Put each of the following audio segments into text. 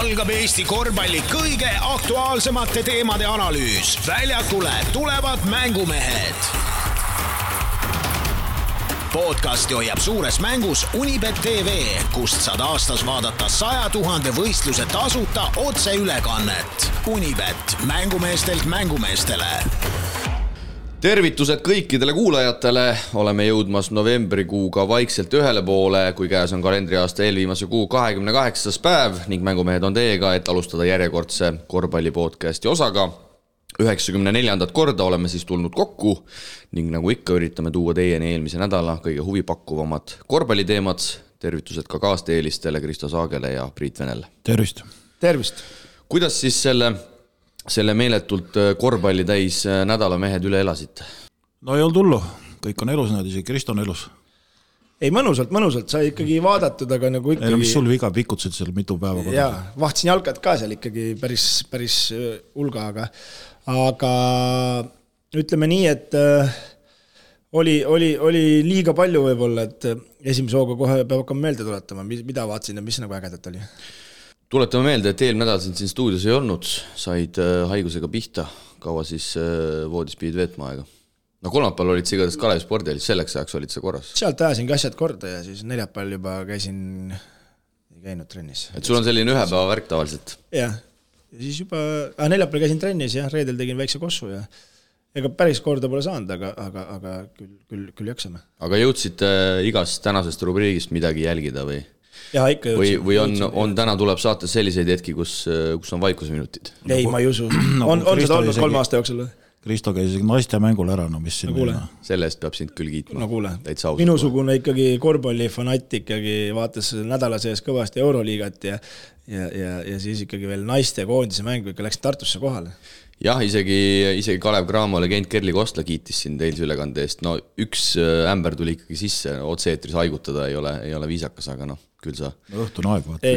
algab Eesti korvpalli kõige aktuaalsemate teemade analüüs. Väljakule tulevad mängumehed. Podcasti hoiab suures mängus Unibet TV, kust saad aastas vaadata 100 000 võistluse tasuta otseülekannet. Unibet, mängumeestelt mängumeestele. Tervitused kõikidele kuulajatele, oleme jõudmas novembrikuuga vaikselt ühele poole, kui käes on kalendriaasta eelviimase kuu 28. päev ning mängumehed on teiega, et alustada järjekordse korvpallipodcasti osaga. 94. korda oleme siis tulnud kokku ning nagu ikka üritame tuua teieni eelmise nädala kõige huvipakkuvamad korvpalliteemad. Tervitused ka kaasteelistele Kristo Saagele ja Priit Venele. Tervist! Tervist! Kuidas siis selle meeletult korvpalli täis nädala mehed üle elasite? No ei olnud hullu, kõik on elus, nad isegi Kristo on elus. Ei, mõnusalt, sai ikkagi vaadatud, aga nagu ikkagi... Ei, no mis sul viga pikutasid seal mitu päeva? Jaa, vahtsin jalkad ka seal ikkagi päris hulga, aga ütleme nii, et oli liiga palju võib-olla, et esimese hooga kohe peab hakkama meelde tuletama, mida vaatsin ja mis nagu ägedat oli. Tuletame meelde, et eelmine nädal siin stuudios ei olnud, said haigusega pihta, kaua siis voodis pidid veetma aega. No kolmapäeval olid sa igatahes Kalevi spordialis, selleks ajaks olid sa korras. Sealt ajasin ka asjad korda ja siis neljapäeval juba ei käinud trennis. Et sul on selline ühe päeva värk tavaliselt? Jah, ja siis juba neljapäeval käisin trennis ja reedel tegin väikse kossu ja ega päris korda pole saanud, aga küll jaksame. Aga jõudsite igast tänasest rubriigist midagi jälgida või? Ja, ikka jõudsin. Või on täna tuleb saates selliseid hetki, kus on vaikusminutid? Ei, ma ei usu. On seda olnud 3 aasta jooksul? Kristo käis isegi naiste mängul ära, no mis siin Selle eest peab sind küll kiitma. No kuule, minusugune ikkagi korvpallifanatt ikkagi vaatas nädala sees kõvasti Euroliigat ja siis ikkagi veel naiste koondise mängu ikka läks Tartusse kohale. Jah, isegi Kalev Cramo legend Kerli Kostla kiitis siin teilse ülekande eest. No üks ämber tuli ikkagi sisse, otse-eetris haigutada ei ole viisakas, aga küll sa... Õhtune aeg vaata.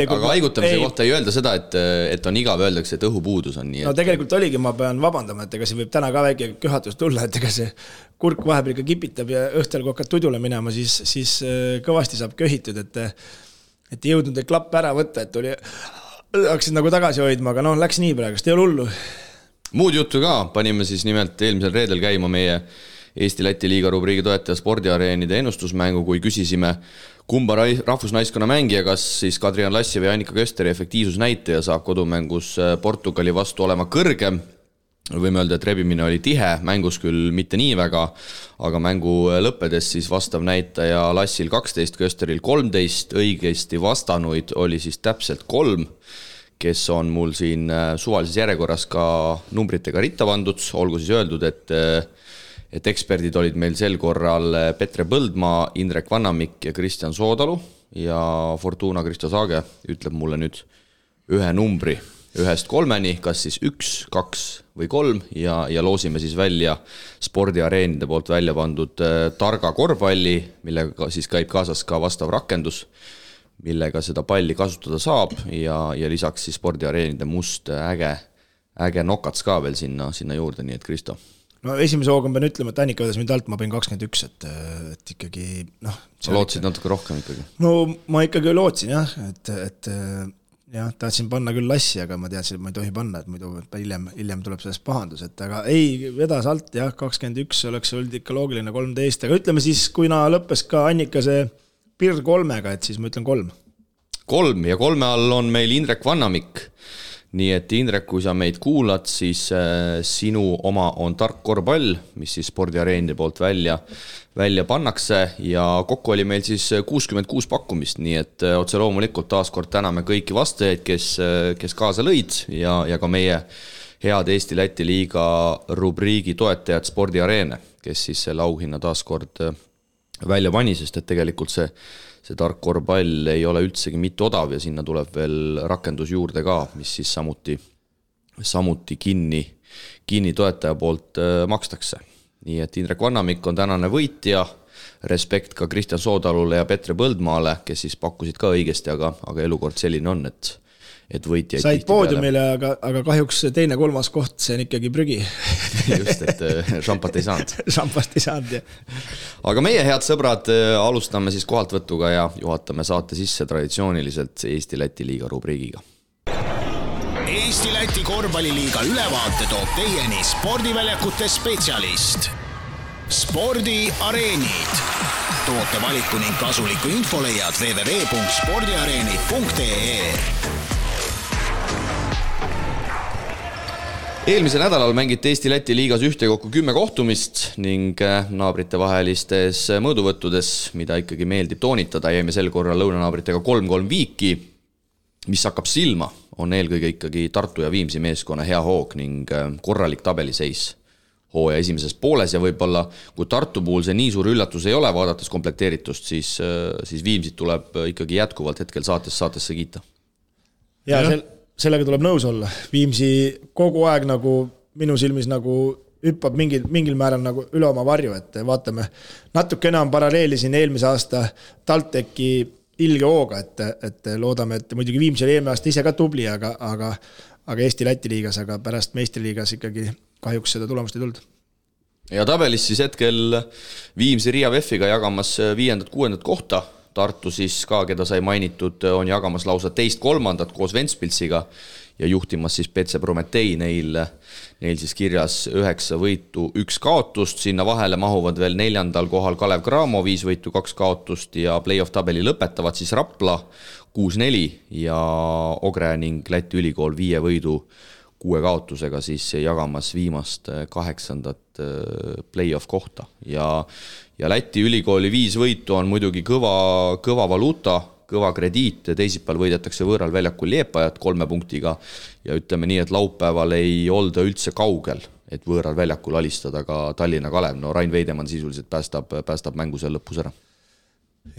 Aga haigutamise kohta ei öelda seda, et on igav, öeldakse, et õhupuudus on nii. No tegelikult oligi, ma pean vabandama, et ega see võib täna ka väike köhatus tulla, et ega see kurk vahepeal ikka kipitab ja õhtel kui hakkad tudule minema, siis kõvasti saab köhitud, et ei jõudnud klapp ära võtta, et hakkasid nagu tagasi hoidma, aga läks nii praegust, ei ole hullu. Muud juttu ka, panime siis nimelt eelmisel reedel käima meie Eesti-Läti liiga rubriigi toetaja spordiareenide ennustusmängu, kui küsisime kumba rahvusnaiskonna mängija, kas siis Kadrian Lassi või Annika Kösteri efektiivsusnäitaja saab kodumängus Portugali vastu olema kõrgem. Võime öelda, et rebimine oli tihe, mängus küll mitte nii väga, aga mängu lõppedes siis vastav näitaja Lassil 12, Kösteril 13, õigesti vastanuid oli siis täpselt 3, kes on mul siin suvalises järjekorras ka numbritega ritta pandud, olgu siis öeldud, et eksperdid olid meil sel korral Petre Põldmaa, Indrek Vannamik ja Kristjan Soodalu ja Fortuna Kristo Saage ütleb mulle nüüd ühe numbri 1-3, kas siis 1, 2 või 3 ja loosime siis välja spordiareenide poolt välja pandud targa korvpalli, millega siis käib kaasas ka vastav rakendus, millega seda palli kasutada saab ja lisaks siis spordiareenide must äge nokats ka veel sinna juurde, nii et Kristo. No esimese hooga pean ütlema, et Annika vedas mind alt, ma panin 21, et ikkagi... Sa lootsid natuke rohkem ikkagi? No ma ikkagi lootsin jah, et tahtsin panna küll Lassi, aga ma teadsin, et ma ei tohi panna, et muidu hiljem tuleb sellest pahandus, et aga ei, vedas alt jah, 21 oleks olnud ikka loogiline 13, aga ütleme siis, kui lõppes ka Annika see Pirr 3-ga, et siis ma ütlen 3. 3 ja 3 all on meil Indrek Vannamik. Nii et Indrek, kui sa meid kuulad, siis sinu oma on tark korvpall, mis siis spordiareenide poolt välja pannakse ja kokku oli meil siis 66 pakkumist, nii et otse loomulikult taaskord täname kõiki vastajaid, kes kaasa lõid ja ka meie head Eesti-Läti liiga rubriigi toetajad spordiareene, kes siis selle auhinna taaskord välja pani, sest et tegelikult see tark korvpall ei ole üldsegi mitte odav ja sinna tuleb veel rakendus juurde ka, mis siis samuti kinni toetaja poolt makstakse. Nii et Indrek Vannamik on tänane võitja, respekt ka Kristjan Soodalule ja Petre Põldmaale, kes siis pakkusid ka õigesti, aga elukord selline on, et võitjaid said poodiumile, aga kahjuks teine-kolmas koht, see on ikkagi prügi. Just, et šampat ei saanud. Šampast ei saanud, jah. Aga meie head sõbrad, alustame siis kohaltvõtuga ja juhatame saate sisse traditsiooniliselt Eesti-Läti liiga rubriigiga. Eesti-Läti korvpalliliiga ülevaate toob teieni spordiväljakute spetsialist. Spordiareenid. Toote valiku ning kasuliku info leiad www.spordiareenid.ee. Eelmisel nädalal mängiti Eesti-Läti liigas ühtekokku 10 kohtumist ning naabrite vahelistes mõõduvõttudes, mida ikkagi meeldib toonitada, jäime sel korral lõunanaabritega 3-3 viiki, mis hakkab silma, on eelkõige ikkagi Tartu ja Viimsi meeskonna hea hoog ning korralik tabeliseis hooaja esimeses pooles ja võib-olla kui Tartu puhul see nii suur üllatus ei ole, vaadates komplekteeritust, siis Viimsit tuleb ikkagi jätkuvalt hetkel saatesse kiita. Ja sellega tuleb nõus olla. Viimsi kogu aeg nagu minu silmis nagu hüppab mingil määral nagu üle oma varju, et vaatame natuke enam paralleeli siin eelmise aasta TalTechi ilge hooga, et loodame, et muidugi Viimsi oli eelmine aasta ise ka tubli, aga Eesti-Läti liigas, aga pärast meistriliigas ikkagi kahjuks seda tulemust ei tulnud. Ja tabelis siis hetkel Viimsi Riia VEF-iga jagamas 5.-6. kohta. Tartu siis ka, keda sai mainitud, on jagamas lausa 2.-3. koos Ventspilsiga ja juhtimas siis PC Prometei. Neil siis kirjas 9 võitu, 1 kaotust. Sinna vahele mahuvad veel 4. kohal Kalev Cramo, 5 võitu, 2 kaotust ja play-off tabeli lõpetavad siis Rapla 6-4 ja Ogre ning Läti ülikool 5 võidu 6 kaotusega siis jagamas viimast 8. play-off kohta. Ja Läti ülikooli 5 võitu on muidugi kõva valuuta, kõva krediit, teisipäeval võidetakse võõral väljakul Liepajat 3 punktiga ja ütleme nii, et laupäeval ei olda üldse kaugel, et võõral väljakul alistada ka Tallinna Kalev. No Rain Veidemann sisuliselt päästab mängu seal lõpus ära.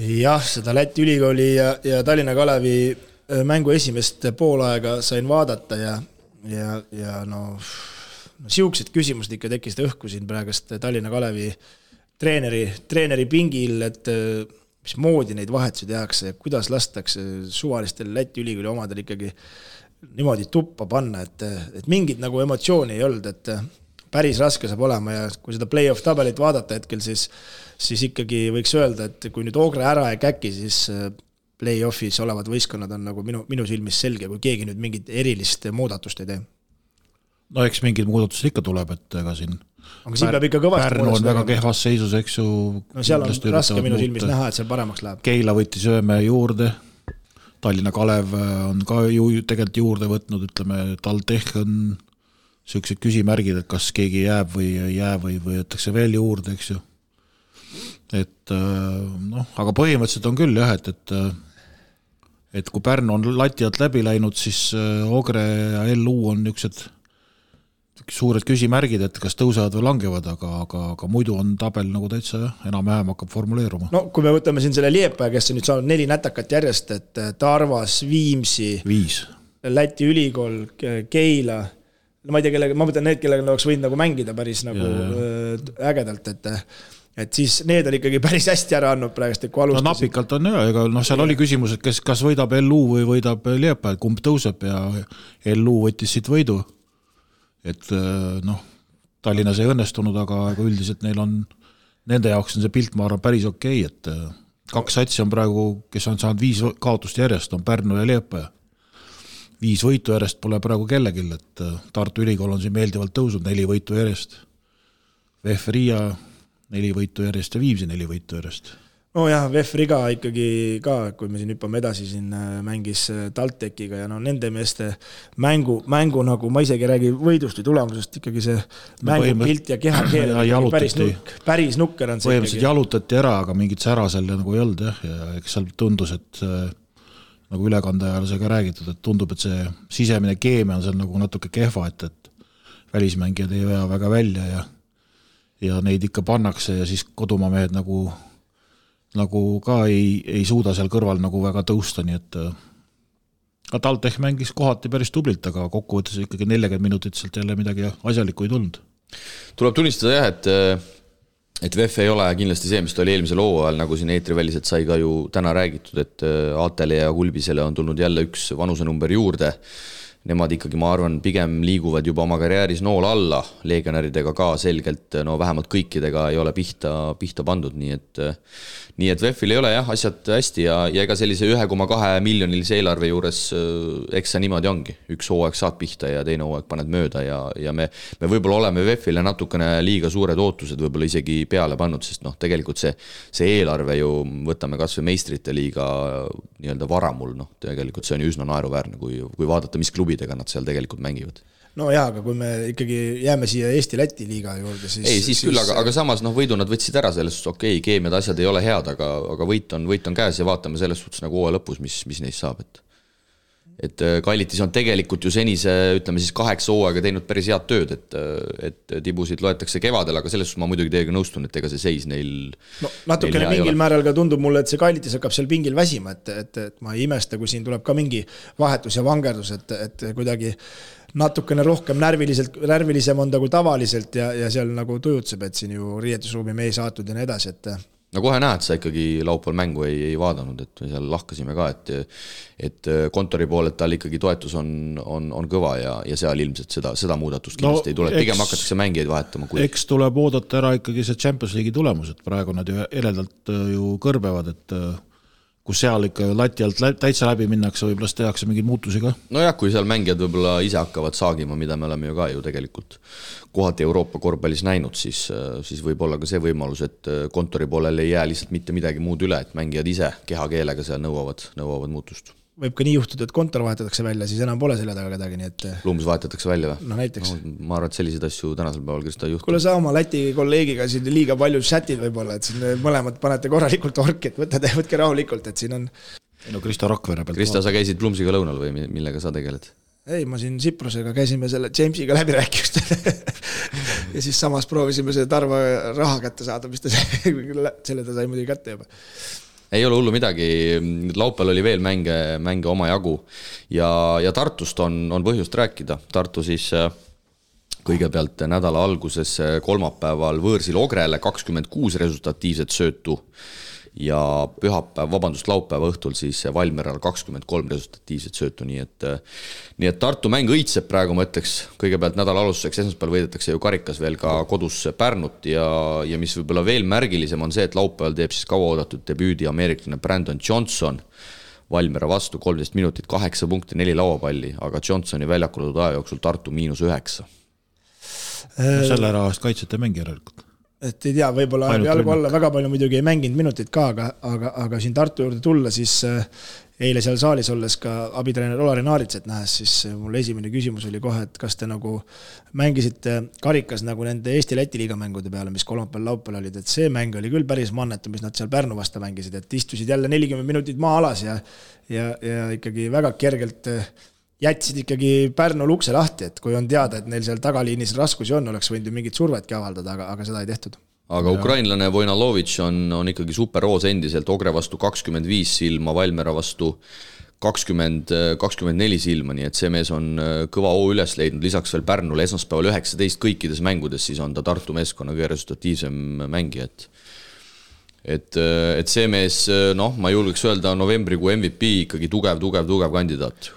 Jah, seda Läti ülikooli ja Tallinna Kalevi mängu esimest poolaega sain vaadata ja siuksed küsimused ikka tekkisid õhku siin praegust Tallinna Kalevi treeneri pingil, et mis moodi neid vahetusi tehakse ja kuidas lastakse suvalistel Läti ülikooli omadel ikkagi niimoodi tuppa panna, et mingit nagu emotsiooni ei olnud, et päris raske saab olema ja kui seda play-off tabelit vaadata hetkel, siis ikkagi võiks öelda, et kui nüüd Ogre ära ei käki, siis play-offis olevad võistkonnad on nagu minu silmis selge, kui keegi nüüd mingit erilist muudatust ei tee. No eks mingid muudatused ikka tuleb, et ega siin aga siin peab ikka kõvasti Pärnu on väga kehvas seisus, eks ju. No seal on raske minu silmis näha, et seal paremaks läheb. Keila võttis Ööme juurde, Tallinna Kalev on ka tegelikult juurde võtnud, ütleme, TalTech on sellised küsimärgid, et kas keegi jääb või ei jää või võetakse veel juurde, eks ju. Et aga põhimõtteliselt on küll jah, et kui Pärnu on lati alt läbi läinud, siis Ogre ja LU on niisugused suured küsimärgid, et kas tõusevad või langevad, aga muidu on tabel nagu täitsa enam-vähem hakkab formuleeruma. No kui me võtame siin selle Liepaja, kes on nüüd saanud 4 nätakat järjest, et Tarvas, Viimsi, 5. Läti ülikool, Keila, ma ei tea, ma mõtlen need, kellega oleks võinud nagu mängida päris nagu ägedalt, et siis need on ikkagi päris hästi ära andnud praegust, kui alustasid. No napikalt on ega seal oli küsimus, et kas võidab LU või võidab Liepaja, kumb tõuseb ja LU võttis siit võidu. Et Tallinnas ei õnnestunud, aga üldiselt nende jaoks on see pilt, ma arvan, päris okei, et 2 satsi on praegu, kes on saanud 5 kaotust järjest, on Pärnu ja Liepaja. 5 võitu järjest pole praegu kellegil, et Tartu ülikool on siin meeldivalt tõusnud, 4 võitu järjest. VEF Riia 4 võitu järjest ja Viimsi 4 võitu järjest. No jah, VEF Riga ikkagi ka, kui me siin hüppame edasi, siin mängis TalTechiga ja nende meeste mängu nagu, ma isegi räägi võidust või tulemusest, ikkagi see mängupilt ja kehakeel päris nukker on see. Põhimõtteliselt jalutati ära, aga mingit sära seal nagu ei olnud ja eks seal tundus, et nagu ülekande ajal see ka räägitud, et tundub, et see sisemine keemia on seal nagu natuke kehva, et välismängijad ei vea väga välja ja neid ikka pannakse ja siis kodumaa mehed nagu ka ei suuda seal kõrval nagu väga tõusta, nii et TalTech mängis kohati päris tublilt, aga kokkuvõttes ikkagi 40 minutit sealt jälle midagi asjalikku ei tulnud. Tuleb tunnistada jah, et VEF ei ole kindlasti see, mis ta oli eelmisel hooajal, nagu siin eetriväliselt sai ka ju täna räägitud, et Aatele ja Kulbisele on tulnud jälle üks vanusenumber juurde. Nemad ikkagi, ma arvan, pigem liiguvad juba oma karjääris nool alla, legionäridega ka selgelt, no vähemalt kõikidega ei ole pihta pandud, nii et VEF-il ei ole jah, asjad hästi ja ega sellise 1,2 miljonilise eelarve juures eks see niimoodi ongi. Üks hooaeg saad pihta ja teine hooaeg paned mööda ja me võib-olla oleme VEF-ile natukene liiga suured ootused võib-olla isegi peale pannud, sest noh, tegelikult see eelarve ju, võtame kas või meistrite liiga nii-öelda varamul, noh, tegelikult see on ju üsna naeruväärne, kui vaadata, mis klubidega nad seal tegelikult mängivad. No jaa, aga kui me ikkagi jääme siia Eesti-Läti liiga juurde, siis... Ei, siis küll, aga samas võidu nad võtsid ära selles suhtes, okei, keemiad asjad ei ole head, aga võit on käes ja vaatame selles suhtes nagu hooaja lõpus, mis neist saab. Et Kallitis on tegelikult ju senise, ütleme siis 8 hooaega teinud päris head tööd, et tibusid loetakse kevadel, aga selles suhtes ma muidugi teiega nõustun, et ega see seis neil... No natukene mingil määral ka tundub mulle, et see Kallitis hakkab seal pingil väsima, et ma ei imesta, kui siin tuleb ka mingi vahetus ja vangerdus, et kuidagi natukene rohkem närvilisem on ta kui tavaliselt ja seal nagu tujutseb, et siin ju riietusruumi me ei saatud ja nii edasi, et... No kohe näed, sa ikkagi laupäeval mängu ei vaadanud, et seal lahkasime ka, et kontori pool, et tal ikkagi toetus on kõva ja seal ilmselt seda muudatust kindlasti ei tule. Pigem hakatakse mängijaid vahetama. Eks tuleb oodata ära ikkagi see Champions League'i tulemus, et praegu nad ju eredalt ju kõrbevad, et kus seal ikka lati alt täitsa läbi minnakse, võib-olla tehakse mingeid muutusi ka. No jah, kui seal mängijad võib-olla ise hakkavad saagima, mida me oleme ju ka ju tegelikult kohati Euroopa korvpallis näinud, siis võib olla ka see võimalus, et kontori poolel ei jää lihtsalt mitte midagi muud üle, et mängijad ise kehakeelega seal nõuavad muutust. Võib ka nii juhtuda, et kontor vahetatakse välja, siis enam pole selle taga kedagi, nii et... Lumbus vahetatakse välja või? No näiteks. Ma arvan, et selliseid asju tänasel päeval Krista juhtub. Kuule sa oma Läti kolleegiga siin liiga palju chatid võib-olla, et siin mõlemad panete korralikult orki, et võtke rahulikult, et siin on... No Krista Rakvere pealt. Krista, sa käisid Plumsiga lõunal või millega sa tegeled? Ei, ma siin Siprusega käisime selle Jamesiga läbi rääkimist ja siis samas proovisime see Tarva raha kätte saada, mis ta selle ta sai muidugi kätte juba. Ei ole hullu midagi, laupäeval oli veel mänge oma jagu ja Tartust on põhjust rääkida. Tartu siis kõigepealt nädala alguses kolmapäeval võõrsil Ogrele 26 resultatiivset söötu ja laupäeva õhtul siis Valmieral 23 resultatiivset söötu, nii et Tartu mäng õitseb praegu, ma ütleks, kõigepealt nädala alustuseks esmaspäeval võidetakse ju karikas veel ka kodus Pärnut ja mis võib-olla veel märgilisem on see, et laupäeval teeb siis kauaoodatud debüüdi ameeriklane Brandon Johnson Valmiera vastu 13 minutit, 8 punkti, 4 lauapalli, aga Johnsoni väljakuldud aja jooksul Tartu -9. Selle ära eest kaitsete mängi järelikult. Et ei tea, võib-olla jalgu alla väga palju muidugi ei mänginud minutit ka, aga siin Tartu juurde tulla, siis eile seal saalis olles ka abitreener Olari Naaritset nähes, siis mul esimene küsimus oli kohe, et kas te nagu mängisite karikas nagu nende Eesti-Läti liiga mängude peale, mis kolmapäeval laupäeval olid, et see mäng oli küll päris mannetu, mis nad seal Pärnu vasta mängisid, et istusid jälle 40 minutit maa alas ja ikkagi väga kergelt jätsid ikkagi Pärnu lukse lahti, et kui on teada, et neil seal tagaliinis raskusi on, oleks võinud ju mingit survetki avaldada, aga seda ei tehtud. Aga ukrainlane Vojnalovitš on ikkagi superroos endiselt, Ogre vastu 25 silma, Valmiera vastu 24 silma, nii et see mees on kõva hoo üles leidnud, lisaks veel Pärnule esmaspäeval 19 kõikides mängudes, siis on ta Tartu meeskonna kõige resultatiivsem mängija, et see mees, ma julgeks öelda novembrikuu MVP ikkagi tugev kandidaat.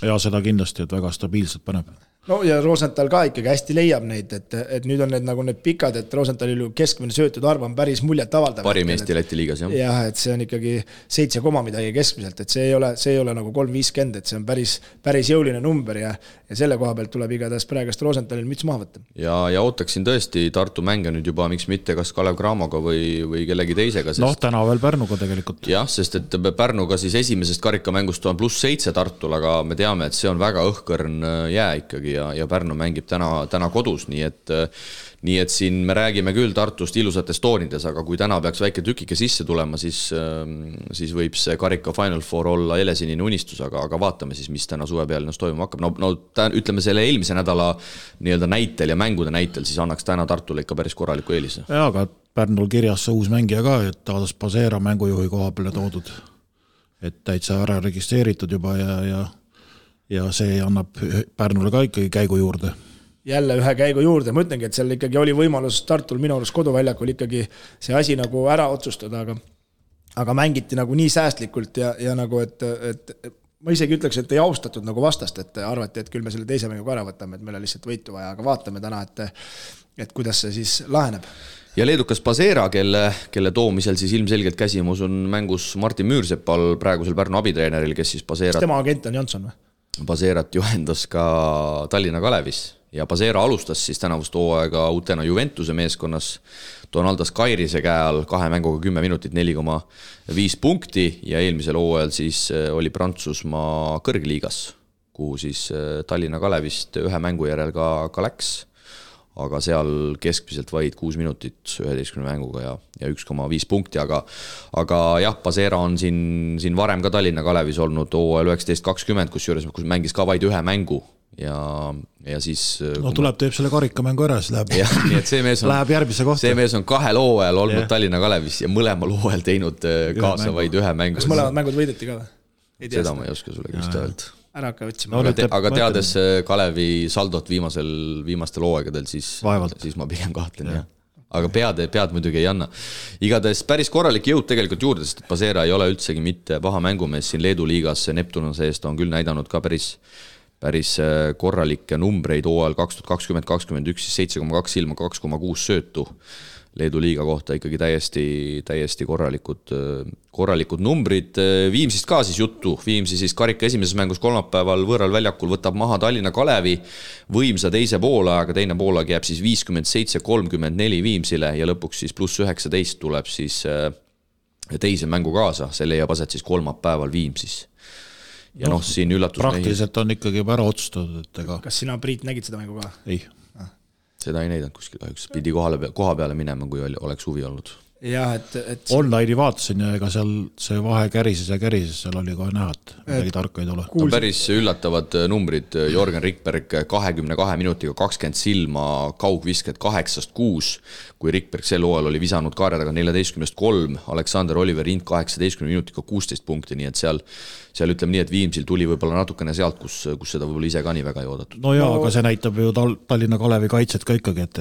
Ja seda kindlasti, et väga stabiilselt paneb. No ja Rosenthal ka ikkagi hästi leiab neid, et nüüd on need pikad, et Rosenthalil keskmine söötud arv on päris muljet avaldav. Parim Eesti Läti liigas, jah. Jah, et see on ikkagi 7 midagi keskmiselt, et see ei ole nagu 350, et see on päris jõuline number ja selle koha pealt tuleb igatahes praegast Rosenthalil müts maha võtta. Ja ootaksin tõesti Tartu mänge nüüd juba, miks mitte kas Kalev Cramoga või kellegi teisega. Täna veel Pärnuga tegelikult. Jah, sest et Pärnuga siis esimesest karikamängust on +7 Tartul, aga me teame, et see on väga õhkõrn jää ikkagi ja Pärnu mängib täna kodus, nii et siin me räägime küll Tartust ilusates toonides, aga kui täna peaks väike tükike sisse tulema, siis võib see karika Final Four olla helesinine unistus, aga vaatame siis, mis täna suve peal toimuma hakkab. Ütleme selle eelmise nädala nii-öelda näitel ja mängude näitel, siis annaks täna Tartule ikka päris korraliku eelise. Ja, aga Pärnul kirjas see uus mängija ka, et Taadas Pasera mängujuhi koha peale toodud, et täitsa ära registreeritud juba ja see annab Pärnule ka ikkagi käigu juurde. jälle ühe käigu juurde, ma ütlengi, et seal ikkagi oli võimalus Tartul minu arust koduväljakul ikkagi see asi nagu ära otsustada, aga mängiti nagu nii säästlikult ja nagu, et ma isegi ütleks, et ei austatud nagu vastast, et arvati, et küll me selle teise mängu ära võtame, et meil on lihtsalt võitu vaja, aga vaatame täna, et kuidas see siis laheneb. Ja leedukas Pasera, kelle toomisel siis ilmselgelt käsimus on mängus Martin Müürsepal, praegusel Pärnu abitreeneril, kes siis Paserat... Tema agent on Jansson või? Paserat juhendas ka Tallinna Kalevis ja Pasera alustas siis tänavust hooaega uutena Juventuse meeskonnas Donaldas Kairise käe all 2 mänguga 10 minutit 4,5 punkti ja eelmisel hooajal siis oli Prantsusmaa kõrgliigas, kuhu siis Tallinna Kalevist 1 mängu järel ka läks, aga seal keskmiselt vaid 6 minutit 11 mänguga ja 1,5 punkti, aga jah, Pasera on siin varem ka Tallinna Kalevis olnud hooajal 19-20, kus mängis ka vaid 1 mängu ja siis... No tuleb, teeb selle karikamängu ära, siis läheb, ja, nii et see mees on, läheb järgmise kohta. See mees on 2 hooajal olnud Tallinna Kalevis ja mõlemal hooajal teinud kaasa vaid 1 mängu. Kas mõlemad mängud võideti ka või? Seda ma ei oska sulle küll öelda. Ära hakka otsima. Aga teades Kalevi saldot viimastel hooaegadel, siis ma pigem kahtlen, jah. Aga pead muidugi ei anna. Igatahes päris korralik jõud tegelikult juurde, sest Pasera ei ole üldsegi mitte paha mängumees siin Leedu liigas, Neptunase eest on küll näidanud ka päris korralikke numbreid hooajal 2020-2021, siis 7,2 ilma 2,6 söötu. Leedu liiga kohta ikkagi täiesti korralikud numbrid. Viimsist ka siis juttu. Viimsi siis karika esimeses mängus kolmapäeval võõral väljakul võtab maha Tallinna Kalevi võimsa teise poolaega, teine poolaeg jääb siis 57-34 Viimsile ja lõpuks siis pluss 19 tuleb siis teise mängu kaasa. See leiab aset siis kolmapäeval Viimsis. Ja siin üllatus... Praktiliselt on ikkagi juba ära otsustatud, et ega... Kas sina, Priit, nägid seda mängu ka? Ei. Seda ei näidanud kuskil kahjuks. Pidi koha peale minema, kui oleks huvi olnud. Jah, et... Online'i vaatasin ja ega seal see vahe kärises, seal oli kohe näha, et midagi tarka ei tule. On päris üllatavad numbrid. Jorgen Rikberg 22 minutiga 20 silma, kaugvisked 8-6, kui Rikberg sel hooajal oli visanud kaarjadaga 14-3, Aleksander Oliver Int 18 minutiga 16 punkti, nii et seal ütleme nii, et Viimsil tuli võib-olla natukene sealt, kus seda võib-olla ise ka nii väga ei oodatud. No jaa, aga see näitab ju Tallinna Kalevi kaitset ka ikkagi, et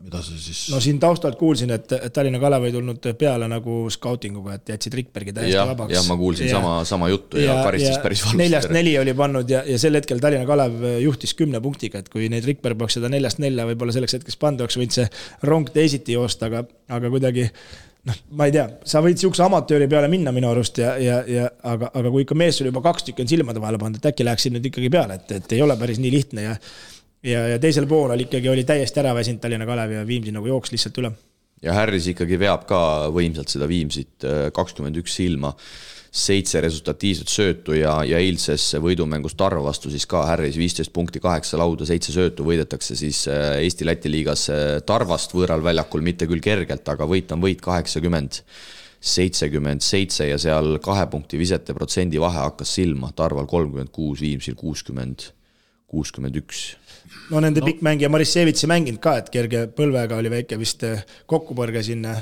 mida see siis... No siin taustalt kuulsin, et Tallinna Kalev ei tulnud peale nagu scoutinguga, et jätsid Rikbergi täiesti vabaks. Jah, ma kuulsin sama juttu ja karistis päris valust. 4-4 oli pannud ja sel hetkel Tallinna Kalev juhtis 10 punktiga, et kui neid Rikberg peaks seda 4-4 võib-olla selleks hetkeks pandu, oleks võinud see rong teisiti joosta, aga kuidagi... ma ei tea, sa võid siukse amatööri peale minna minu arust, aga kui ikka mees sul juba 2 tükki on silmade vahele pandud, et äkki läheks siin nüüd ikkagi peale, et ei ole päris nii lihtne ja teisel poolel ikkagi oli täiesti ära väsinud Tallinna Kalev ja Viimsi nagu jooks lihtsalt üle. Ja Harris ikkagi veab ka võimsalt seda Viimsit 21 silma, 7 resultatiivset söötu ja eilses võidumängus Tarva vastu siis ka Harris 15 punkti, 8 lauda, 7 söötu võidetakse siis Eesti-Läti liigas Tarvast võõral väljakul, mitte küll kergelt, aga võit on võit 80-77 ja seal 2 punkti visete protsendi vahe hakkas silma, Tarval 36, Viimsil 60-61. No nende pikkmängija Marissevitsi mänginud ka, et kerge põlvega oli väike vist kokkupõrge sinna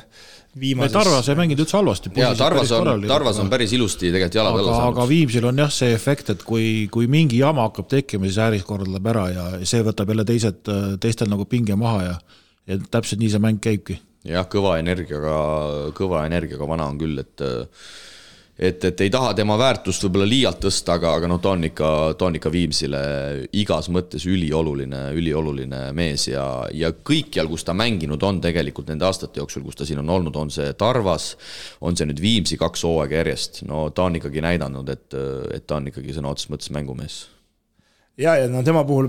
viimases... Tarvas ei mänginud üldse halvasti. Ja, Tarvas on päris ilusti tegelikult jalad alla saanud. Aga Viimsil on jah see efekt, et kui mingi jama hakkab tekkima, siis Harris korraldab ära ja see võtab jälle teistel nagu pinge maha ja täpselt nii see mäng käibki. Jah, kõva energiaga vana on küll, et ei taha tema väärtust võib-olla liialt tõsta, aga ta on ikka Viimsile igas mõttes ülioluline mees ja kõikjal, kus ta mänginud on tegelikult nende aastate jooksul, kus ta siin on olnud, on see Tarvas, on see nüüd Viimsi 2 hooaega järjest, no ta on ikkagi näidanud, et ta on ikkagi sõna otseses mõttes mängumees. Ja tema puhul,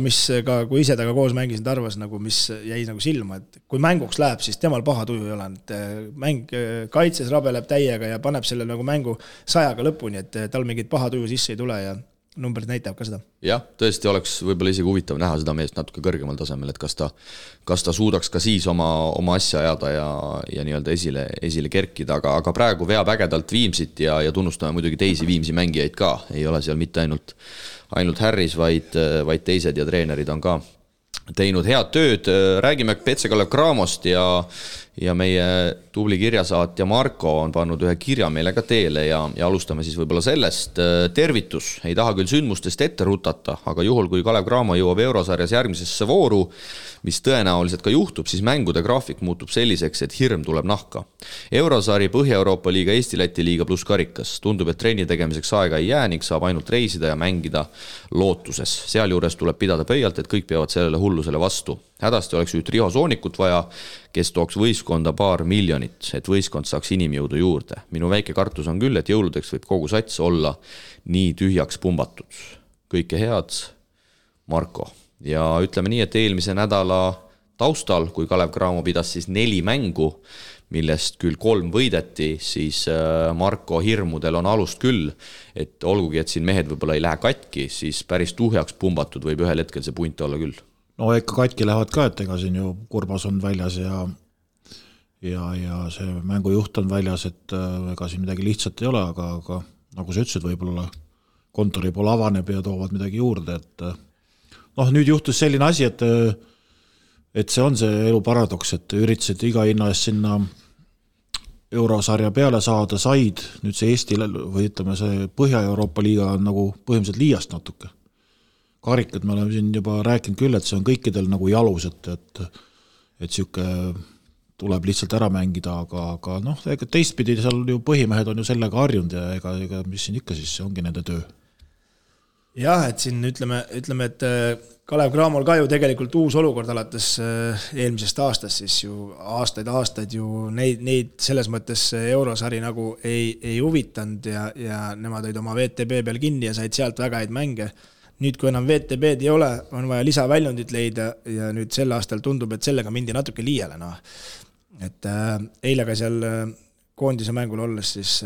kui ise taga koos mängisin Tarvas, mis jäi nagu silma, et kui mänguks läheb, siis temal paha tuju ei ole, et mäng kaitses rabeleb täiega ja paneb selle nagu mängu 100-ga lõpuni, et tal mingit paha tuju sisse ei tule ja numbrid näitab ka seda. Jah, tõesti oleks võib-olla isegi huvitav näha seda meest natuke kõrgemal tasemel, et kas ta suudaks ka siis oma asja ajada ja nii-öelda esile kerkida, aga praegu veab ägedalt Viimsit ja tunnustame muidugi teisi Viimsi mängijaid ka, ei ole seal mitte ainult Harris, vaid teised ja treenerid on ka teinud head tööd. Räägime PC Kalev Cramost ja meie tubli kirjasaatja Marko on pannud ühe kirja meile ka teele ja alustame siis võib-olla sellest. Tervitus, ei taha küll sündmustest ette rutata, aga juhul kui Kalev Cramo jõuab Eurosarjas järgmisesse vooru, mis tõenäoliselt ka juhtub, siis mängude graafik muutub selliseks, et hirm tuleb nahka. Eurosari, Põhja-Euroopa liiga, Eesti-Läti liiga pluss karikas. Tundub, et trenni tegemiseks aega ei jää ning saab ainult reisida ja mängida lootuses. Sealjuures tuleb pidada pöialt, et kõik peavad sellele hullusele vastu. Hädasti oleks nüüd Riho Soonikut vaja, kes tooks võistkonda $2 miljonit, et võistkond saaks inimjõudu juurde. Minu väike kartus on küll, et jõuludeks võib kogu sats olla nii tühjaks pumbatud. Kõike head, Marko. Ja ütleme nii, et eelmise nädala taustal, kui Kalev Cramo pidas siis 4 mängu, millest küll 3 võideti, siis Marko hirmudel on alust küll, et olgugi, et siin mehed võib-olla ei lähe katki, siis päris tuhjaks pumbatud võib ühel hetkel see punt olla küll. No ikka katki lähevad ka, et ega siin ju Kurbas on väljas ja see mängujuht on väljas, et ega siin midagi lihtsalt ei ole, aga nagu sa ütlesid, võib-olla kontori pool avaneb ja toovad midagi juurde, et nüüd juhtus selline asi, et see on see elu paradoks, et üritasid iga hinna eest sinna Eurosarja peale saada, said, nüüd see Eesti või ütleme see Põhja-Euroopa liiga on nagu põhimõtteliselt liiast natuke. Karikad me oleme siin juba rääkinud küll, et see on kõikidel nagu jalus, et siuke tuleb lihtsalt ära mängida, aga ega teistpidi seal ju põhimehed on ju sellega harjunud ja ega mis siin ikka siis, see ongi nende töö. Jah, et siin ütleme, et Kalev Cramol ka ju tegelikult uus olukord alates eelmisest aastast, siis ju aastaid ju neid selles mõttes Eurosari nagu ei huvitanud ja nemad olid oma VTB peal kinni ja said sealt väga häid mänge. Nüüd, kui enam VTB-d ei ole, on vaja lisaväljundit leida ja nüüd sel aastal tundub, et sellega mindi natuke liiale. Et eile ka seal koondise mängul olles siis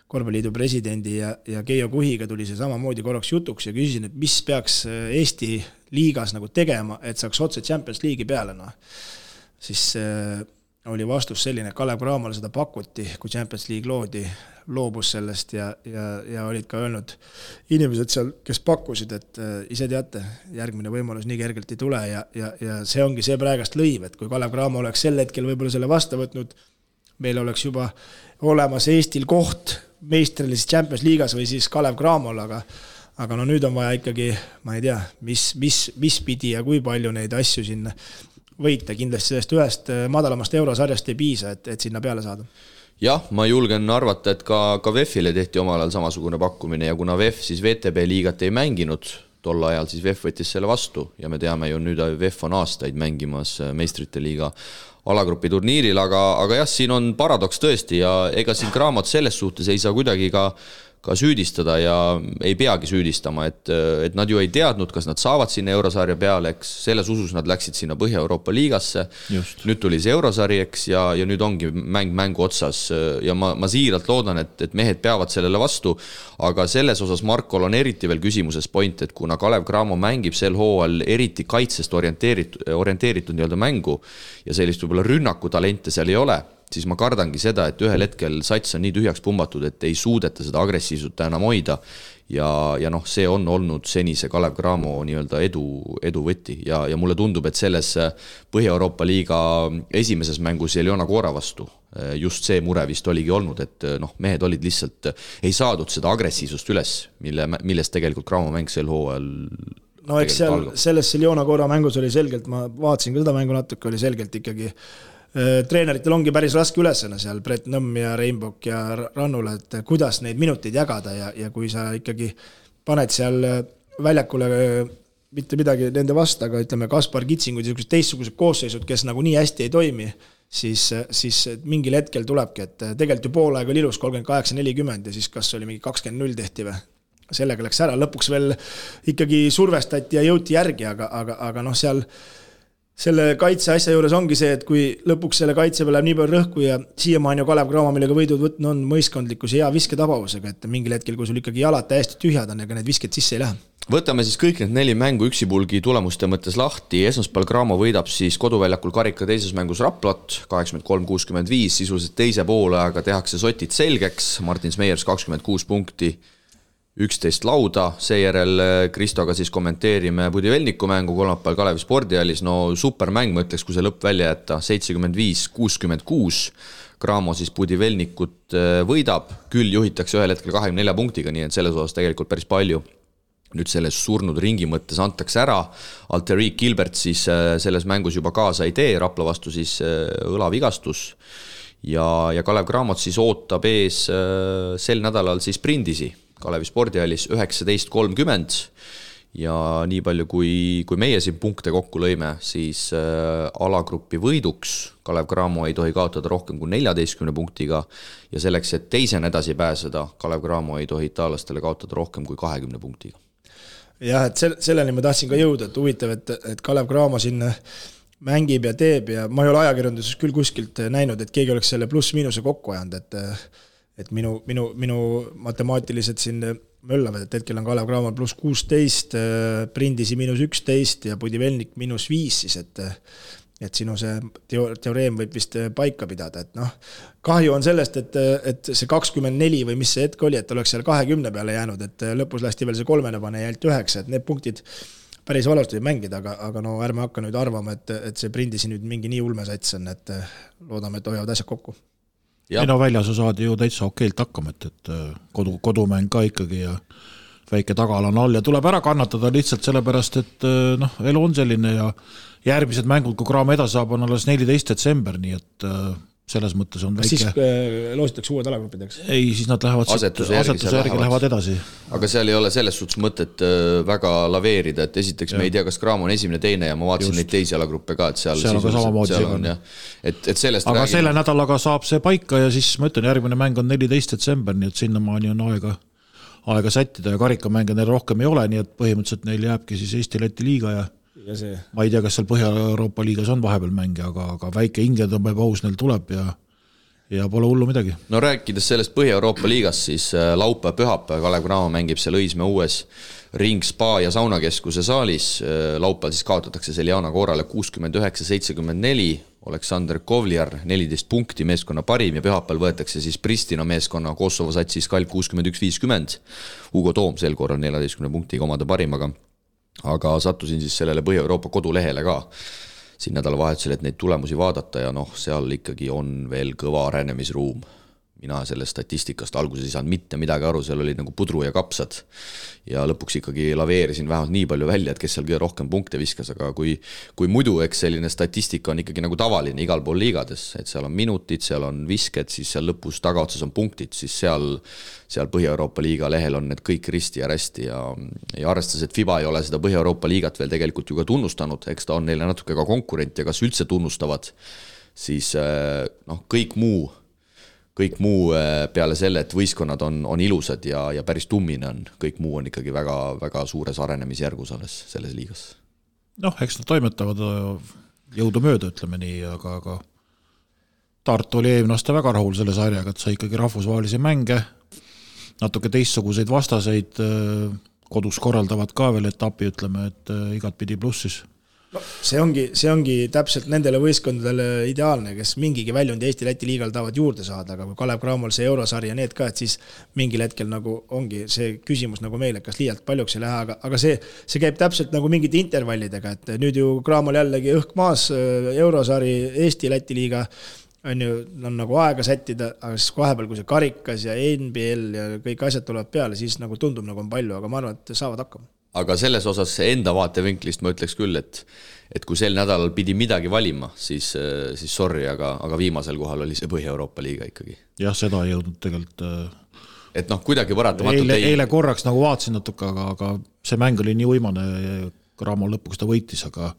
korvpalliliidu presidendi ja Keijo Kuhiga tuli see samamoodi korraks jutuks ja küsisin, et mis peaks Eesti liigas nagu tegema, et saaks otse Champions League'i peale. Siis oli vastus selline, Kalev Cramole seda pakuti, kui Champions League loobus sellest ja olid ka öelnud inimesed seal, kes pakkusid, et ise teate, järgmine võimalus nii kergelt ei tule ja see ongi see praegast lõiv, et kui Kalev Cramo oleks sel hetkel võib-olla selle vastu võtnud, meil oleks juba olemas Eestil koht meistrilises Champions League'as või siis Kalev Cramol, aga nüüd on vaja ikkagi, ma ei tea, mis pidi ja kui palju neid asju sinna võita, kindlasti sellest ühest madalamast Eurosarjast ei piisa, et sinna peale saada. Jah, ma julgen arvata, et ka VEF-ile tehti omal ajal samasugune pakkumine ja kuna VEF siis VTB liigat ei mänginud, tol ajal siis VEF võttis selle vastu ja me teame ju nüüd VEF on aastaid mängimas meistrite liiga alagrupi turniiril, aga jah, siin on paradoks tõesti ja ega siin Cramot selles suhtes ei saa kuidagi ka süüdistada ja ei peagi süüdistama, et nad ju ei teadnud, kas nad saavad sinna Eurosarja peale, eks selles usus nad läksid sinna Põhja-Euroopa liigasse. Just. Nüüd tuli see Eurosari, eks, ja nüüd ongi mängu otsas ja ma siiralt loodan, et mehed peavad sellele vastu, aga selles osas Markol on eriti veel küsimuses point, et kuna Kalev Cramo mängib sel hooajal eriti kaitsest orienteeritud nii-öelda mängu ja sellist võib-olla rünnakutalente seal ei ole, siis ma kardangi seda, et ühel hetkel sats on nii tühjaks pumbatud, et ei suudeta seda agressiivsut enam hoida ja see on olnud senise Kalev Cramo nii-öelda edu võtti ja mulle tundub, et selles Põhja-Euroopa liiga esimeses mängus Eliona Koora vastu just see mure vist oligi olnud, et mehed olid lihtsalt, ei saadud seda agressiivsust üles, millest tegelikult Cramo mäng sel hooajal eks seal selles Eliona Koora mängus oli selgelt, ma vaatasin ka seda mängu natuke, oli selgelt ikkagi treeneritel ongi päris raske ülesena seal Brett Nõmm ja Reinbok ja Rannule, et kuidas neid minuteid jagada ja kui sa ikkagi paned seal väljakule mitte midagi nende vastu, aga ütleme Kaspar Kitsingud ja teistsugused koosseisud, kes nagu nii hästi ei toimi, siis mingil hetkel tulebki, et tegelikult ju poolaeg oli ilus 38-40 ja siis kas oli mingi 20-0 tehti või? Sellega läks ära, lõpuks veel ikkagi survestati ja jõuti järgi, aga seal selle kaitse asja juures ongi see, et kui lõpuks selle kaitse peal läheb nii palju rõhku ja siiamaani Kalev Cramo, millega võidud võtnud on mõiskondlikkus ja visketabavusega, et mingil hetkel, kui sul ikkagi jalad täiesti tühjad on, ega need visked sisse ei lähe. Võtame siis kõik need 4 mängu üksipulgi tulemuste mõttes lahti. Esmaspäeval Cramo võidab siis koduväljakul karika teises mängus Raplat 83-65, sisuliselt teise poole, aga tehakse sotid selgeks. Martin Smeyers 26 punkti, 11 lauda, seejärel Kristoga siis kommenteerime Budivelniku mängu kolmapäeval Kalevi spordihallis. No supermäng, ma ütleks, kui see lõpp välja jätta, 75-66. Cramo siis Budivelnikut võidab, küll juhitakse ühel hetkel 24 punktiga, nii et selles osas tegelikult päris palju. Nüüd selles surnud ringi mõttes antakse ära. Alterik Gilbert siis selles mängus juba kaasa ei tee, Rapla vastu siis õlavigastus. Ja Kalev Cramot siis ootab ees sel nädalal siis Prindisi Kalevi spordihallis 19.30 ja nii palju kui meie siin punkte kokku lõime, siis alagrupi võiduks Kalev Cramo ei tohi kaotada rohkem kui 14 punktiga ja selleks, et teisena edasi pääseda, Kalev Cramo ei tohi itaallastele kaotada rohkem kui 20 punktiga. Jah, et selleni ma tahtsin ka jõuda, et huvitav, et Kalev Cramo siin mängib ja teeb ja ma ei ole ajakirjanduses küll kuskilt näinud, et keegi oleks selle pluss-miinuse kokku ajanud, et minu matemaatilised siin möllavad, et hetkel on Kalev Cramo pluss 16, Prindisi miinus 11 ja Budivelnik miinus 5 siis, et sinu see teoreem võib vist paika pidada, et kahju on sellest, et see 24 või mis see hetk oli, et oleks seal 20 peale jäänud, et lõpus lasti veel see 3 pane ja jält 9, et need punktid päris valusti mängida, aga no ärme hakka nüüd arvama, et see Prindisi nüüd mingi nii ulmesats on, et loodame, et hoiavad asjad kokku. Ei no väljas saadi ju täitsa okeilt hakkama, et kodumäng ka ikkagi ja väike tagala on all ja tuleb ära kannatada lihtsalt sellepärast, et elu on selline ja järgmised mängud, kui Cramo edasi saab, on alles 14. detsember, nii et selles mõttes on väike... Siis loositakse uued alagrupideks? Ei, siis nad lähevad asetuse järgi lähevad edasi. Aga seal ei ole selles suhtes mõtet väga laveerida, et esiteks me ei tea, kas Cramo on esimene, teine ja ma vaatasin neid teisi alagruppe ka, et seal on ka samamoodi on, et sellest aga selle nädalaga saab see paika ja siis ma ütlen, järgmine mäng on 14. detsember, nii et sinnamaani on aega sättida ja karikamänge neil rohkem ei ole, nii et põhimõtteliselt neil jääbki siis Eesti-Läti liiga ja ma ei tea, kas seal Põhja-Euroopa liigas on vahepeal mänge, aga väike hingetõmbepaus neil tuleb ja pole hullu midagi. No rääkides sellest Põhja-Euroopa liigas, siis laupäev-pühapäev Kalev Cramo mängib seal Õismäe uues ring spa ja saunakeskuse saalis. Laupäeval siis kaotatakse Seljana Koorale 69-74, Aleksander Kovliar 14 punkti, meeskonna parim ja pühapäeval võetakse siis Pristina meeskonna Kosovo satsis Kalk 61-50. Hugo Toom sel korral 14 punktiga omade parim, aga sattusin siis sellele Põhja-Euroopa kodulehele ka siin nädalavahetusel, et neid tulemusi vaadata ja seal ikkagi on veel kõva arenemisruum. Mina sellest statistikast alguses ei saanud mitte midagi aru, seal oli nagu pudru ja kapsad ja lõpuks ikkagi laveerisin vähemalt nii palju välja, et kes seal kõige rohkem punkte viskas, aga kui muidu, eks selline statistika on ikkagi nagu tavaline igal pool liigades, et seal on minutid, seal on visked, siis seal lõpus tagaotsas on punktid, siis seal Põhja-Euroopa liiga lehel on need kõik risti ja rästi ja arvestades, et FIBA ei ole seda Põhja-Euroopa liigat veel tegelikult ju ka tunnustanud, eks ta on neile natuke ka konkurent ja kas üldse tunnustavad, siis kõik muu peale selle, et võistkonnad on ilusad ja päris tummine on, kõik muu on ikkagi väga, väga suures arenemisjärgus alles selles liigas. Eks nad toimetavad jõudu mööda, ütleme nii, aga Tartu oli eelmine aasta väga rahul selle sarjaga, et sai ikkagi rahvusvahelisi mänge, natuke teistsuguseid vastaseid, kodus korraldavad ka veel etapi, ütleme, et igat pidi plussis. See ongi täpselt nendele võistkondadele ideaalne, kes mingigi väljund Eesti-Läti liigal tahavad juurde saada, aga kui Kalev Cramol see eurosari ja need ka, et siis mingil hetkel nagu ongi see küsimus nagu meil, et kas liialt paljuks ei lähe, aga see käib täpselt nagu mingite intervallidega, et nüüd ju Cramol jällegi õhk maas, eurosari, Eesti-Läti liiga on nagu aega sättida, aga siis vahepeal, kui see karikas ja NBL ja kõik asjad tulevad peale, siis nagu tundub nagu on palju, aga ma arvan, et saavad hakkama. Aga selles osas enda vaatevinklist ma ütleks küll, et kui sel nädalal pidi midagi valima, siis sorry, aga viimasel kohal oli see Põhja-Euroopa liiga ikkagi. Jah, seda ei jõudnud tegelikult. Et kuidagi paratamatult eile korraks nagu vaatasin natuke, aga see mäng oli nii uimane, Cramo lõpuks ta võitis, aga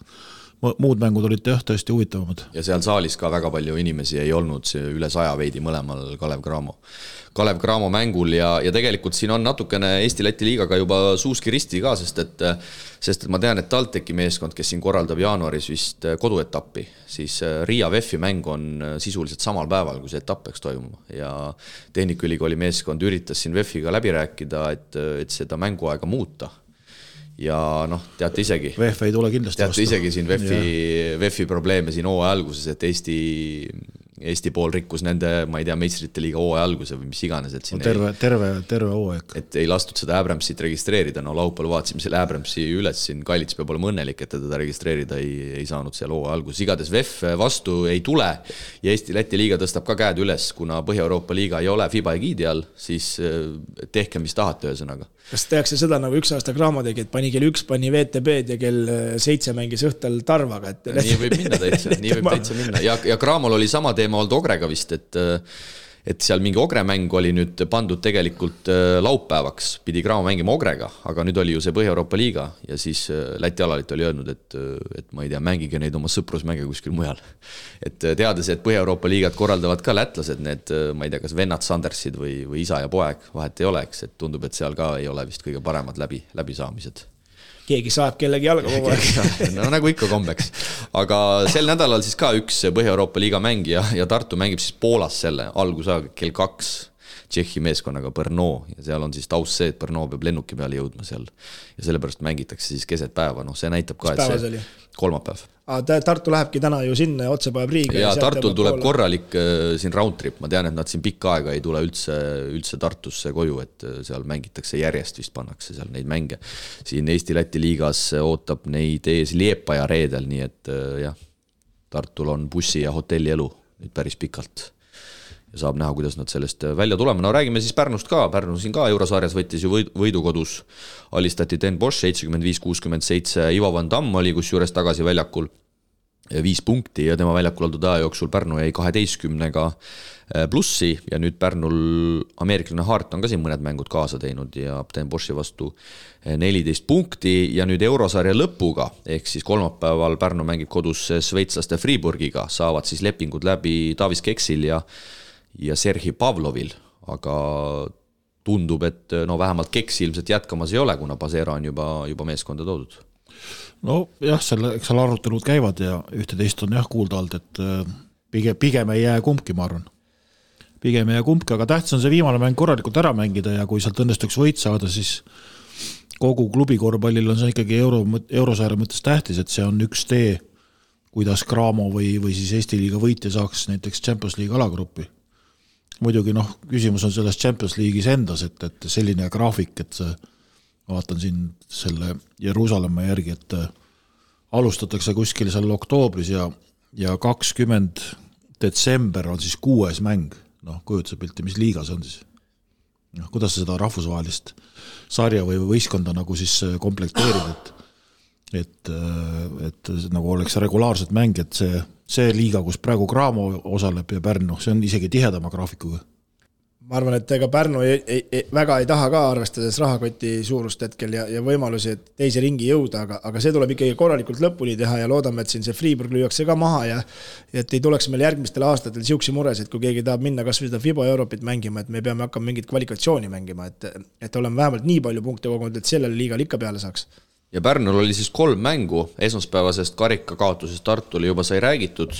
muud mängud olid tõesti huvitavamad. Ja seal saalis ka väga palju inimesi ei olnud, üle 100 veidi mõlemal Kalev Cramo mängul ja tegelikult siin on natukene Eesti-Läti liigaga juba suuski risti ka, sest et ma tean, et TalTechi meeskond, kes siin korraldab jaanuaris vist koduetappi, siis Riia VEF-i mäng on sisuliselt samal päeval, kui see etapp peaks toimuma ja Tehnikaülikooli meeskond üritas siin VEF-iga läbi rääkida, et seda mänguaega muuta. Ja teate isegi VEF ei tule kindlasti teate isegi siin VEF-i probleeme siin hooaja alguses, et Eesti Eesti pool rikkus nende, ma ei tea, meistrite liiga hooaja alguse või mis iganes, et siin terve hooaeg. Et ei lastud seda Abramsit registreerida, no laupäeval vaatasime selle Abramsi üles, siin Kallits peab olema õnnelik, et teda registreerida ei saanud seal hooaja alguses. Igades VEF vastu ei tule ja Eesti-Läti liiga tõstab ka käed üles, kuna Põhja-Euroopa liiga ei ole FIBA egiidi all, siis tehke, mis tahate ühesõnaga. Kas tehakse seda nagu üks aasta Graamo tegi, et pani kell 1, pani VTB-d ja kell 7 mängis õhtal Tarvaga? Et nii võib minna täitsa minna. Ja Graamol oli sama teema olnud Ogrega vist, et seal mingi Ogre mäng oli nüüd pandud tegelikult laupäevaks, pidi Graamo mängima Ogrega, aga nüüd oli ju see Põhja-Euroopa liiga ja siis Läti alalit oli öelnud, et ma ei tea, mängige neid oma sõprusmänge kuskil mujal. Et teades, et Põhja-Euroopa liigat korraldavad ka lätlased, need, ma ei tea, kas vennad Sandersid või isa ja poeg, vahet ei oleks, et tundub, et seal ka ei ole vist kõige paremad läbisaamised. Keegi saab kellegi jalga kogu aeg. No nagu ikka kombeks. Aga sel nädalal siis ka üks Põhja-Euroopa liiga mängija ja Tartu mängib siis Poolas selle algusaega kell 2 Tšehhi meeskonnaga Brno ja seal on siis taust see, et Brno peab lennuki peale jõudma seal ja sellepärast mängitakse siis keset päeva, noh see näitab ka, et see kolmapäev. Tartu lähebki täna ju sinna ja otse päev Riiga. Ja Tartul tuleb korralik siin roundtrip, ma tean, et nad siin pikka aega ei tule üldse Tartusse koju, et seal mängitakse järjest, vist pannakse seal neid mänge. Siin Eesti-Läti liigas ootab neid ees Liepaja reedel, nii et jah, Tartul on bussi ja hotelli elu nüüd päris pikalt. Ja saab näha, kuidas nad sellest välja tulema. No räägime siis Pärnust ka. Pärnu siin ka Eurosarjas võttis ju võidukodus. Alistati Den Bosch 75-67. Ivo Van Damm oli kus juures tagasi väljakul 5 punkti ja tema väljakul oldud aja jooksul Pärnu jäi 12-ga plussi ja nüüd Pärnul ameeriklane Hart on ka siin mõned mängud kaasa teinud ja Den Boschi vastu 14 punkti ja nüüd Eurosarja lõpuga ehk siis kolmapäeval Pärnu mängib kodus sveitslaste Friburgiga, saavad siis lepingud läbi Davis Keksil ja Serhi Pavlovil, aga tundub, et no vähemalt Keksi ilmselt jätkamas ei ole, kuna Pasera on juba meeskonda toodud. No jah, eks seal arutelud käivad ja ühte-teist on jah kuulda olnud, et pigem ei jää kumbki, ma arvan. Pigem ei jää kumbki, aga tähtis on see viimane mäng korralikult ära mängida ja kui sealt õnnestuks võit saada, siis kogu klubi korvpallil on see ikkagi Eurosarja mõttes tähtis, et see on üks tee, kuidas Graamo või siis Eesti liiga võitja saaks näiteks Champions League alagruppi. Muidugi küsimus on selles Champions League'is endas, et selline graafik, et vaatan siin selle Jeruusalemma järgi, et alustatakse kuskil seal oktoobris ja 20 detsember on siis 6. mäng. Kujutuse pilti, mis liiga see on siis? Kuidas seda rahvusvahelist sarja või võistkonda nagu siis komplekteerida, et nagu oleks regulaarset mäng, et see liiga, kus praegu Graamo osaleb ja Pärnu, see on isegi tihedama graafikuga. Ma arvan, et ega Pärnu väga ei taha ka arvestades rahakoti suurust hetkel ja võimalusi, et teise ringi jõuda, aga see tuleb ikkagi korralikult lõpuni teha ja loodame, et siin see Friburg lüüakse ka maha ja et ei tuleks meil järgmistel aastatel siuksi mures, et kui keegi tahab minna kas või seda FIBA Europit mängima, et me peame hakkama mingit kvalifikatsiooni mängima, et oleme vähemalt nii palju punkte kogunud, et sellele liigal ikka peale saaks. Ja Pärnul oli siis 3 mängu, esmaspäevasest karika kaotusest Tartule juba sai räägitud,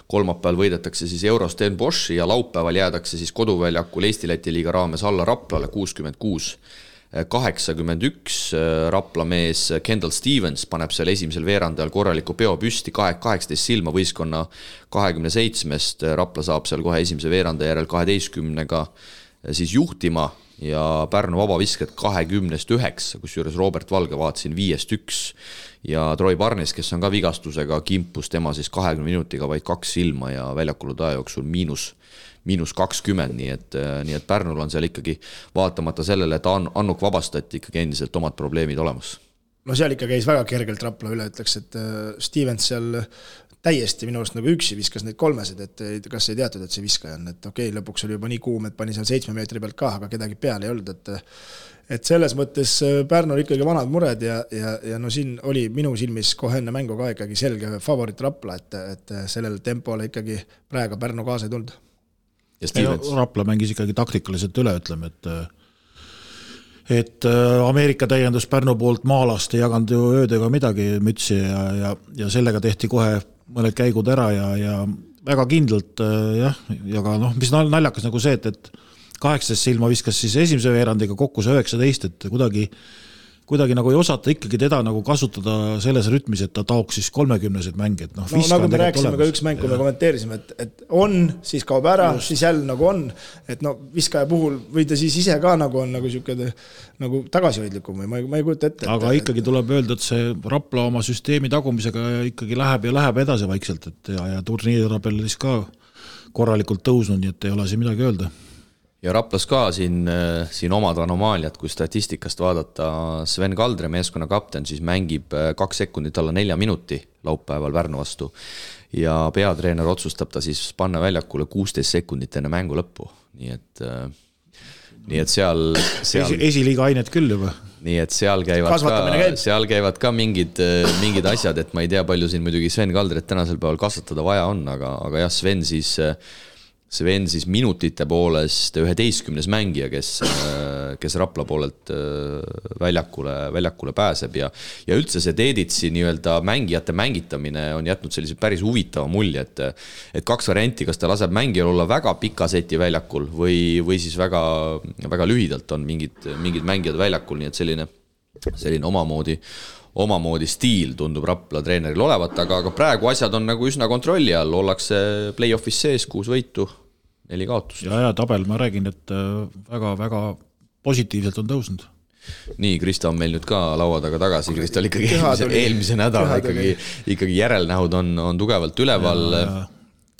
kolmapäeval võidetakse siis Euros Den Bosch ja laupäeval jäädakse siis koduväljakul Eesti-Läti liiga raames alla Raplale 66-81. Rapla mees Kendall Stevens paneb seal esimesel veerandajal korraliku peo püsti 18 silma võistkonna 27-st, Rapla saab seal kohe esimese veeranda järel 12-ga siis juhtima ja Pärnu vabavisked 20-9, kus juures Robert Valge vaatasin 5-1 ja Troy Barnes, kes on ka vigastusega, kimpus tema siis 20 minutiga vaid 2 silma ja väljakulu aja jooksul -20, nii et Pärnul on seal ikkagi vaatamata sellele, et Annuk vabastati ikkagi endiselt omad probleemid olemas. No seal ikka käis väga kergelt Rapla üle, ütleks, et Stevens seal täiesti minu arust nagu üksi viskas neid 3, et kas ei teatud, et see viskaja on, et okei, lõpuks oli juba nii kuum, et pani seal 7 meetri pealt ka, aga kedagi peale ei olnud, et selles mõttes Pärnul ikkagi vanad mured ja no siin oli minu silmis kohe enne mängu ka ikkagi selge favorit Rapla, et sellel tempole ikkagi praegu Pärnu kaasa ei tulnud. Rapla mängis ikkagi taktikaliselt üle, ütleme, et Ameerika täiendus Pärnu poolt maalast ei jaganud ju öödega midagi mütsi ja sellega tehti kohe mõned käigud ära ja väga kindlalt jah, ja ka mis naljakas nagu see, et 18 silma viskas siis esimese veerandiga kokku see 19, et kuidagi kuidagi nagu ei osata ikkagi teda nagu kasutada selles rütmis, et ta taoks siis 30-sed mänge, et nagu me rääkisime ka üks mäng, kui me kommenteerisime, et on, siis kaob ära, siis jälle nagu on, et viskaja puhul või ta siis ise ka nagu on nagu siuke nagu tagasihoidlikum või ma ei kujuta ette. Aga ikkagi tuleb öelda, et see Rapla oma süsteemi tagumisega ikkagi läheb edasi vaikselt, et ja turniiritabelis ka korralikult tõusnud, nii et ei ole siin midagi öelda. Ja Raplas ka siin omad anomaaliad, kui statistikast vaadata, Sven Kaldre, meeskonna kapten, siis mängib 2 sekundit alla 4 minuti laupäeval Pärnu vastu ja peatreener otsustab ta siis panna väljakule 16 sekundit enne mängu lõppu. Nii et seal esiliiga ainet küll juba. Nii et seal käivad ka mingid asjad, et ma ei tea, palju siin muidugi Sven Kaldret tänasel päeval kasvatada vaja on, aga jah, Sven siis minutite poolest 11. mängija, kes Rapla poolelt väljakule pääseb ja üldse see Teeditsi nii-öelda mängijate mängitamine on jätnud sellise päris huvitava mulje, et 2 varianti, kas ta laseb mängijal olla väga pika seti väljakul või siis väga, väga lühidalt on mingid mängijad väljakul, nii et selline omamoodi stiil tundub Rapla treeneril olevat, aga praegu asjad on nagu üsna kontrolli all, ollakse play-offis sees, 6 võitu, 4 kaotust. Ja tabel, ma räägin, et väga positiivselt on tõusnud. Nii, Krista on meil nüüd ka laua taga tagasi, Krista oli ikkagi eelmise nädala ikkagi järelnähud on tugevalt üleval.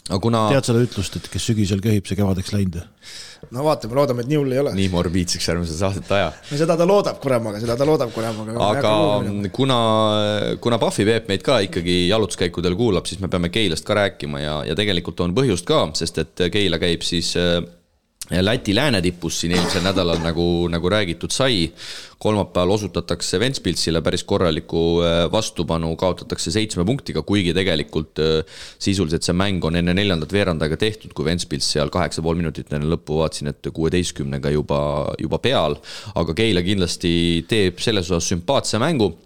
Tead seda ütlust, et kes sügisel köhib, see kevadeks läinud? No vaatame, loodame, et nii hull ei ole. Nii morbiidseks järgmise saadet aja. No seda ta loodab kuremaga. Aga kuna Pahvi Peep meid ka ikkagi jalutuskäikudel kuulab, siis me peame Keilast ka rääkima ja tegelikult on põhjust ka, sest et Keila käib siis Läti läänetipus siin eelmisel nädalal nagu räägitud sai. Kolmapäeval osutatakse Ventspilsile päris korraliku vastupanu, kaotatakse 7 punktiga, kuigi tegelikult sisuliselt see mäng on enne 4. veerandaga tehtud, kui Ventspils seal 8,5 minutit enne lõppu vaatsin, et 16-ga juba peal, aga Keila kindlasti teeb selles osas sümpaatse mängu.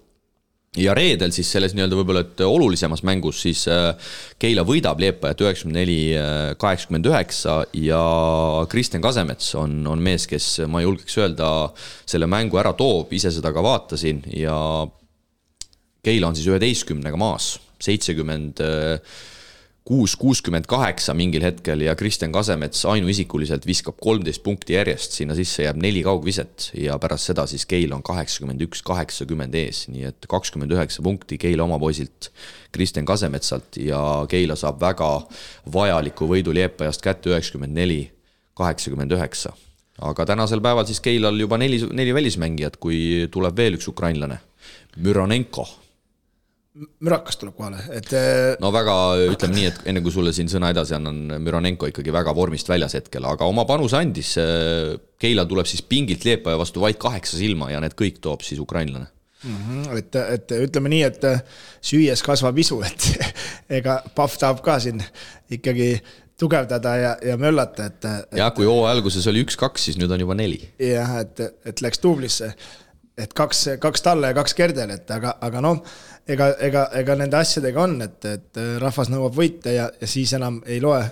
Ja reedel siis selles nii-öelda võib-olla, et olulisemas mängus siis Keila võidab Liepajat 94-89 ja Kristen Kasemets on mees, kes ma julgeks öelda selle mängu ära toob, ise seda ka vaatasin ja Keila on siis 11-ga maas, 76-68 mingil hetkel ja Kristen Kasemets ainuisikuliselt viskab 13 punkti järjest, sinna sisse jääb 4 kaugviset ja pärast seda siis Keila on 81-80 ees, nii et 29 punkti Keila oma poisilt Kristen Kasemetsalt ja Keila saab väga vajaliku võidu Liepajast kätte 94-89. Aga tänasel päeval siis Keilal juba 4 välismängijat, kui tuleb veel üks ukrainlane, Müronenko. Mürakas tuleb kohale. No väga, ütleme nii, et enne kui sulle siin sõna edasi annan, Müronenko ikkagi väga vormist väljas hetkel, aga oma panus andis. Keila tuleb siis pingilt Liepaja vastu vaid 8 silma ja need kõik toob siis ukrainlane. Et ütleme nii, et süües kasvab isu, et ega Pahv tahab ka siin ikkagi tugevdada ja möllata. Ja kui alguses oli 1-2, siis nüüd on juba 4. Jah, et läks tublisse. Et 2 talle ja 2 Kerdel, aga ega nende asjadega on, et rahvas nõuab võite ja siis enam ei loe,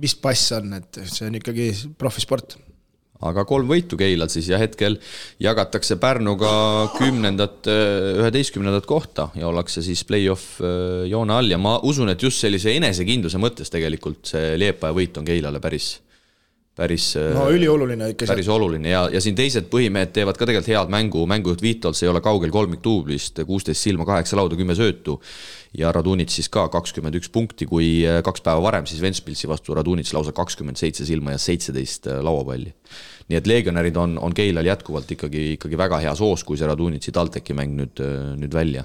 mis pass on, et see on ikkagi profisport. Aga 3 võitu Keilal siis ja hetkel jagatakse Pärnuga 10-11 kohta ja ollakse siis play-off joone all ja ma usun, et just sellise enesekindluse mõttes tegelikult see Liepaja võit on Keilale päris ülioluline ikka. Päris oluline ja siin teised põhimehed teevad ka tegelikult head mängujuht Viitols ei ole kaugel 3 tuublist, 16 silma, 8 lauda, 10 söötu ja Radunits siis ka 21 punkti, kui 2 päeva varem siis Ventspilsi vastu Radunits lausa 27 silma ja 17 lauapalli. Nii et legionärid on Keilal jätkuvalt ikkagi väga hea soos, kui see Radunitsi TalTechi mäng nüüd välja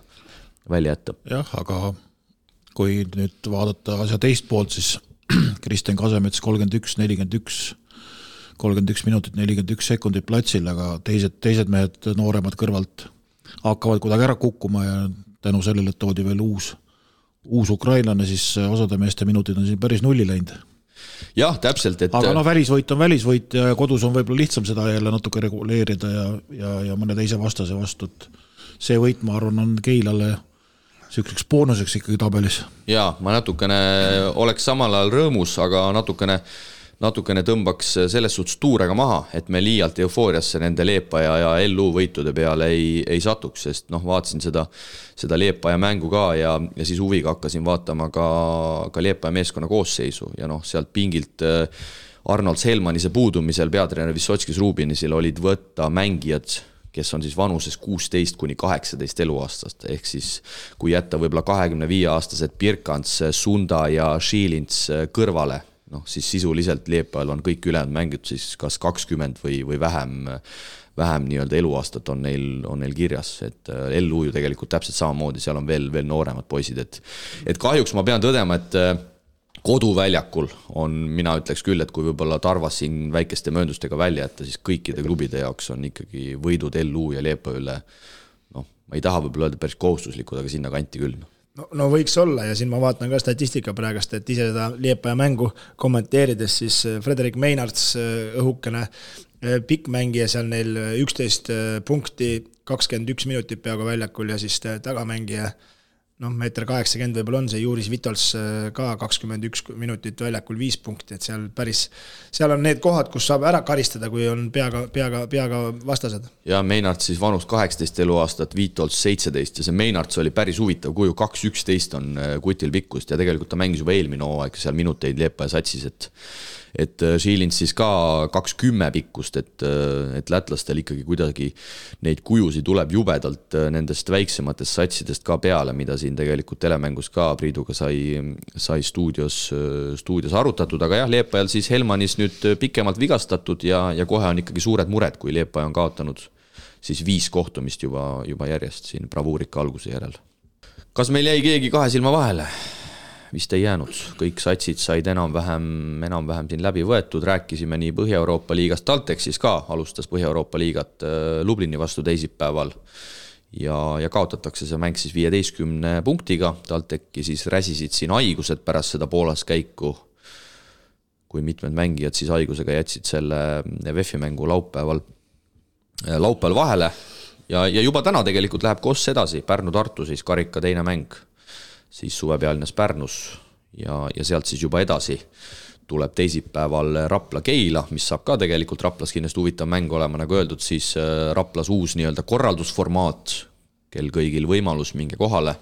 jätta. Jah, aga kui nüüd vaadata asja teist poolt, siis Kristen Kasemets 31-41 minutit, 41 sekundit platsil, aga teised mehed nooremad kõrvalt hakkavad kuidagi ära kukkuma ja tänu sellele toodi veel uus ukrainlane, siis osade meeste minutid on siin päris nulli läinud. Jah, täpselt. Aga välisvõit on välisvõit ja kodus on võib-olla lihtsam seda jälle natuke reguleerida ja mõne teise vastase vastu. See võit, ma arvan, on Keilale selliseks boonuseks ikkagi tabelis. Jaa, ma natukene oleks samal ajal rõõmus, aga natukene natukene tõmbaks selles suhtes tuurega maha, et me liialt eufooriasse nende Leepaja ja LU võitude peale ei satuks, sest vaatasin seda Leepaja mängu ka ja siis huviga hakkasin vaatama ka Leepaja meeskonna koosseisu ja sealt pingilt Arnold Selmanise puudumisel peatreener Vissotskis Rubinisel olid võtta mängijad, kes on siis vanuses 16 kuni 18 eluaastast, ehk siis kui jätta võib-olla 25-aastased Birkants, Sunda ja Šilins kõrvale, siis sisuliselt Leepajal on kõik ülejäänud mängid siis kas 20 või vähem nii-öelda eluaastat on neil kirjas, et LU ju tegelikult täpselt samamoodi, seal on veel nooremad poisid, et kahjuks ma pean tõdema, et koduväljakul on, mina ütleks küll, et kui võib-olla Tarvas siin väikeste mööndustega välja jätta, siis kõikide klubide jaoks on ikkagi võidud LU ja Leepaja üle, ma ei taha võib-olla öelda päris kohustuslikud, aga sinna kanti küll. No võiks olla ja siin ma vaatan ka statistika praegast, et ise seda Leepaja mängu kommenteerides, siis Frederik Meinarts õhukene pikk mängija, seal neil 11 punkti, 21 minutit peaaegu väljakul ja siis tagamängija, meeter 80 võib-olla on see Juris Vitols ka 21 minutit väljakul 5 punkti, et seal on need kohad, kus saab ära karistada, kui on peaga vastased. Ja Meinarts siis vanus 18 eluaastat, Vitols 17 ja see Meinarts oli päris huvitav kuju, 2-11 on kutil pikkust ja tegelikult ta mängis juba eelmine hooaeg seal minuteid Leepaja satsis, et Šilins siis ka 2-10 pikkust, et lätlastel ikkagi kuidagi neid kujusid tuleb jubedalt nendest väiksematest satsidest ka peale, mida siin tegelikult telemängus ka Priiduga sai stuudios arutatud, aga jah, Leepajal siis Helmanis nüüd pikemalt vigastatud ja kohe on ikkagi suured mured, kui Leepaja on kaotanud siis 5 kohtumist juba järjest siin bravuurika alguse järel. Kas meil jäi keegi kahe silma vahele? Vist ei jäänud, kõik satsid said enam-vähem siin läbi võetud, rääkisime nii Põhja-Euroopa liigast, TalTech siis ka alustas Põhja-Euroopa liigat Lublini vastu teisipäeval ja kaotatakse see mäng siis 15 punktiga, TalTechi siis räsisid siin haigused pärast seda Poolas käiku, kui mitmed mängijad siis haigusega jätsid selle VEF-i mängu laupäeval vahele ja juba täna tegelikult läheb Koss edasi, Pärnu-Tartu siis karika teine mäng, siis suvepealines Pärnus ja sealt siis juba edasi tuleb teisipäeval Rapla-Keila, mis saab ka tegelikult Raplas kindlasti huvitav mäng olema, nagu öeldud, siis Raplas uus nii-öelda korraldusformaat, kel kõigil võimalus minge kohale,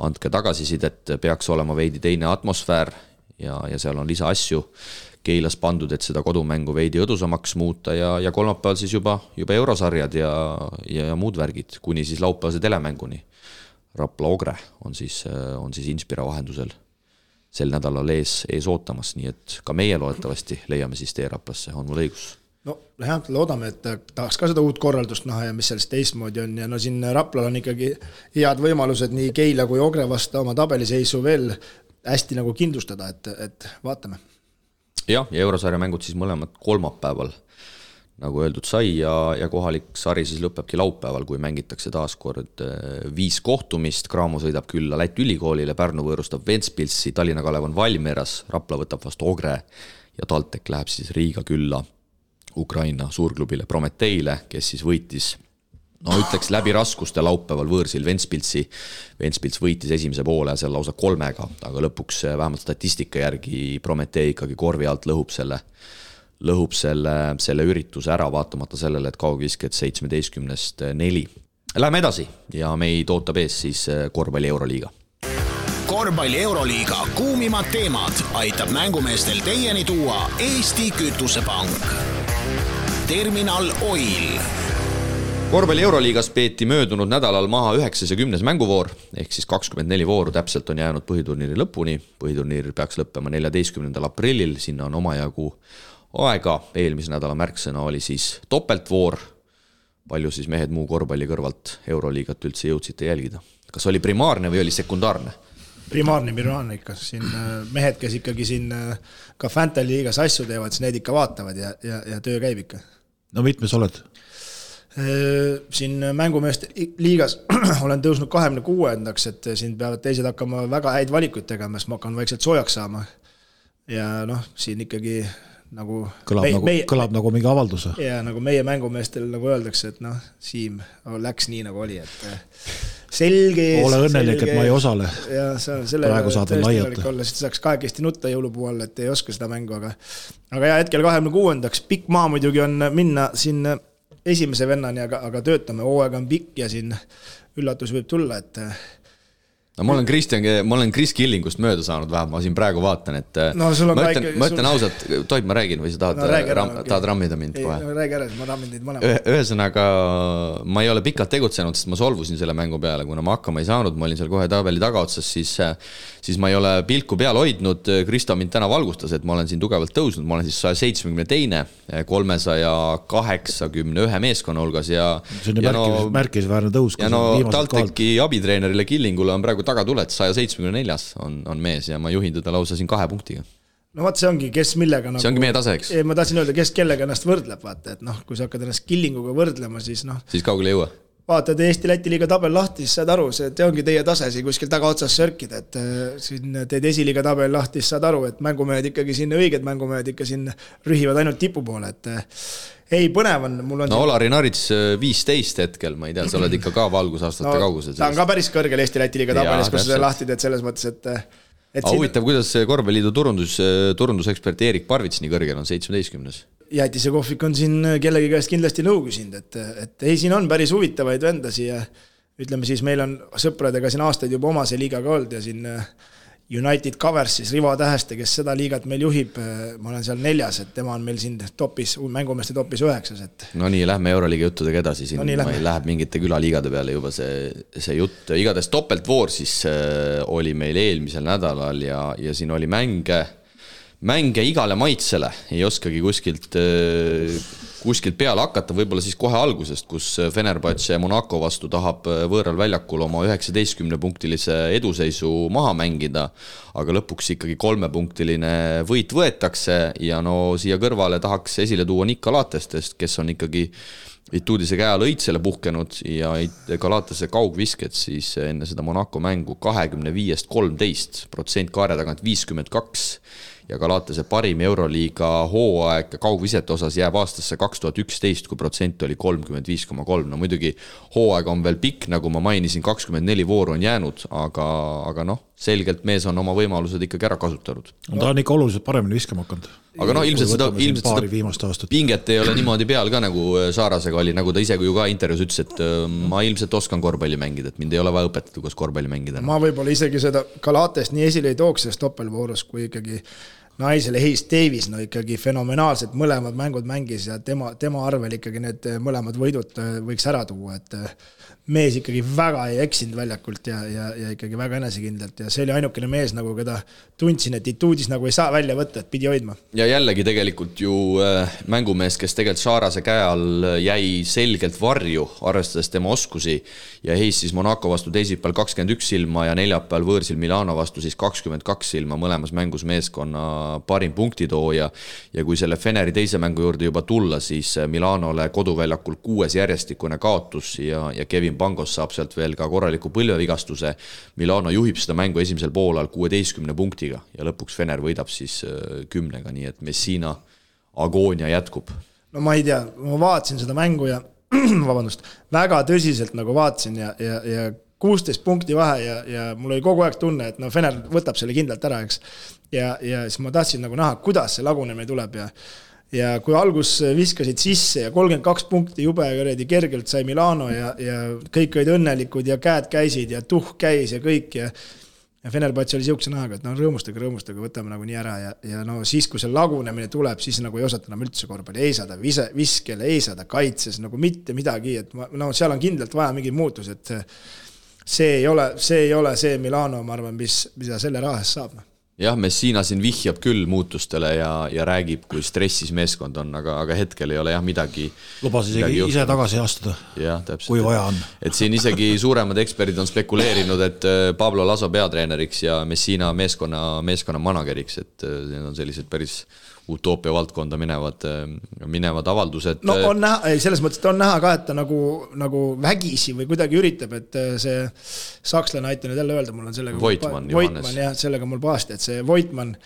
andke tagasisidet, peaks olema veidi teine atmosfäär ja seal on lisa asju Keilas pandud, et seda kodumängu veidi õdusamaks muuta ja kolmapäeval siis juba eurosarjad ja muud värgid, kuni siis laupäevase telemänguni. Rapla Ogre on siis Inspira vahendusel sel nädalal ees ootamas, nii et ka meie loodetavasti leiame siis tee Raplasse, on mul õigus? No loodame, et tahaks ka seda uut korraldust näha ja mis sellest teistmoodi on ja siin Raplal on ikkagi head võimalused nii Keila kui Ogre vastu oma tabeliseisu veel hästi nagu kindlustada, et vaatame. Ja eurosarja mängud siis mõlemad kolmapäeval, nagu öeldud sai ja kohalik sari siis lõpebki laupäeval, kui mängitakse taas kord 5 kohtumist, Graamo sõidab külla Läti ülikoolile, Pärnu võõrustab Ventspilsi, Tallinna Kalev on Valmieras, Rapla võtab vastu Ogre ja TalTech läheb siis Riiga külla Ukraina suurklubile Prometeile, kes siis võitis, ütleks läbi raskuste laupäeval võõrsil Ventspilsi. Ventspils võitis esimese poole seal lausa 3, aga lõpuks vähemalt statistika järgi Prometee ikkagi korvi alt lõhub selle ürituse ära, vaatamata sellele, et kaugvisked 17-st 4. Läheme edasi ja meid ootab ees siis korvpalli Euroliiga. Korvpalli Euroliiga kuumimad teemad aitab mängumeestel teieni tuua Eesti Kütusepank. Terminal Oil. Korvpalli Euroliigas peeti möödunud nädalal maha 9. ja 10. mänguvoor, ehk siis 24 vooru täpselt on jäänud põhiturniiri lõpuni. Põhiturniir peaks lõppema 14. aprillil, sinna on omajagu aega. Eelmise nädala märksõna oli siis topeltvoor. Palju siis mehed muu korvpalli kõrvalt Euroliigat üldse jõudsite jälgida? Kas oli primaarne või oli sekundaarne? Primaarne ikka. Siin mehed, kes ikkagi siin ka Fantasy liigas asju teevad, siis need ikka vaatavad ja töö käib ikka. No mitmes oled? Siin mängumeeste liigas olen tõusnud 26-ndaks, et siin peavad teised hakkama väga häid valikuid tegema, sest ma hakkan vaikselt soojaks saama. Ja siin ikkagi nagu kõlab nagu mingi avalduse. Ja nagu meie mängumeestel nagu öeldakse, et Siim läks nii nagu oli, et selge ees. Ole õnnelik, et ma ei osale. Ja praegu saad veel laiata. Siis saaks kahekesti nutta jõulupuu all, et ei oska seda mängu, aga ja hetkel 26. Pikk maa muidugi on minna siin esimese vennani, aga töötame, hooaeg on pikk ja siin üllatus võib tulla, et no ma olen Chris Killingust mööda saanud vähem, ma siin praegu vaatan, et no, ma ütlen ausalt, tohib ma räägin või sa tahad rammida mind kohe? No räägi ära, ma rammin teid mõlemad. Ühesõnaga, ma ei ole pikalt tegutsenud, sest ma solvusin selle mängu peale, kuna ma hakkama ei saanud, ma olin seal kohe tabeli tagaotsas, siis ma ei ole pilku peal hoidnud. Kristo mind täna valgustas, et ma olen siin tugevalt tõusnud, ma olen siis 172, 381 meeskonna hulgas ja see on märkisväärne tõus. Ja no TalTechi abitreenerile Killingule on praegu tagatuled, 174 on mees ja ma juhin teda lausa siin 2 punktiga. No vaat see ongi, kes millega see ongi meie tase, eks? Ma tahtsin öelda, kes kellega ennast võrdleb, vaata, et kui sa hakkad ennast Killinguga võrdlema, siis siis kaugele ei jõua. Vaatad Eesti-Läti liiga tabel lahti, siis saad aru, see ongi teie tase siin kuskil taga otsas sörkida, et siin teed esiliiga tabel lahti, siis saad aru, et mängumehed ikkagi siin, õiged mängumehed ikka siin rühivad ainult tipu poole, et ei, põnev on, mul on... No Olari Narits 15 hetkel, ma ei tea, sa oled ikka ka valgusaastate kaugusel. Ta on ka päris kõrgel Eesti-Läti liiga tabelis, kus sa lahti teed selles mõttes, et huvitav, kuidas Korvpalliliidu turundusekspert Erik Parvits nii kõrgel on 17. Jätise kohvik on siin kellegi käest kindlasti nõu küsinud, et ei, siin on päris huvitavaid vendasi ja ütleme siis, meil on sõpradega siin aastaid juba oma see liigaga olnud ja siin United Covers, siis Rivo Täheste, kes seda liigat meil juhib, ma olen seal 4, et tema on meil siin topis, mängumeeste topis 9. No nii, lähme Euroliiga juttudega edasi, siin läheb mingite külaliigade peale juba see jutt. Igades topeltvoor siis oli meil eelmisel nädalal ja siin oli mänge igale maitsele, ei oskagi kuskilt peale hakata, võib-olla siis kohe algusest, kus Fenerbahce Monaco vastu tahab võõral väljakul oma 19-punktilise eduseisu maha mängida, aga lõpuks ikkagi 3-punktiline võit võetakse ja no siia kõrvale tahaks esile tuua Nick Galatestest, kes on ikkagi Ituudise käe all õitsele puhkenud ja Galatase kaugvisked siis enne seda Monaco mängu 25-13%, kaare tagant 52 ja Galatase parim Euroliiga hooaeg kaugvisete osas jääb aastasse 2011, kui protsent oli 35,3. No muidugi hooaeg on veel pikk, nagu ma mainisin, 24 vooru on jäänud, aga selgelt mees on oma võimalused ikkagi ära kasutanud. Ta on ikka oluliselt paremini viskama hakanud. Aga ilmselt seda pinget ei ole niimoodi peal ka, nagu Saarasega oli, nagu ta ise ju ka intervjuus ütles, et ma ilmselt oskan korvpalli mängida, et mind ei ole vaja õpetada, kuidas korvpalli mängida. Ma võib-olla isegi seda Galatest nii esile ei tooks selles doppelvoorus, kui ikkagi naisele Hayes Davis, ikkagi fenomenaalselt mõlemad mängud mängis ja tema arvel ikkagi need mõlemad võidud võiks ära tuua, et mees ikkagi väga ei eksinud väljakult ja ikkagi väga enesekindlalt ja see oli ainukene mees, nagu keda tundsin, et Ituudis nagu ei saa välja võtta, et pidi hoidma. Ja jällegi tegelikult ju mängumees, kes tegelikult Saarase käe all jäi selgelt varju, arvestades tema oskusi ja Hayes siis Monaco vastu teisipäeval 21 silma ja neljapäeval võõrsil Milano vastu siis 22 silma, mõlemas mängus meeskonna parim punktitooja ja kui selle Feneri teise mängu juurde juba tulla, siis Milanole koduväljakul 6 järjestikune kaotus ja Kevin Pangos saab sealt veel ka korraliku põlvevigastuse. Milano juhib seda mängu esimesel poolal 16 punktiga ja lõpuks Fener võidab siis 10, nii et Messina agoonia jätkub. No ma ei tea, ma vaatasin seda mängu ja väga tõsiselt nagu vaatasin ja 16 punkti vahe ja mul oli kogu aeg tunne, et Fener võtab selle kindlalt ära, eks. Ja siis ma tahtsin nagu näha, kuidas see lagunemine tuleb ja kui algus viskasid sisse ja 32 punkti jube kergelt sai Milano ja kõik olid õnnelikud ja käed käisid ja käis ja kõik ja Fenerbahce oli siukse nähaga, et rõõmustage, võtame nagu nii ära ja siis, kui see lagunemine tuleb, siis nagu ei osata enam üldse korvpalli, ei saada viskele, ei saada kaitses, nagu mitte midagi, et seal on kindlalt vaja mingi muutus, et see ei ole see Milano, ma arvan, mida selle rahas saab. Jah, Messina siin vihjab küll muutustele ja räägib, kui stressis meeskond on, aga hetkel ei ole midagi. Lubas isegi ise tagasi astuda, kui vaja on. Et siin isegi suuremad eksperdid on spekuleerinud, et Pablo Laso peatreeneriks ja Messina meeskonna manageriks, et need on sellised päris utoopia valdkonda minevad avaldused. No on näha, selles mõttes, et on näha ka, et ta nagu vägisi või kuidagi üritab, et see sakslane aitab nüüd jälle öelda, mul on sellega Voitmann, jah, sellega mul pahasti, et see Voitmann,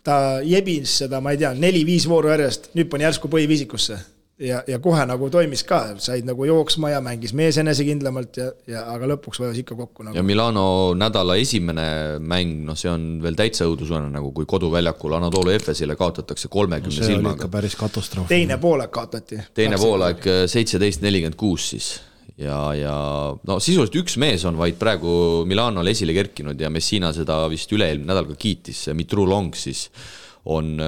ta jebis seda, ma ei tea, 4-5 vooru järjest, nüüd pani järsku põhiviisikusse. ja kohe nagu toimis ka, said nagu jooksma ja mängis mees enesekindlamalt aga lõpuks vajas ikka kokku nagu. Ja Milano nädala esimene mäng, no see on veel täitsa õudusvõrna, nagu kui koduväljakul Anadolu Efesile kaotatakse 30 silmaga. See oli ikka päris katastroof. Teine poolaeg kaotati. Teine poolaeg 17-46 siis. Ja no sisuliselt üks mees on vaid praegu Milanole esile kerkinud ja Messina seda vist üle-eelmine nädal ka kiitis, Mitru Long siis on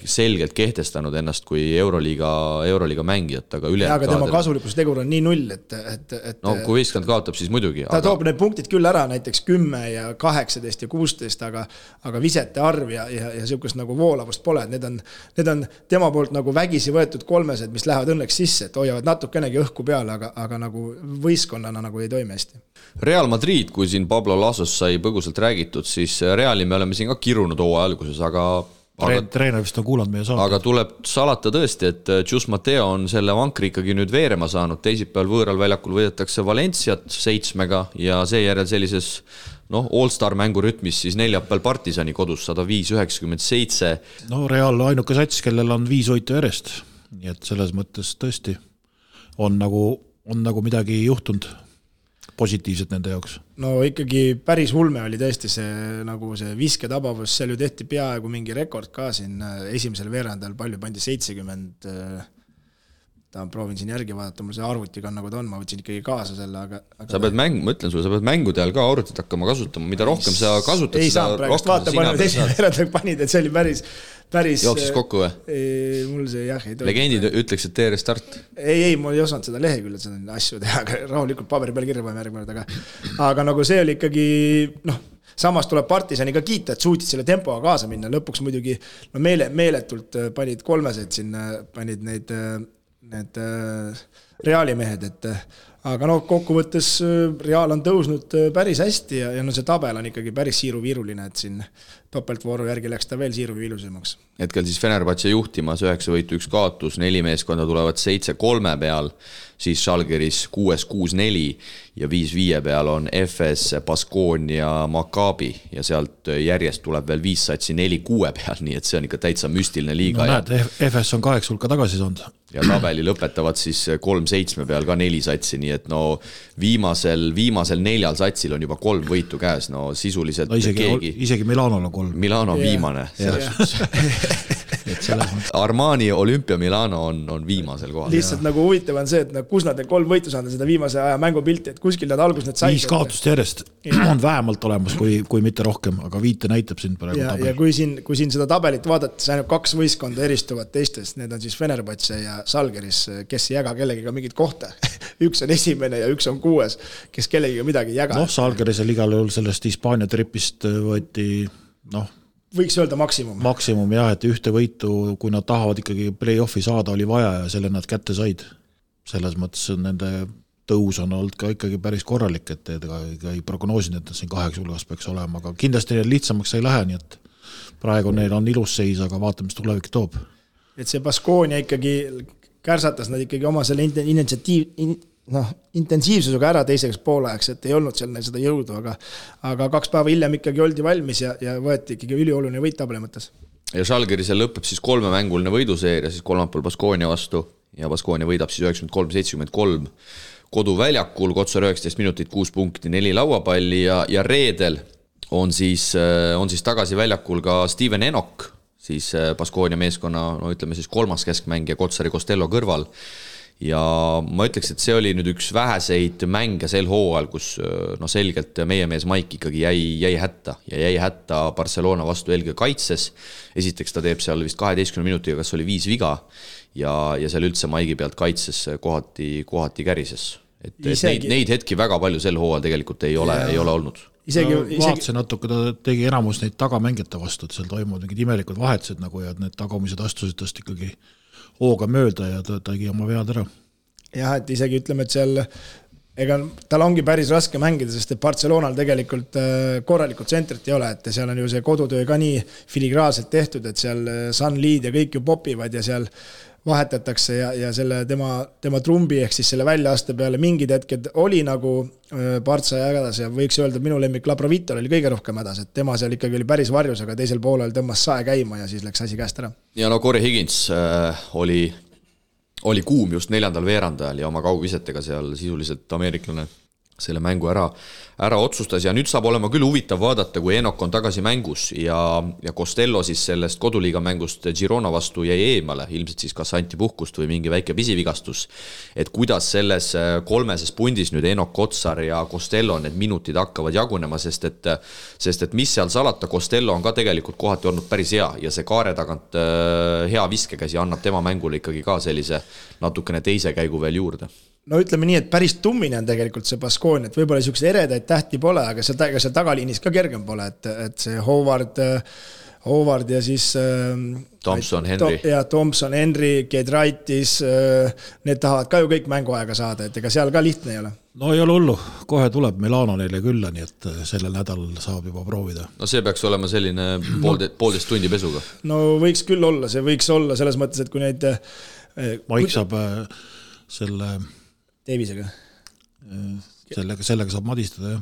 selgelt kehtestanud ennast kui Euroliiga mängijat, aga üle... Aga tema kasulikus tegur on nii null, et no kui võistkond kaotab, siis muidugi. Ta toob need punktid küll ära, näiteks 10 ja 18 ja 16, aga visete arv ja sihukest nagu voolavust pole. Need on tema poolt nagu vägisi võetud kolmesed, mis lähevad õnneks sisse, et hoiavad natukenegi õhku peale, aga nagu võistkonnana nagu ei toimi hästi. Real Madrid, kui siin Pablo Lasos sai põgusalt räägitud, siis Reali me oleme siin ka kirunud hooaja alguses, aga treener vist on kuulanud meie saate. Aga tuleb salata tõesti, et Jus Mateo on selle vankri ikkagi nüüd veerema saanud. Teisipäeval võõral väljakul võidetakse Valenciat 7 ja seejärel sellises all-star mängurütmis siis neljapäeval Partisani kodus 105-97. No Real ainuke sats, kellel on 5 võitu järjest. Nii et selles mõttes tõesti on nagu midagi juhtunud positiivselt nende jaoks. No ikkagi päris ulme oli tõesti see visketabavus, seal ju tehti peaaegu mingi rekord ka siin esimesel veerandal, palju pandi 70, proovin siin järgi vaadata, mul see arvutiga on nagu ta on, ma võtsin ikkagi kaasa selle, aga sa pead ma ütlen sulle, sa pead mängude ajal ka arvutit hakkama kasutama, mida rohkem sa kasutad, ei saa praegust vaata, palju esimesel veerandal panid, et see oli päris jooksis kokku või? Mul see jah ei tohi. Legendid ütleks, et tee restart. Ei, ma ei osanud seda leheküljel seda asju teha, aga rahulikult paberi peal kirja paneme järgmine, aga nagu see oli ikkagi, samas tuleb Partisani ka kiita, et suutid selle tempoga kaasa minna, lõpuks muidugi meeletult panid kolmesed sinna, panid need Reali mehed, aga kokkuvõttes Real on tõusnud päris hästi ja see tabel on ikkagi päris siiruviiruline, et siin topeltvooru järgi läks ta veel siiruviilusemaks. Hetkel siis Fenerbahce juhtimas 9 võitu 1 kaotus, 4 meeskonda tulevad 7-3 peal, siis Žalgiris 6-6-4 ja 5-5 peal on FS, Baskonia, Maccabi ja sealt järjest tuleb veel 5 satsi 4-6 peal, nii et see on ikka täitsa müstiline liiga. No näed, FS on 8 hulka tagasi saanud. Ja tabeli lõpetavad siis 3-7 peal ka 4 satsi, nii et viimasel 4 satsil on juba 3 võitu käes, sisuliselt isegi Milanol on 3. Milano on viimane. Armani Olympia Milano on viimasel kohal. Lihtsalt nagu huvitav on see, et kus nad 3 võitu saanud seda viimase aja mängupilti, et kuskil nad algus need said. 5 kaotust järjest on vähemalt olemas, kui mitte rohkem, aga 5 näitab siin praegu tabel. Ja kui siin seda tabelit vaadata, siis ainult 2 võistkonda eristuvad teistest, need on siis Fenerbahce ja Žalgiris, kes ei jäga kellegiga mingit kohta. Üks on esimene ja üks on 6, kes kellegiga midagi ei jaga. Žalgirisel igal juhul sellest Hispaania tripist võeti, võiks öelda maksimum. Maksimum jah, et ühte võitu, kui nad tahavad ikkagi play-offi saada, oli vaja ja selle nad kätte said. Selles mõttes nende tõus on olnud ka ikkagi päris korralik, et ei prognoosinud, et siin 8 hulgas peaks olema, aga kindlasti neil lihtsamaks ei lähe, nii et praegu neil on ilus seis, aga vaatame, mis tulevik toob. Et see Baskonia ikkagi kärsatas nad ikkagi oma selle intensiivsusega ära teiseks poolajaks, et ei olnud seal neil seda jõudu, aga 2 päeva hiljem ikkagi oldi valmis ja võeti ikkagi ülioluline võit tabeli mõttes. Ja Žalgirisel lõpeb siis 3 mänguline võiduseeria, siis kolmapäeval Baskonia vastu ja Baskonia võidab siis 93-73 koduväljakul, Kotsar 19 minutit, 6 punkti, 4 lauapalli ja reedel on siis tagasi väljakul ka Steven Enok, siis Baskonia meeskonna, ütleme siis 3. keskmängija Kotsari Costello kõrval. Ja ma ütleks, et see oli nüüd üks väheseid mänge sel hooajal, kus selgelt meie mees Maik ikkagi jäi hätta Barcelona vastu eelkõige kaitses. Esiteks ta teeb seal vist 12 minutiga, kas oli 5 viga ja seal üldse Maigi pealt kaitses kohati kärises. Et neid hetki väga palju sel hooajal tegelikult ei ole olnud. Vaatse natuke, ta tegi enamus neid tagamängijate vastu, et seal toimuvad mingid imelikud vahetused nagu ja need tagumised astusid tast ikkagi hooga mööda ja ta tegi oma vead ära. Jah, et isegi ütleme, et seal tal ongi päris raske mängida, sest et Barcelonal tegelikult korralikult tsentrit ei ole, et seal on ju see kodutöö ka nii filigraanselt tehtud, et seal Sunliid ja kõik ju popivad ja seal vahetatakse ja selle tema trumbi ehk siis selle väljaaste peale mingid hetked oli nagu Partsa ja hädas ja võiks öelda, et minu lemmik Labrovitol oli kõige rohkem hädas, et tema seal ikkagi oli päris varjus, aga teisel poolel tõmbas sae käima ja siis läks asi käest ära. Ja Corey Higgins oli oli kuum just 4. veerandajal ja oma kaugvisetega seal sisuliselt ameeriklane selle mängu ära otsustas ja nüüd saab olema küll huvitav vaadata, kui Enok on tagasi mängus ja Costello siis sellest koduliiga mängust Girona vastu jäi eemale, ilmselt siis kas anti puhkust või mingi väike pisivigastus, et kuidas selles 3. pundis nüüd Enok, Kotsar ja Costello need minutid hakkavad jagunema, sest et mis seal salata, Costello on ka tegelikult kohati olnud päris hea ja see kaare tagant hea viskekäsi annab tema mängule ikkagi ka sellise natukene teise käigu veel juurde. No ütleme nii, et päris tummine on tegelikult see Baskonia, et võib-olla niisuguse eredaid tähti pole, aga seal tagaliinis ka kergem pole, et see Howard ja siis Thompson, Henry. Ja Thompson, Henry, Kedraitis, need tahavad ka ju kõik mänguaega saada, et ega seal ka lihtne ei ole. No ei ole hullu, kohe tuleb Milano neile külla, nii et sellel nädalal saab juba proovida. No see peaks olema selline poolteist tundi pesuga. No võiks küll olla, see võiks olla selles mõttes, et kui neid Maik saab selle Davisega. Sellega saab madistada, jah.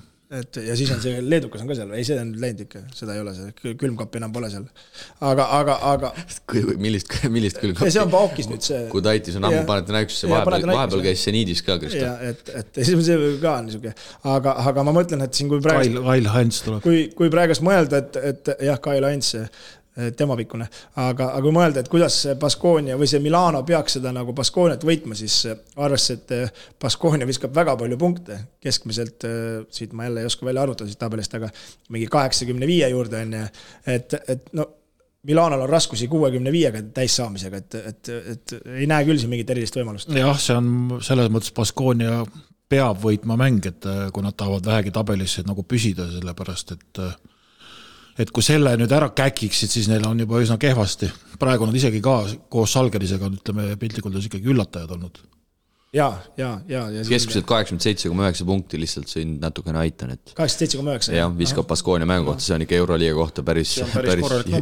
Ja siis on see Leedukas on ka seal, ei see on läinud ikka, seda ei ole, see külmkappi enam pole seal. Aga millist külmkappi? See on Paukis nüüd see. Kui Taitis on ammu Panathinaikosse, vahepeal käis see Niidis ka, Kristo. Ja, et see ka on niisugune. Aga ma mõtlen, et siin kui praegu... Kyle Heinz tuleb. Kui praegust mõelda, et jah, Kyle Heinz tema pikkune, aga kui mõelda, et kuidas Baskonia või see Milano peaks seda nagu Baskoniat võitma, siis arvesse, et Baskonia viskab väga palju punkte, keskmiselt, siit ma jälle ei oska välja arvutada siit tabelist, aga mingi 85 juurde on, et no Milanol on raskusi 65-ga täis saamisega, et ei näe küll siin mingit erilist võimalust. Jah, see on selles mõttes Baskonia peab võitma mäng, et kui nad tahavad vähegi tabelisse nagu püsida, sellepärast, et kui selle nüüd ära käkiksid, siis neil on juba üsna kehvasti. Praegu nad isegi ka koos Salgerisega, ütleme, piltlikult on ikkagi üllatajad olnud. Ja keskmiselt 87,9 punkti lihtsalt siin natukene aitan, et 87,9 jah, viskab Baskonia mängu kohta, see on ikka Euroliiga kohta päris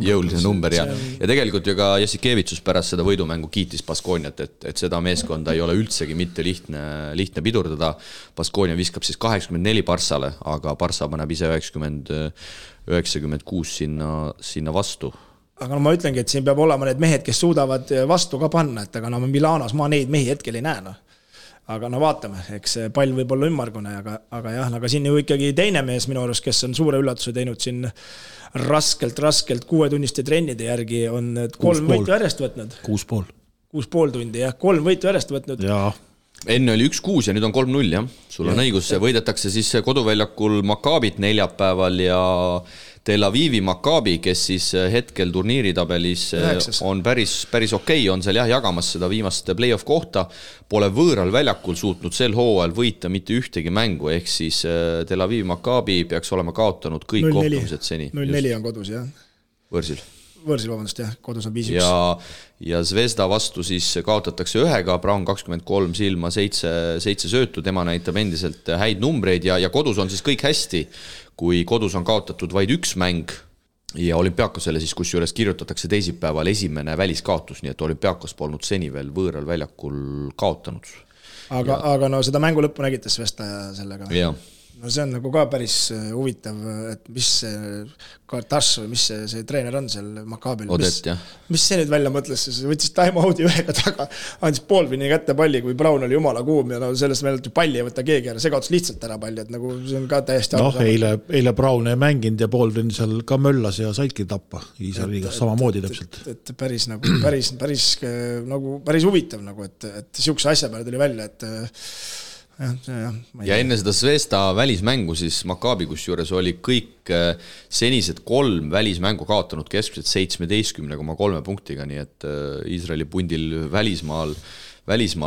jõulise number ja tegelikult ju ka Jassikevitsus pärast seda võidumängu kiitis Baskoniat, et seda meeskonda ei ole üldsegi mitte lihtne pidurdada. Baskonia viskab siis 84 Barssale, aga Barssa paneb ise 96 sinna vastu. Aga ma ütlengi, et siin peab olema need mehed, kes suudavad vastu ka panna, et aga no Milanos ma neid mehi hetkel ei näe. Aga no vaatame, eks pall võib olla ümmargune, aga jah, aga siin ju ikkagi teine mees minu arust, kes on suure üllatuse teinud siin raskelt 6-tunniste trennide järgi on 3 võitu järjest võtnud. 6,5 tundi, jah, 3 võitu järjest võtnud. Jaa. Enne oli 1-6 ja nüüd on 3-0, jah. Sul on õigus, võidetakse siis koduväljakul Maccabit neljapäeval ja Tel Avivi Maccabi, kes siis hetkel turniiritabelis on päris okei, on seal jah jagamas seda viimast play-off kohta, pole võõral väljakul suutnud sel hooajal võita mitte ühtegi mängu, ehk siis Tel Avivi Maccabi peaks olema kaotanud kõik kohtumised seni. 0-4 on kodus, jah. Võrsil, vabandust, jah, kodus on 5-1. Ja Zvezda vastu siis kaotatakse 1-ga, Braun 23 silma, 7 söötu, tema näitab endiselt häid numbreid ja kodus on siis kõik hästi, kui kodus on kaotatud vaid 1 mäng ja Olümpiakosele siis kusjuures kirjutatakse teisipäeval esimene väliskaotus, nii et Olümpiakos polnud seni veel võõral väljakul kaotanud. Aga no seda mängu lõppu nägite Zvezda sellega. Jah. No see on nagu ka päris huvitav, et mis see Kartas või mis see treener on seal Maccabil. Odet, jah. Mis see nüüd välja mõtles, see võttis time-out'i ühega taga, andis poolpinni kätte palli, kui Braun oli jumala kuum ja no sellest meelelt palli ei võtta keegi ära, see kaotas lihtsalt ära palli, et nagu see on ka täiesti eile Braun ei mänginud ja poolpinn seal ka möllas ja saidki tappa Iisraeligas samamoodi täpselt. Et päris huvitav nagu, et siukse asja peale tuli välja, et ja enne seda Zvezda välismängu siis Maccabi kusjuures oli kõik senised 3 välismängu kaotanud keskmiselt 17,3 punktiga, nii et Iisraeli pundil välismaal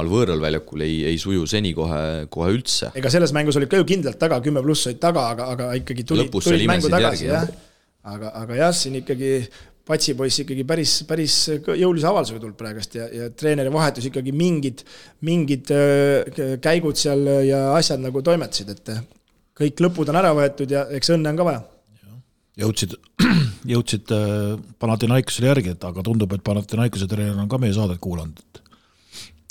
võõral väljakul ei suju seni kohe üldse. Ega selles mängus oli ka ju kindlalt taga, 10+ olid taga, aga ikkagi tulid mängu tagasi. Aga jah, siin ikkagi Patsipoiss ikkagi päris jõulise avaldusega tulnud praegust ja treeneri vahetus ikkagi mingid käigud seal ja asjad nagu toimetasid, et kõik lõpud on ära võetud ja eks õnne on ka vaja. Jõudsid Panathinaikosele järgi, aga tundub, et Panathinaikose treener on ka meie saadet kuulanud.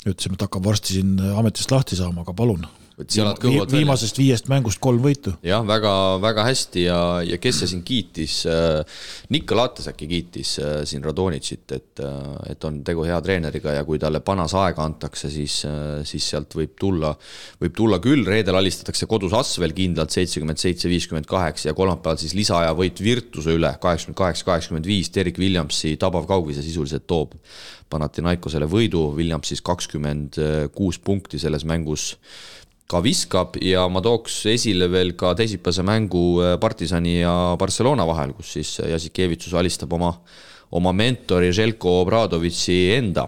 Ütlesime, et hakkab varsti siin ametist lahti saama, aga palun. Viimasest 5 mängust 3 võitu. Jah, väga, väga hästi ja kes see siin kiitis, Nikko Lates äkki kiitis siin Radonitšit, et on tegu hea treeneriga ja kui talle panas aega antakse, siis sealt võib tulla küll, reedel alistatakse kodus Asvel kindlalt 77-58 ja kolmapäeval siis lisaaja võit Virtuse üle 88-85, Derek Williamsi tabav kaugvise sisuliselt toob Panathinaikosele võidu, Williams siis 26 punkti selles mängus ka viskab ja ma tooks esile veel ka teisipäevase mängu Partisani ja Barcelona vahel, kus siis Jasikevitsus alistab oma mentori Željko Obradovitši enda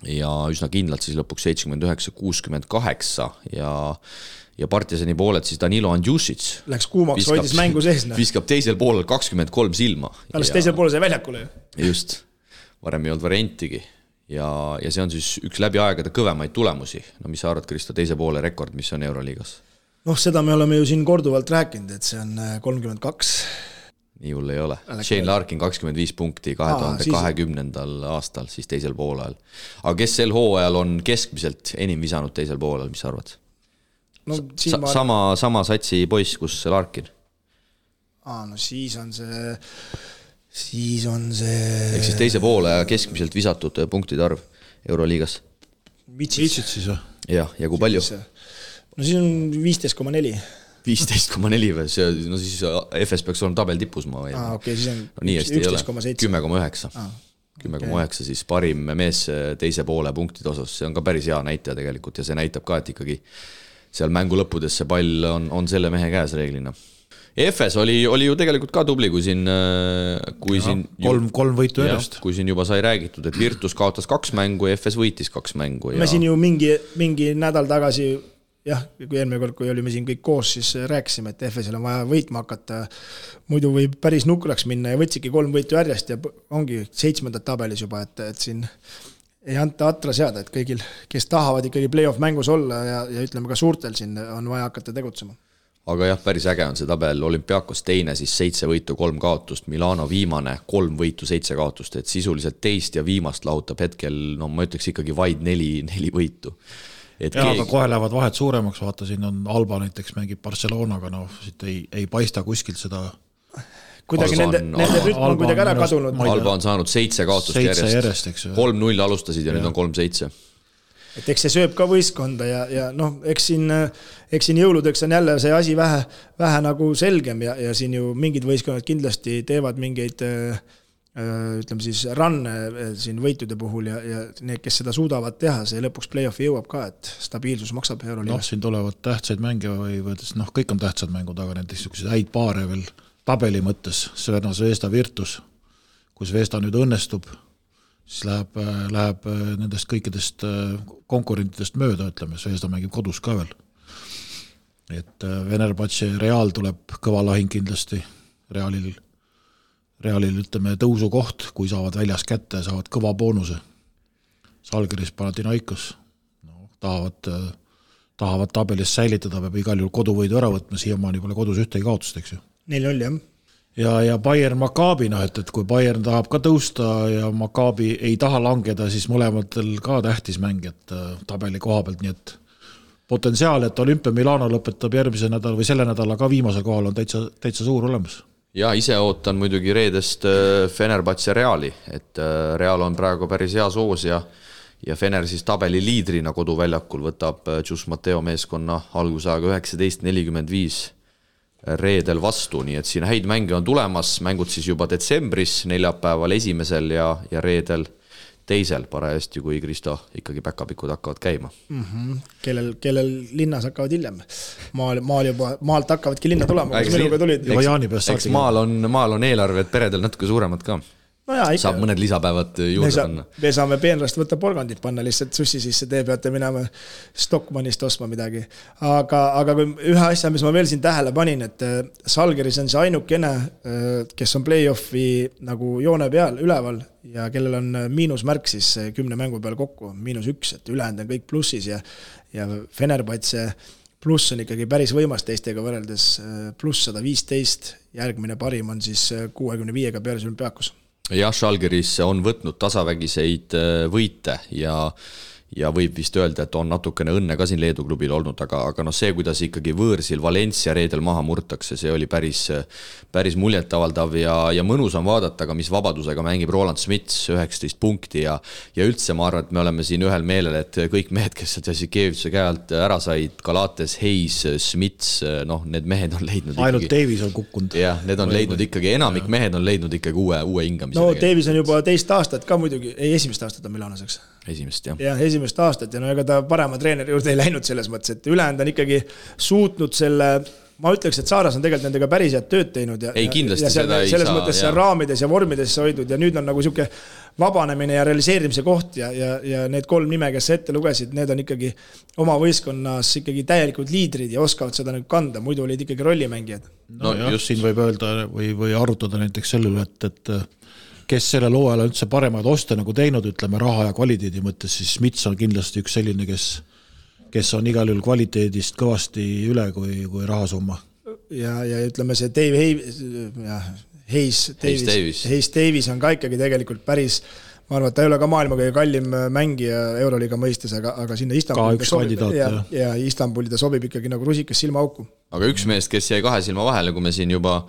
ja üsna kindlalt siis lõpuks 79-68 ja Partisani pooled siis Danilo Andjušić läks kuumaks, hoidis mängu sees. Viskab teisel poolel 23 silma. Alles teisel poolel sai väljakule. Just, varem ei olnud variantigi. Ja see on siis üks läbi aegade kõvemaid tulemusi. No mis sa arvad, Kristo, teise poole rekord, mis on Euroliigas? Seda me oleme ju siin korduvalt rääkinud, et see on 32. Nii hull ei ole. Shane Larkin 25 punkti 2020. aastal, siis teisel poolel. Aga kes sel hooajal on keskmiselt enim visanud teisel poolel, mis sa arvad? Sama satsi poiss, kus Larkin? Siis on see... Ehk siis teise poole keskmiselt visatud punktide arv Euroliigas. Vitsit siis või? Ja kui palju? Siis on 15,4. 15,4 või? Siis FS peaks olema tabel tipus ma või? Siis on 11,7. 10,9. 10,9 siis parim mees teise poole punktide osas. See on ka päris hea näitaja tegelikult ja see näitab ka, et ikkagi seal mängu lõppudes see pall on selle mehe käes reeglina. FS oli ju tegelikult ka tubli, kui siin kolm võitu järjest. Kui siin juba sai räägitud, et Virtus kaotas 2 mängu ja FS võitis 2 mängu. Me siin ju mingi nädal tagasi, kui eelmine kord, kui olime siin kõik koos, siis rääkisime, et FS-il on vaja võitma hakata, muidu võib päris nukraks minna ja võtsidki 3 võitu järjest ja ongi 7. tabelis juba, et siin ei anta atra seada, et kõigil, kes tahavad ikkagi play-off mängus olla ja ütleme ka suurtel siin on vaja hakata tegutsema. Aga jah, päris äge on see tabel, Olümpiakos teine, siis 7 võitu, 3 kaotust, Milano viimane, 3 võitu, 7 kaotust, et sisuliselt teist ja viimast lahutab hetkel, ma ütleks ikkagi vaid 4 võitu. Aga kohe lähevad vahed suuremaks, vaata siin on Alba näiteks mängib Barcelonaga, siit ei paista kuskilt seda... Kuidagi nende rütm on kuidagi ära kadunud. Alba on saanud 7 kaotust järjest. 3-0 alustasid ja nüüd on 3-7. Et eks see sööb ka võistkonda ja eks siin jõuludeks on jälle see asi vähe nagu selgem ja siin ju mingid võistkonnad kindlasti teevad mingeid ütleme siis ranne siin võitude puhul ja need, kes seda suudavad teha, see lõpuks play-offi jõuab ka, et stabiilsus maksab Euroliigas. Siin tulevad tähtsaid mänge või kõik on tähtsad mängud, aga näiteks häid paare veel tabeli mõttes, Zvezda Virtus, kus Zvezda nüüd õnnestub, siis läheb nendest kõikidest konkurentidest mööda, ütleme, Zvezda mängib kodus ka veel. Et Venerbatši Real tuleb kõva lahing kindlasti, Realil ütleme tõusukoht, kui saavad väljas kätte, saavad kõva boonuse. Salgeris Panathinaikos tahavad tabelis säilitada, peab igal juhul koduvõidu ära võtma, siiamaani pole kodus ühtegi kaotust, eks ju. 4-0, jah. Ja Bayern Maccabi, et kui Bayern tahab ka tõusta ja Maccabi ei taha langeda, siis mõlematel ka tähtis mäng, et tabeli koha pealt, nii et potentsiaal, et Olympia Milano lõpetab järgmise nädal või selle nädala ka viimasel kohal on täitsa suur olemas. Ja ise ootan muidugi reedest Fenerbahce Reali, et Real on praegu päris hea soos ja Fener siis tabeli liidrina koduväljakul võtab Gius Matteo meeskonna algusaega 19:45 reedel vastu, nii et siin häid mänge on tulemas, mängud siis juba detsembris, neljapäeval esimesel ja reedel teisel parajasti, kui Kristo ikkagi päkapikud hakkavad käima. Kellel linnas hakkavad hiljem. Maalt hakkavadki linna tulema, kus minuga tulid. Eks maal on eelarved peredel natuke suuremad ka. No jaa, saab mõned lisapäevad juurde panna. Me saame peenrast võtta porgandit panna lihtsalt sussi sisse, te peate minema Stockmannist ostma midagi. Aga kui ühe asja, mis ma veel siin tähele panin, et Salgeris on see ainukene, kes on play-offi nagu joone peal üleval ja kellel on miinusmärk siis 10 mängu peal kokku, -1, et ülejäänud on kõik plussis ja Fenerbahce pluss on ikkagi päris võimas teistega võrreldes pluss 115, järgmine parim on siis 65-ga peale Olümpiakos. Jah, Žalgiris on võtnud tasavägiseid võite ja ja võib vist öelda, et on natukene õnne ka siin Leedu klubil olnud, aga see, kuidas ikkagi võõrsil Valencia reedel maha murtakse, see oli päris muljetavaldav ja mõnus on vaadata, aga mis vabadusega mängib Roland Smits 19 punkti ja üldse ma arvan, et me oleme siin ühel meelel, et kõik mehed, kes Jasikeviuse käe alt ära said, Galates, Hayes, Smits, need mehed on leidnud ainult Davis on kukkunud. Jah, need on leidnud ikkagi, enamik mehed on leidnud ikkagi uue hingamise. No Davis on juba teist aastat ka muidugi, esimest aastat on Milanoseks. Esimest, jah. Ja esimest aastat ja ega ta parema treeneri juurde ei läinud selles mõttes, et ülejäänud on ikkagi suutnud selle, ma ütleks, et Saaras on tegelikult nendega päris head tööd teinud ja, kindlasti ja seda ei saa. Selles mõttes seal raamides ja vormides hoidnud ja nüüd on nagu siuke vabanemine ja realiseerimise koht ja need 3 nime, kes ette lugesid, need on ikkagi oma võistkonnas ikkagi täielikult liidrid ja oskavad seda nüüd kanda, muidu olid ikkagi rollimängijad. No just siin võib öelda või arutada näiteks sellele, et kes sellel hooajal üldse paremaid oste nagu teinud, ütleme raha ja kvaliteedi mõttes, siis Smits on kindlasti üks selline, kes on igal juhul kvaliteedist kõvasti üle kui rahasumma. Ja ütleme see Dave Hayes Davis on ka ikkagi tegelikult päris, ma arvan, et ta ei ole ka maailma kõige kallim mängija Euroliiga mõistes, aga sinna Istanbuli ta sobib ikkagi nagu rusikas silmaauku. Aga üks meest, kes jäi 2 silma vahele, kui me siin juba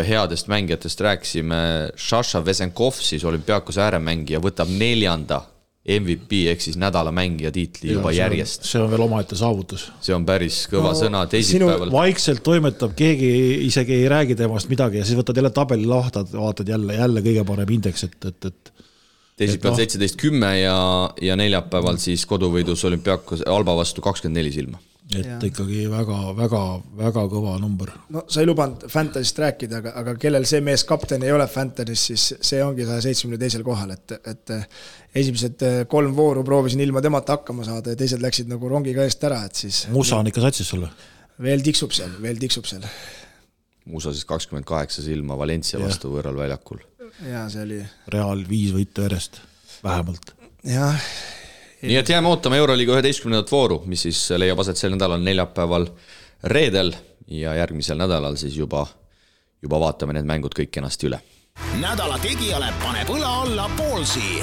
headest mängijatest rääksime, Sasha Vesenkov, siis Olümpiakos ääremängija, võtab 4. MVP ehk siis nädala mängija tiitli juba järjest. See on veel omaette saavutus. See on päris kõva sõna teisipäeval. Vaikselt toimetab, keegi isegi ei räägi temast midagi ja siis võtad jälle tabeli lahtad, vaatad jälle kõige parem indeks, et teisipäeval 17-10 ja neljapäeval siis koduvõidus Olümpiakos Alba vastu 24 silma. Et ikkagi väga kõva number. No sa ei lubanud Fantasist rääkida, aga kellel see mees kapten ei ole Fantasist, siis see ongi 172. kohal, et esimesed 3 vooru proovisin ilma temata hakkama saada ja teised läksid nagu rongiga eest ära, et siis Musa on ikka satsis sulle? Veel tiksub seal. Musa siis 28 silma Valencia vastu võõral väljakul. Ja see oli Real 5 võitu järjest, vähemalt. Jah. Nii et jääme ootama Euroliiga 11. vooru, mis siis leiab aset sel nädalal neljapäeval reedel ja järgmisel nädalal siis juba vaatame need mängud kõik kenasti üle. Nädala tegijale paneb õla alla Poolsi.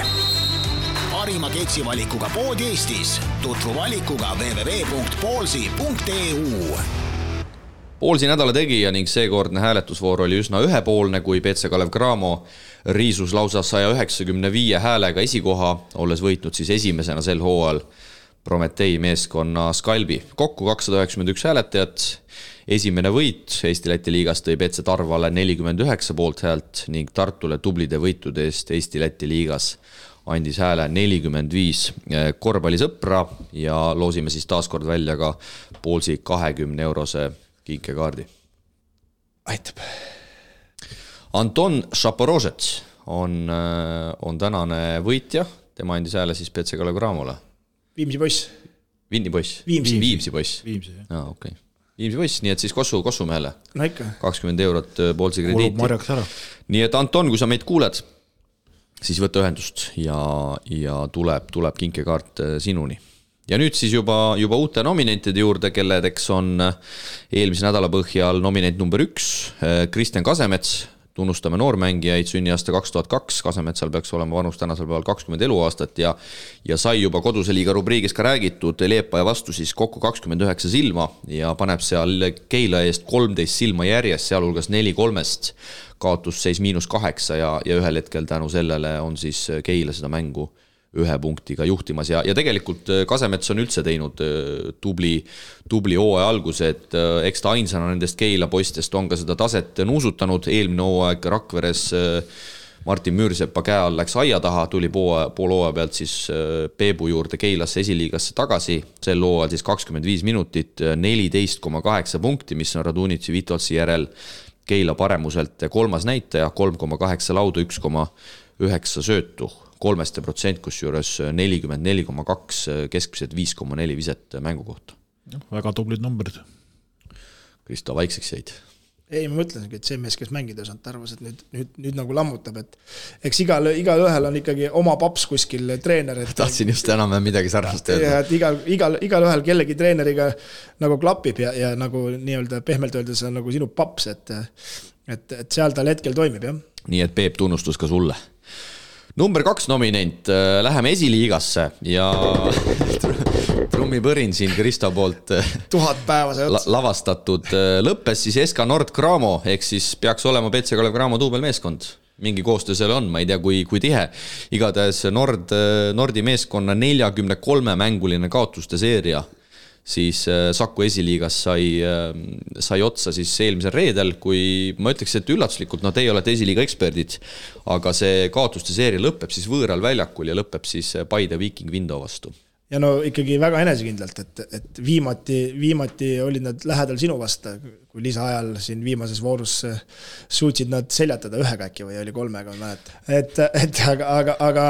Parima keksivalikuga pood Eestis. Tutvu valikuga www.poolsi.eu. Poolsi nädala tegija ning seekordne hääletusvoor oli üsna ühepoolne, kui PC Kalev Cramo riisus lausa 195 häälega esikoha, olles võitnud siis esimesena sel hooajal Prometei meeskonna Skalbi. Kokku 291 hääletajat. Esimene võit Eesti-Läti liigas tõi PC Tarvale 49 poolt häält ning Tartule tublide võitude eest Eesti-Läti liigas andis hääle 45 korvpallisõpra ja loosime siis taaskord välja ka Poolsi 20 eurose kinkekaardi. Aitab. Anton Šaporožets on tänane võitja. Tema andis hääle siis PC Kalev Cramole. Viimsi poiss. Viimsi poiss. Viimsi poiss. Okay. Viimsi poiss, nii et siis Kossumehele. No ikka. 20 eurot Poolsi krediiti. Kulub marjaks ära. Nii et Anton, kui sa meid kuuled, siis võta ühendust ja tuleb kinkekaart sinuni. Ja nüüd siis juba uute nominentide juurde, kelledeks on eelmise nädala põhjal nominent number 1, Kristjan Kasemets. Tunnustame noormängijaid, sünniaasta 2002, Kasemetsal peaks olema vanus tänasel päeval 20 eluaastat ja sai juba koduse liiga rubriigis ka räägitud Leepaja vastu siis kokku 29 silma ja paneb seal Keila eest 13 silma järjest, sealhulgas 4-3, kaotusseis -8 ja ühel hetkel tänu sellele on siis Keila seda mängu 1 punktiga juhtimas ja tegelikult Kasemets on üldse teinud tubli hooaja alguse, et eks ta ainsana nendest Keila poistest on ka seda taset nuusutanud. Eelmine hooaeg Rakveres Martin Müürsepa käe all läks aia taha, tuli pool hooaja pealt siis Peebu juurde Keilasse esiliigasse tagasi. Sel hooajal siis 25 minutit, 14,8 punkti, mis on Radunitsi Vitolsi järel Keila paremuselt 3. näitaja, 3,8 laudu, 1,9 söötu. 3%, kusjuures 44,2, keskmiselt 5,4 viset mängu kohta. Väga tublid numbrid. Kristo, vaikseks jäid? Ei, ma mõtlesingi, et see mees, kes mängida saanud, arvas, et nüüd nagu lammutab, et eks igal ühel on ikkagi oma paps kuskil treener. Tahtsin just enam midagi sarnast öelda. Ja et igal ühel kellegi treeneriga nagu klapib ja nagu nii-öelda pehmelt öeldes on nagu sinu paps, et seal tal hetkel toimib, jah. Nii et Peep, tunnustus ka sulle. Number 2 nominent, läheme esiliigasse ja trummipõrin siin Kristo poolt 1000 päeva see ots. Lavastatud. Lõppes siis SK Nord Cramo, ehk siis peaks olema BC Kalev Cramo duubelmeeskond. Mingi koostöö seal on, ma ei tea, kui tihe. Igatahes Nordi meeskonna 43 mänguline kaotuste seeria siis Saku esiliigas sai otsa siis eelmisel reedel, kui ma ütleks, et üllatuslikult, teie olete esiliiga eksperdid, aga see kaotuste seeria lõpeb siis võõral väljakul ja lõpeb siis Paide Viking Vindo vastu. Ja ikkagi väga enesekindlalt, et viimati olid nad lähedal sinu vasta, kui lisaajal siin viimases voorus suutsid nad seljatada 1 äkki või oli 3, ma mäletan. Aga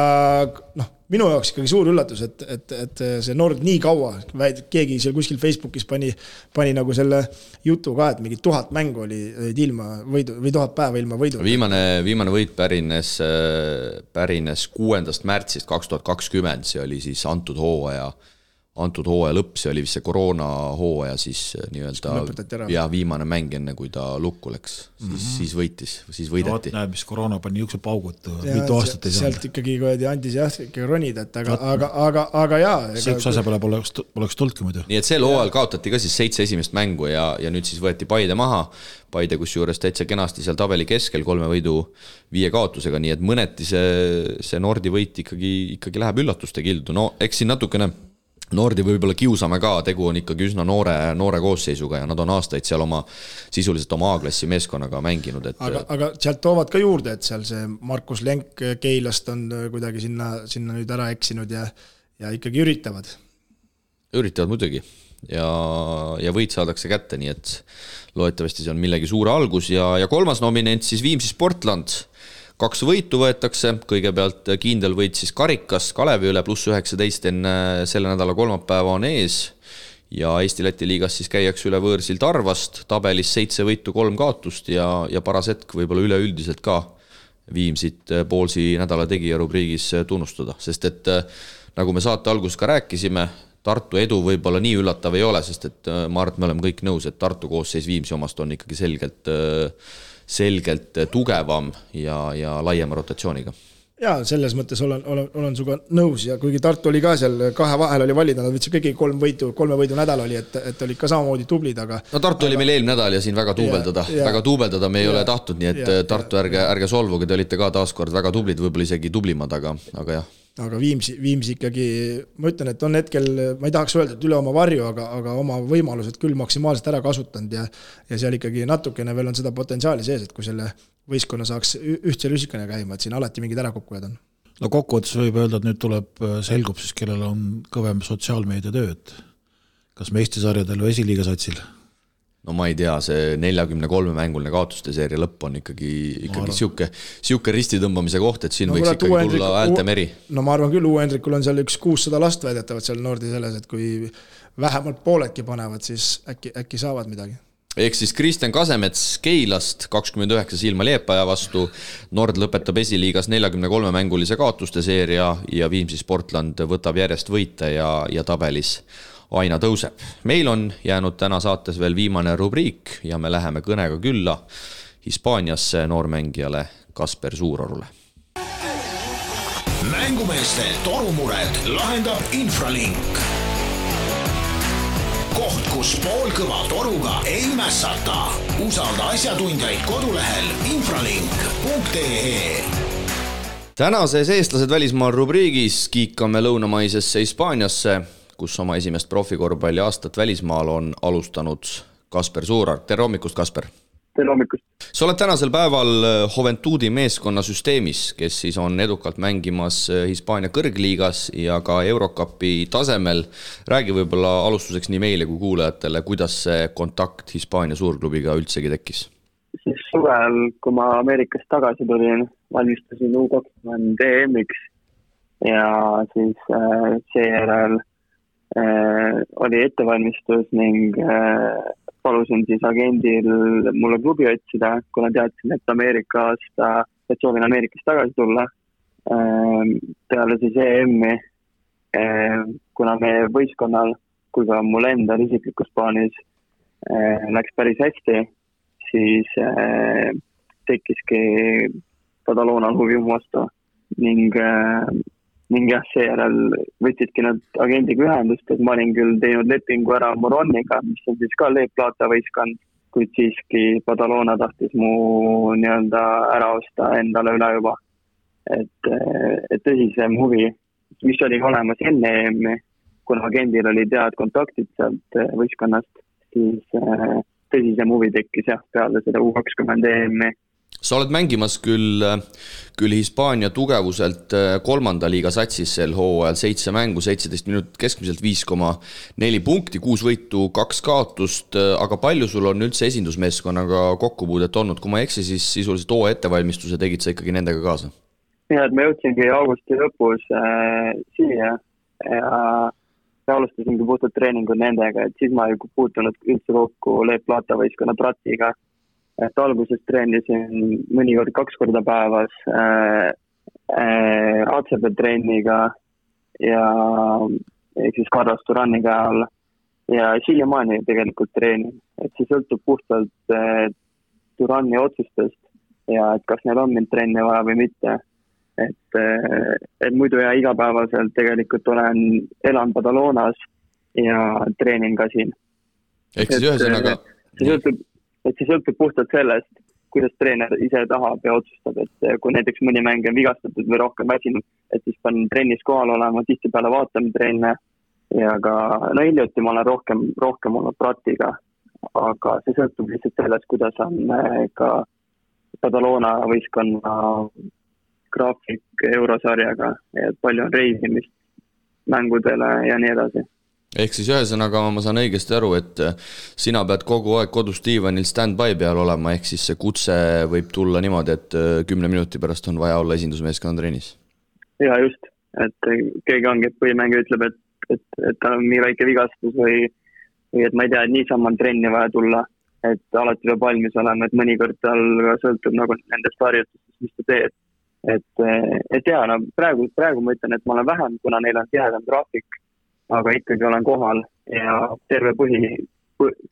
minu jaoks ikkagi suur üllatus, et see Nord nii kaua, keegi seal kuskil Facebookis pani nagu selle jutu ka, et mingi 1000 mängu oli ilma võidu või 1000 päeva ilma võidu. Viimane võit pärines 6. märtsist 2020, see oli siis antud hooaja lõpp, see oli vist see koroona hooaja siis nii-öelda viimane mäng enne, kui ta lukku läks, siis võideti. Näeb, mis koroona pani jõukse paugud, mitu aastat ei saanud. Sealt ikkagi andis ikkagi ronida, aga jaa. See üks asja peale poleks tulnudki muidu. Nii et sel hooajal kaotati ka siis 7 esimest mängu ja nüüd siis võeti Paide maha. Paide kus juures täitsa kenasti seal tabeli keskel 3 võidu 5 kaotusega, nii et mõneti see Nordi võit ikkagi läheb üllatuste kildu. Eks siin natukene Nordi võib-olla kiusame ka, tegu on ikkagi üsna noore koosseisuga ja nad on aastaid seal sisuliselt oma A-klassi meeskonnaga mänginud. Aga sealt toovad ka juurde, et seal see Markus Lenk Keilast on kuidagi sinna nüüd ära eksinud ja ikkagi üritavad. Üritavad muidugi ja võit saadakse kätte, nii et loetavasti see on millegi suure algus ja 3. nominent siis Viimsi Sportland. 2 võitu võetakse, kõigepealt kindel võit siis Karikas Kalevi üle +19 enne selle nädala kolmapäeva on ees ja Eesti-Läti liigas siis käiakse üle võõrsil Tarvast, tabelis 7 võitu 3 kaotust ja paras hetk võib-olla üleüldiselt ka Viimsit poolsi nädala tegija rubriigis tunnustada, sest et nagu me saate alguses ka rääkisime, Tartu edu võib-olla nii üllatav ei ole, sest et ma arvan, et me oleme kõik nõus, et Tartu koosseis Viimsi omast on ikkagi selgelt tugevam ja laiema rotatsiooniga. Jaa, selles mõttes olen suga nõus ja kuigi Tartu oli ka seal 2 vahel oli valida, nad võtsid kõigi 3 võidu nädal oli, et oli ka samamoodi tublid, aga... Tartu oli meil eelmine nädal ja siin väga tuubeldada me ei ole tahtnud, nii et Tartu ärge solvuge, te olite ka taaskord väga tublid, võib-olla isegi tublimad, aga jah. Aga Viimsi ikkagi, ma ütlen, et on hetkel, ma ei tahaks öelda, et üle oma varju, aga oma võimalused küll maksimaalselt ära kasutanud ja seal ikkagi natukene veel on seda potentsiaali sees, et kui selle võistkonna saaks ühtse lüsikane käima, et siin alati mingid ärakukkujad on. Kokkuvõttes võib öelda, et nüüd selgub siis, kellel on kõvem sotsiaalmeedia tööd. Kas meistisarjadel või esiliiga satsil? No ma ei tea, see 43 mänguline kaotuste seeria lõpp on ikkagi siuke risti tõmbamise koht, et siin võiks ikkagi tulla häälte meri. No ma arvan küll, Hendrikul on seal 600 last väidetavad seal Nordi selles, et kui vähemalt pooledki panevad, siis äkki saavad midagi. Ehk siis Kristjan Kasemets Keilast 29 silma Liepaja vastu, Nord lõpetab esiliigas 43 mängulise kaotuste seeria ja Viimsi Sportland võtab järjest võite ja tabelis aina tõuseb. Meil on jäänud täna saates veel viimane rubriik ja me läheme kõnega külla Hispaaniasse noormängijale Kasper Suurorule. Mängumeeste torumured lahendab Infralink. Koht, kus poolkõva toruga ei mässata. Usalda asjatundjaid kodulehel infralink.ee. Tänases eestlased välismaal rubriigis kiikame lõunamaisesse Hispaaniasse, kus oma esimest profikorvpalli aastat välismaal on alustanud Kasper Suurar. Tere hommikust, Kasper! Tere hommikust! Sa oled tänasel päeval Juventudi meeskonna süsteemis, kes siis on edukalt mängimas Hispaania kõrgliigas ja ka Eurocupi tasemel. Räägi võib-olla alustuseks nii meile kui kuulajatele, kuidas see kontakt Hispaania suurklubiga üldsegi tekkis? Siis suvel, kui ma Ameerikast tagasi tulin, valmistasin U20 EM-iks ja siis seejärel oli ettevalmistus ning palusin siis agendil mulle klubi otsida, kuna teadsin, et soovin Ameerikast tagasi tulla. Peale siis EM-i, kuna meie võistkonnal, kui ka mul endal isiklikus plaanis läks päris hästi, siis tekkiski Badaloonal huvi mu vastu ning jah, seejärel võtsidki nad agendiga ühendust, et ma olin küll teinud lepingu ära Moroniga, mis on siis ka Leep Plata võistkond, kuid siiski Badalona tahtis mu nii-öelda ära osta endale üle juba. Et tõsisem huvi, mis oli olemas enne EM-i, kuna agendil oli tead kontaktid sealt võistkonnast, siis tõsisem huvi tekkis jah, peale seda U20 EM-i. Sa oled mängimas küll Hispaania tugevuselt 3. liiga satsis sel hooajal 7 mängu, 17 minutit keskmiselt 5,4 punkti, 6 võitu, 2 kaotust, aga palju sul on üldse esindusmeeskonnaga kokkupuudet olnud? Kui ma eksi, siis sisuliselt hooaja ettevalmistuse tegid sa ikkagi nendega kaasa? Ja, et ma jõudsingi augusti lõpus siia ja alustasingi puhtalt treeningud nendega, et siis ma ei puutunud üldse kokku Leep Plata võistkonna Pratiga. Et alguses treenisin mõnikord 2 korda päevas ACB trenniga ja siis Carlos Turaniga all ja siiamaani tegelikult treenin. Et see sõltub puhtalt Turani otsustest ja et kas neil on mind trenni vaja või mitte. Et muidu ja igapäevaselt tegelikult elan Badalonas ja treenin ka siin. Ehk siis ühesõnaga... See sõltub puhtalt sellest, kuidas treener ise tahab ja otsustab, et kui näiteks mõni mäng on vigastatud või rohkem väsinud, et siis panen trennis kohal olema, tihtipeale vaatame trenne ja ka, hiljuti ma olen rohkem olnud Pratiga, aga see sõltub lihtsalt sellest, kuidas on ka Badalona võistkonna graafik eurosarjaga, et palju on reisimist mängudele ja nii edasi. Ehk siis ühesõnaga ma saan õigesti aru, et sina pead kogu aeg kodus diivanil stand-by peal olema, ehk siis see kutse võib tulla niimoodi, et 10 minuti pärast on vaja olla esindusmeeskonna trennis. Ja just, et keegi ongi, et põhimängija ütleb, et ta on nii väike vigastus või et ma ei tea, et niisama on trenni vaja tulla, et alati peab valmis olema, et mõnikord tal sõltub nagu nendest harjutustest, mis ta teeb. Et ja, praegu ma ütlen, et ma olen vähem, kuna neil on tihedam graafik, aga ikkagi olen kohal ja terve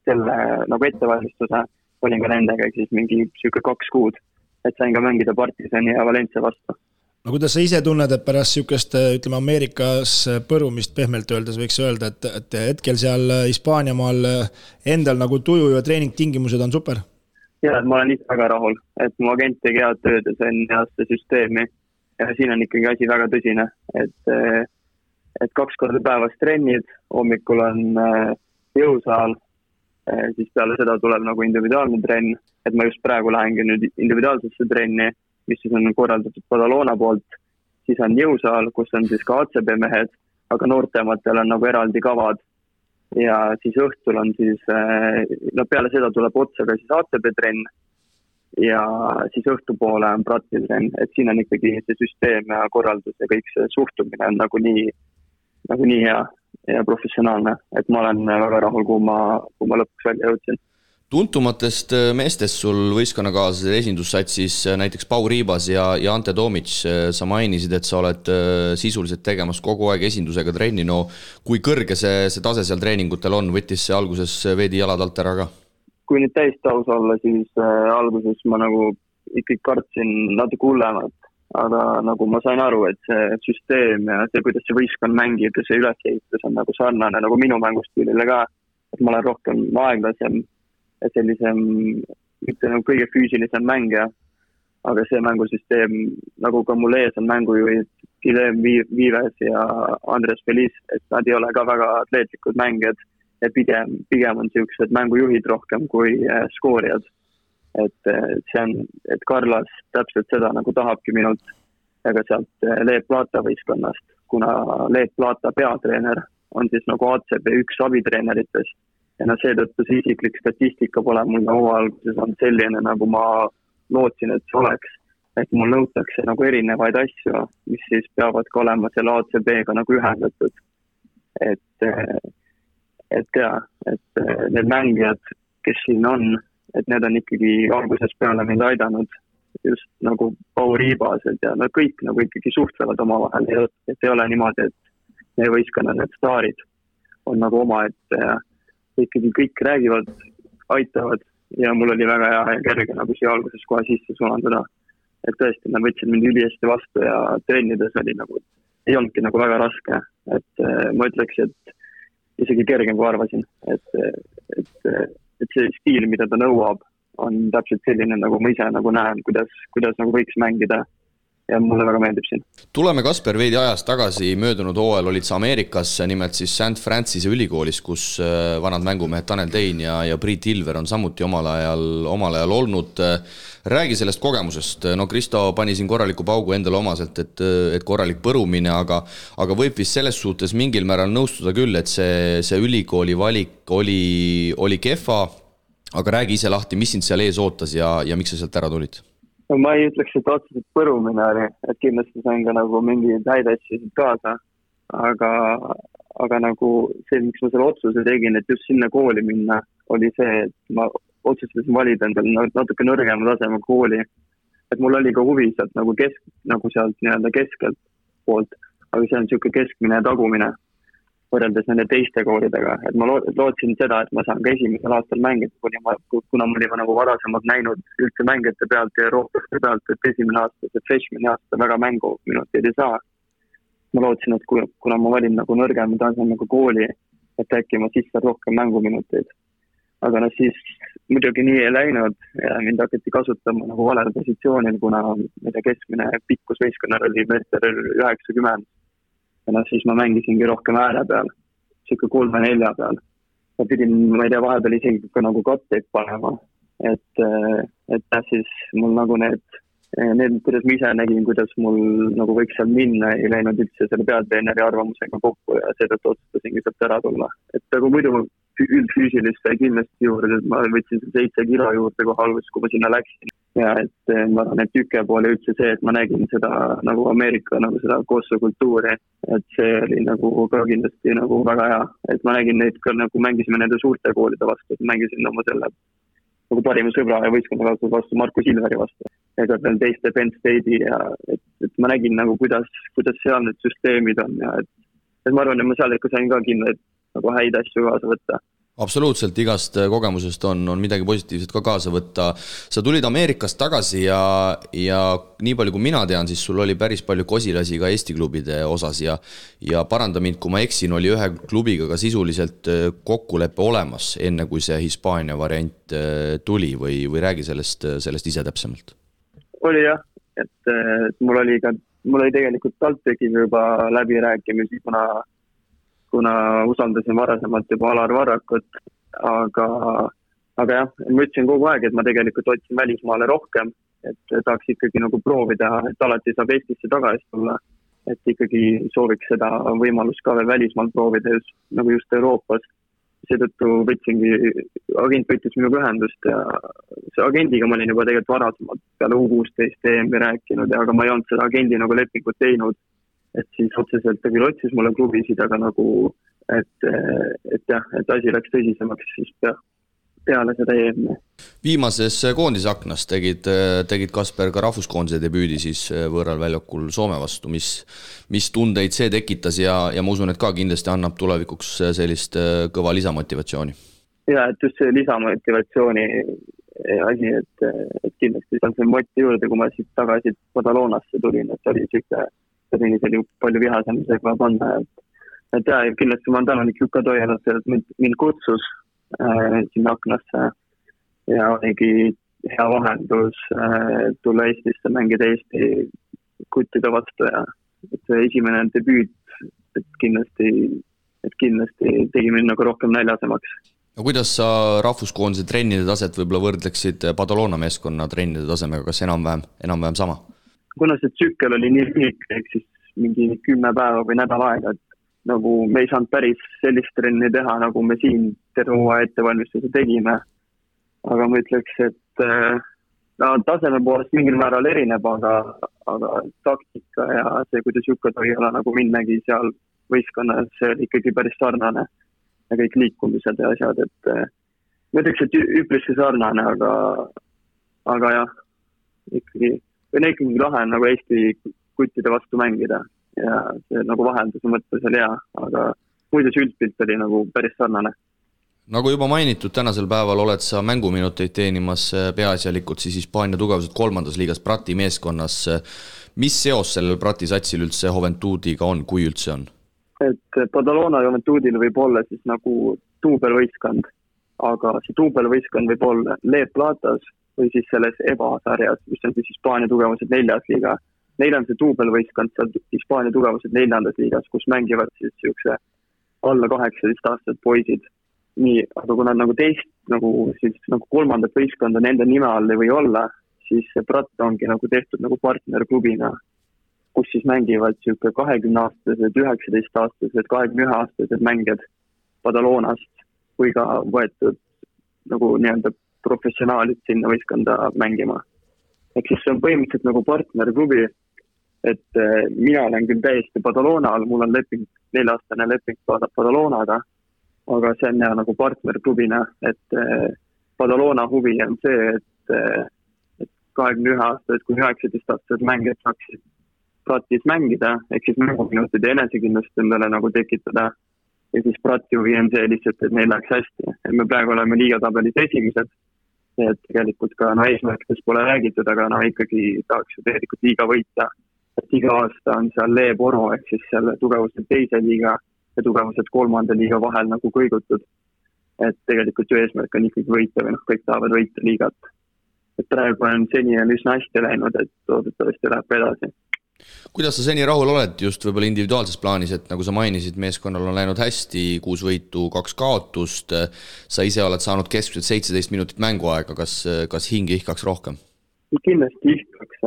selle nagu ettevalmistuse olin ka nendega, siis mingi 2 kuud, et sain ka mängida Partisani ja Valencia vastu. No kuidas sa ise tunned, et pärast sükest, ütleme Ameerikas põrumist pehmelt öeldes võiks öelda, et hetkel seal Hispaaniamaal endal nagu tuju ja treeningtingimused on super? Ja, et ma olen ise väga rahul, et mu agent tegi head tööd ja see on heaste süsteemi ja siin on ikkagi asi väga tõsine, et 2 korda päevas trennid, hommikul on jõusaal, siis peale seda tuleb nagu individuaalne trenn, et ma just praegu lähengi nüüd individuaalsesse trenni, mis siis on korraldatud Badalona poolt, siis on jõusaal, kus on siis ka ACB mehed, aga noortematel on nagu eraldi kavad ja siis õhtul on siis, peale seda tuleb otsa ka siis ACB trenn ja siis õhtupoole on Prati trenn, et siin on ikkagi see süsteem ja korraldus ja kõik see suhtumine on nagu nii hea ja professionaalne, et ma olen väga rahul, kui ma lõpuks välja jõudsin. Tuntumatest meestest sul võistkonnakaaslased esindussatsis näiteks Pau Riibas ja Ante Tomic, sa mainisid, et sa oled sisuliselt tegemas kogu aeg esindusega trenni, no kui kõrge see tase seal treeningutel on, võttis see alguses veidi jalad alt ära ka? Kui nüüd täistaus olla, siis alguses ma nagu ikkagi kartsin natuke hullemat, aga nagu ma sain aru, et see süsteem ja see, kuidas see võistkond mängib ja see ülesehitus on nagu sarnane nagu minu mängustiilile ka, et ma olen rohkem aeglasem ja sellisem, mitte nagu kõige füüsilisem mängija, aga see mängusüsteem, nagu ka mul ees on mängujuhid Guillem Vives ja Andres Feliz, et nad ei ole ka väga atleetlikud mängijad ja pigem on sellised mängujuhid rohkem kui skoorijad. Et see on, et Carlos täpselt seda nagu tahabki minult ega sealt Leep Plata võistkonnast, kuna Leep Plata peatreener on siis nagu ACB üks abitreeneritest ja seetõttu see isiklik statistika pole mul alguses on selline, nagu ma lootsin, et see oleks, et mul nõutakse nagu erinevaid asju, mis siis peavad ka olema selle ACB-ga nagu ühendatud. Et need mängijad, kes siin on, et need on ikkagi alguses peale mind aidanud just nagu Pau Riibased ja nad kõik nagu ikkagi suhtlevad omavahel, et ei ole niimoodi, et meie võistkonna need staarid on nagu oma, et ikkagi kõik räägivad, aitavad ja mul oli väga hea ja kerge nagu siia alguses kohe sisse sulanduda. et tõesti, nad võtsid mind ülihästi vastu ja trennides oli nagu, ei olnudki nagu väga raske, et ma ütleks, et isegi kergem kui arvasin, et see stiil, mida ta nõuab, on täpselt selline, nagu ma ise nagu näen, kuidas nagu võiks mängida ja mulle väga meeldib siin. Tuleme, Kasper, veidi ajast tagasi, möödunud hooajal olid sa Ameerikas, nimelt siis St. Francise ülikoolis, kus vanad mängumehed Tanel Tein ja Priit Ilver on samuti omal ajal olnud. Räägi sellest kogemusest. No Kristo pani siin korraliku paugu endale omaselt, et korralik põrumine, aga võib vist selles suhtes mingil määral nõustuda küll, et see ülikooli valik oli kehva, aga räägi ise lahti, mis sind seal ees ootas ja miks sa sealt ära tulid? No ma ei ütleks, et otseselt põrumine oli, et kindlasti sain ka nagu mingeid häid asju kaasa, aga nagu see, miks ma selle otsuse tegin, et just sinna kooli minna, oli see, et ma otsustasin valida endale natuke nõrgema taseme kooli. Et mul oli ka huvi sealt nagu sealt nii-öelda keskelt poolt, aga see on niisugune keskmine ja tagumine võrreldes nende teiste koolidega. Et ma lootsin seda, et ma saan ka esimesel aastal mängida, kuna ma olin nagu varasemalt näinud üldse mängijate pealt ja Euroopaste pealt, et esimene aasta, see freshmani aasta väga mänguminuteid ei saa. Ma lootsin, et kuna ma valin nagu nõrgema tasemega kooli, et äkki ma sisse rohkem mänguminuteid. Aga siis muidugi nii ei läinud ja mind hakati kasutama nagu valel positsioonil, kuna keskmine pikkus võistkonnal oli meeter 90. Ja siis ma mängisingi rohkem ääre peal, siuke 3-4 peal. Ja pidin, ma ei tea, vahepeal isegi ka nagu katteid panema, et siis mul nagu need, kuidas ma ise nägin, kuidas mul nagu võiks seal minna, ei läinud üldse selle peatreeneri arvamusega kokku ja seetõttu otsustasingi sealt ära tulla. Et aga muidu üldfüüsilist sai kindlasti juurde, et ma võtsin 7 kilo juurde kohe alguses, kui ma sinna läksin. Ja et ma arvan, et tükke poole üldse see, et ma nägin seda nagu Ameerika nagu seda koostöökultuuri, et see oli nagu ka kindlasti nagu väga hea, et ma nägin neid ka nagu mängisime nende suurte koolide vastu, et mängisin oma selle nagu parima sõbra ja võistkonna vastu Markus Ilveri vastu, ega veel teiste Penn State'i ja et ma nägin nagu kuidas seal need süsteemid on ja et ma arvan, et ma seal ikka sain ka kindlasti nagu häid asju kaasa võtta. Absoluutselt, igast kogemusest on midagi positiivset ka kaasa võtta. Sa tulid Ameerikast tagasi ja nii palju kui mina tean, siis sul oli päris palju kosilasi ka Eesti klubide osas ja paranda mind, kui ma eksin, oli ühe klubiga ka sisuliselt kokkulepe olemas, enne kui see Hispaania variant tuli või räägi sellest ise täpsemalt? Oli jah, et mul oli tegelikult TalTechiga juba läbirääkimisi, kuna usaldasin varasemalt juba Alar Varrakut, aga jah, ma ütlesin kogu aeg, et ma tegelikult otsin välismaale rohkem, et tahaks ikkagi nagu proovida, et alati saab Eestisse tagasi tulla, et ikkagi sooviks seda võimalust ka veel välismaal proovida just Euroopas. Seetõttu agent võttis minuga ühendust ja see agendiga ma olin juba tegelikult varasemalt peale U16 EM-i rääkinud, aga ma ei olnud seda agendi nagu lepingut teinud. Et siis otseselt ta küll otsis mulle klubisid, aga nagu, et asi läks tõsisemaks siis peale seda EM-i. Viimases koondisaknas tegid Kasper ka rahvuskoondise debüüdi siis võõral väljakul Soome vastu, mis tundeid see tekitas ja ma usun, et ka kindlasti annab tulevikuks sellist kõva lisamotivatsiooni. Ja, et just see lisamotivatsiooni asi, et kindlasti seal see moti juurde, kui ma siit tagasi Badalonasse tulin, et oli oli palju vihasamisega panna, et kindlasti ma olen tänanik Jukka Toialat, et mind kutsus sinna aknasse ja oligi hea vahendus tulla Eestisse, mängida Eesti kuttide vastu ja et esimene debüüt, et kindlasti tegi mind nagu rohkem näljasemaks. No kuidas sa rahvuskoondise trennide taset võib-olla võrdleksid Badalona meeskonna trennide tasemega, kas enam-vähem sama? Kuna see tsükkel oli nii lühike, ehk siis mingi 10 päeva või nädal aega, et nagu me ei saanud päris sellist trenni teha, nagu me siin terve ettevalmistuse tegime. Aga ma ütleks, et taseme poolest mingil määral erineb, aga taktika ja see, kuidas Jukka Toiala nagu mind nägi seal võistkonnas, see oli ikkagi päris sarnane ja kõik liikumised ja asjad, et ma ütleks, et üpriski sarnane, aga jah, ikkagi lahe on nagu Eesti kuttide vastu mängida ja see nagu vahelduse mõttes oli hea, aga muidu see üldpilt oli nagu päris sarnane. Nagu juba mainitud, tänasel päeval oled sa mänguminuteid teenimas peaasjalikult siis Hispaania tugevuselt 3. liigas Prati meeskonnas. Mis seos sellel Prati satsil üldse Juventudiga on, kui üldse on? Et Badalona Juventudil võib olla siis nagu duubelvõistkond, aga see duubelvõistkond võib olla Le Platas või siis selles EVA-sarjas, mis on siis Hispaania tugevuselt 4. liiga. Neil on see duubelvõistkond seal Hispaania tugevuselt 4. liigas, kus mängivad siis siukse alla 18 aastat poisid. Nii, aga kui nad nagu teist, nagu 3. võistkonda nende nime all ei või olla, siis see Prat ongi nagu tehtud nagu partnerklubina, kus siis mängivad siuke 20-aastased, 19-aastased, 21-aastased mängijad Badalonast või ka võetud nagu nii-öelda professionaalid sinna võistkonda mängima. Ehk siis see on põhimõtteliselt nagu partnerklubi, et mina olen küll täiesti Badalona all, mul on 4-aastane leping Badalonaga, aga see on nagu partnerklubina, et Badalona huvi on see, et 21-aastased kui 19-aastased mängijad saaksid Pratis mängida, ehk siis mänguminutid ja enesekindlust endale nagu tekitada. Ja siis Prati huvi on see lihtsalt, et neil läheks hästi. Et me praegu oleme liigatabelis esimesed, et tegelikult ka eesmärkidest pole räägitud, aga ikkagi tahaks ju tegelikult liiga võita. Et iga aasta on seal Le Poro, ehk siis seal tugevuselt 2. liiga ja tugevuselt 3. liiga vahel nagu kõigutud. Et tegelikult ju eesmärk on ikkagi võita või kõik tahavad võita liigat. Et praegu on seni üsna hästi läinud, et loodetavasti läheb edasi. Kuidas sa seni rahul oled just võib-olla individuaalses plaanis, et nagu sa mainisid, meeskonnal on läinud hästi, 6 võitu, 2 kaotust, sa ise oled saanud keskmiselt 17 minutit mänguaega, kas hing ihkaks rohkem? Kindlasti ihkaks,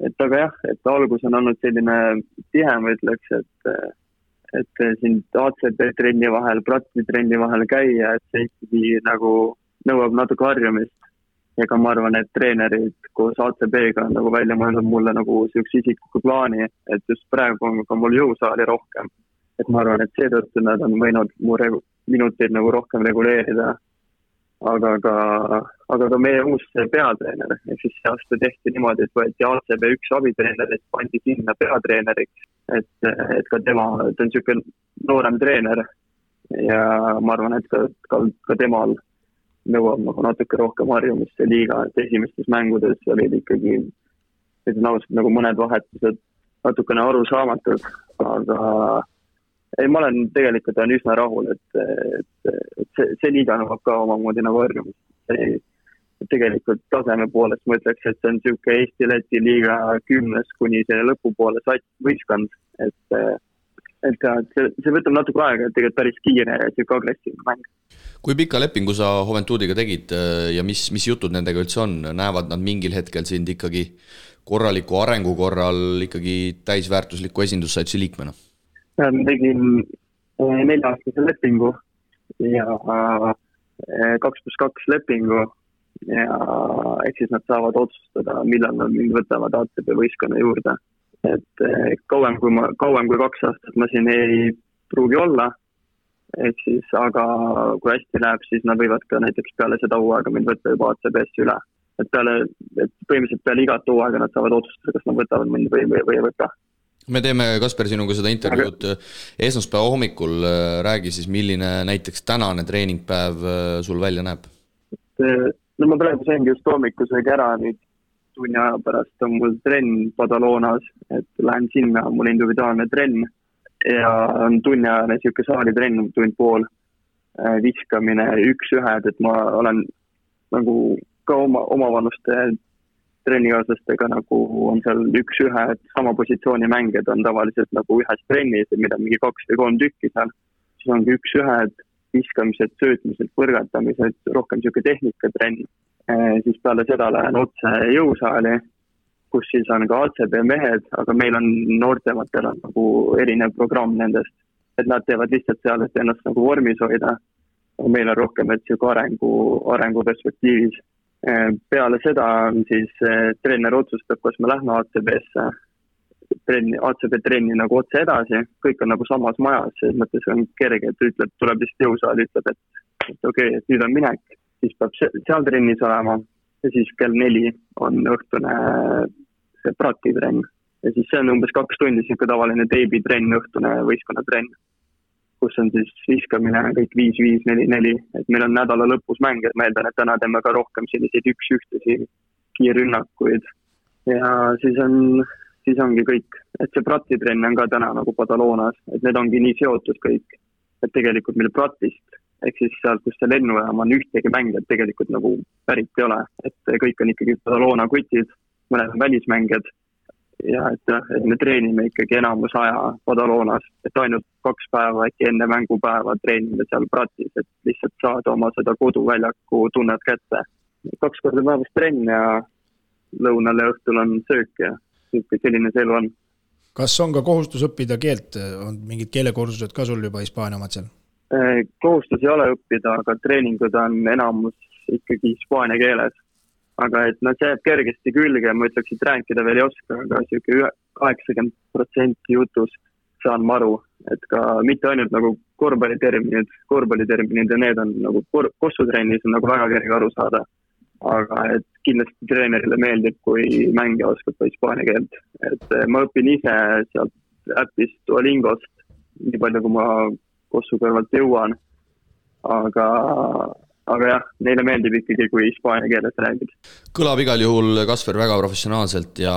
et aga jah, et algus on olnud selline tihem, ütleks, et siin ACB trenni vahel, Prati trenni vahel käia, et see ikkagi nagu nõuab natuke harjumist. Ega ma arvan, et treenerid koos ACB-ga on nagu välja mõelnud mulle nagu sellise isikliku plaani, et just praegu on ka mul jõusaali rohkem. Et ma arvan, et seetõttu nad on võinud mu minuteid nagu rohkem reguleerida. Aga ka meie uus peatreener, et siis see aasta tehti niimoodi, et võeti ACB 1 abitreener, et pandi sinna peatreeneriks, et ka tema, ta on selline noorem treener ja ma arvan, et ka temal nõuab nagu natuke rohkem harjumist see liiga, et esimestes mängudes olid ikkagi nagu mõned vahetused natukene arusaamatud, aga ei, ma olen tegelikult üsna rahul, et see liiga nõuab ka omamoodi nagu harjumist. Tegelikult taseme poolest ma ütleks, et see on selline Eesti-Läti liiga 10 kuni selle lõpupoole võistkond, et see võtab natuke aega, et tegelikult päris kiire ja selline agressiivne mäng. Kui pika lepingu sa Juventudiga tegid ja mis jutud nendega üldse on? Näevad nad mingil hetkel sind ikkagi korraliku arengu korral ikkagi täisväärtusliku esindussaitsi liikmena? Ma tegin 4-aastase lepingu ja 2+2 lepingu ja ehk siis nad saavad otsustada, millal nad mind võtavad ACB võistkonna juurde. Et kauem kui 2 aastat ma siin ei pruugi olla, ehk siis, aga kui hästi läheb, siis nad võivad ka näiteks peale seda hooaega mind võtta juba ACB-sse üle. Et põhimõtteliselt peale igat hooaega nad saavad otsustada, kas nad võtavad mind või ei võta. Me teeme, Kasper, sinuga seda intervjuud esmaspäeva hommikul. Räägi siis, milline näiteks tänane treeningpäev sul välja näeb? No ma praegu saingi just hommikusega ära, nüüd tunni aja pärast on mul trenn Badalonas, et lähen sinna, mul individuaalne trenn ja on tunniajane siuke saalitrenn, tund pool, viskamine 1-1, et ma olen nagu ka omavanuste trennikaaslastega nagu on seal 1-1, et sama positsiooni mängijad on tavaliselt nagu ühes trennis, mida mingi 2 või 3 tükki seal, siis ongi 1-1, viskamised, söötmised, põrgatamised, rohkem siuke tehnikatrenn. Siis peale seda lähen otse jõusaali, kus siis on ka ACB mehed, aga meil on noortematel on nagu erinev programm nendest, et nad teevad lihtsalt seal, et ennast nagu vormis hoida. Meil on rohkem, et siuke arengu perspektiivis. Peale seda on siis treener otsustab, kas me lähme ACB-sse, ACB trenni nagu otse edasi, kõik on nagu samas majas, selles mõttes on kerge, et ütleb, tuleb lihtsalt jõusaali, ütleb, et okei, et nüüd on minek. Siis peab seal trennis olema ja siis kell 4 on õhtune see Prati trenn. Ja siis see on umbes 2 tundi siuke tavaline teibitrenn, õhtune võistkonnatrenn, kus on siis viskamine kõik 5-5, 4-4, et meil on nädala lõpus mäng, et ma eeldan, et täna teeme ka rohkem selliseid üks-ühtesi kiirrünnakuid ja siis ongi kõik, et see pratitrenn on ka täna nagu Badalonas, et need ongi nii seotud kõik, et tegelikult meil pratist, ehk siis sealt, kus see lennujaam on ühtegi mängijad tegelikult nagu pärit ei ole, et kõik on ikkagi Badalona kutid, mõned on välismängijad ja et me treenime ikkagi enamus aja Badalonas, et ainult 2 päeva äkki enne mängupäeva treenime seal pratis, et lihtsalt saada oma seda koduväljaku tunnet kätte. 2 korda päevas trenn ja lõunal ja õhtul on söök ja selline see elu on. Kas on ka kohustus õppida keelt? On mingid keelekursused ka sul juba Hispaania omad seal? Kohustus ei ole õppida, aga treeningud on enamus ikkagi hispaania keeles. Aga et see jääb kergesti külge, ma ütleks, et rääkida veel ei oska, aga 80% jutust saan maru, et ka mitte ainult nagu korvpalliterminid ja need on nagu kossutrennis on nagu väga kerge aru saada. Aga et kindlasti treenerile meeldib, kui mängija oskab ka hispaania keelt. Et ma õpin ise sealt äpist Duolingost, nii palju kui ma kossu kõrvalt jõuan. Aga jah, neile meeldib ikkagi, kui hispaania keeles räägid. Kõlab igal juhul, Kasper, väga professionaalselt ja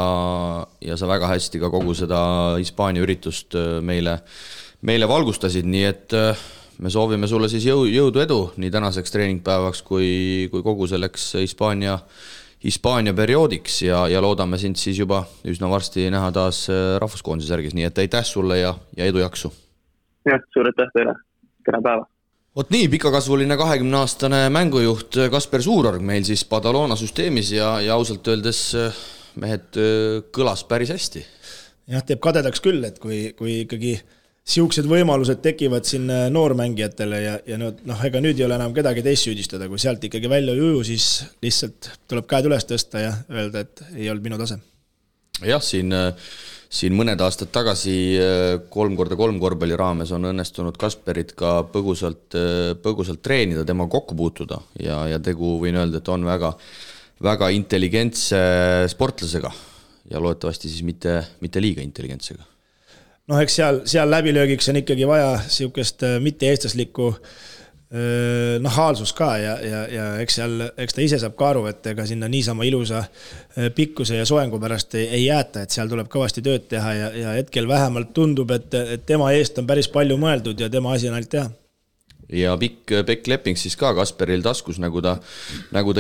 sa väga hästi ka kogu seda Hispaania üritust meile valgustasid, nii et me soovime sulle siis jõudu edu nii tänaseks treeningpäevaks kui kogu selleks Hispaania perioodiks ja loodame sind siis juba üsna varsti näha taas rahvuskoondise särgis, nii et aitäh sulle ja edu jaksu. Jah, suur aitäh teile. Kena päeva. Oot nii, pikakasvuline 20-aastane mängujuht Kasper Suurorg meil siis Badalona süsteemis ja ausalt öeldes mehed kõlas päris hästi. Jah, teeb kadedaks küll, et kui ikkagi siuksed võimalused tekivad siin noormängijatele ja ega nüüd ei ole enam kedagi teist süüdistada, kui sealt ikkagi välja ei uju, siis lihtsalt tuleb käed üles tõsta ja öelda, et ei olnud minu tase. Jah, siin mõned aastad tagasi 3x3 korvpalli raames on õnnestunud Kasperit ka põgusalt treenida, tema kokku puutuda ja tegu võin öelda, et on väga, väga intelligentse sportlasega ja loodetavasti siis mitte liiga intelligentsega. Eks seal läbilöögiks on ikkagi vaja siukest mitte-eestlaslikku nahaalsus ka ja eks ta ise saab ka aru, et ega sinna niisama ilusa pikkuse ja soengu pärast ei jääta, et seal tuleb kõvasti tööd teha ja hetkel vähemalt tundub, et tema eest on päris palju mõeldud ja tema asi on ainult teha. Ja pikk leping siis ka Kasperil taskus, nagu ta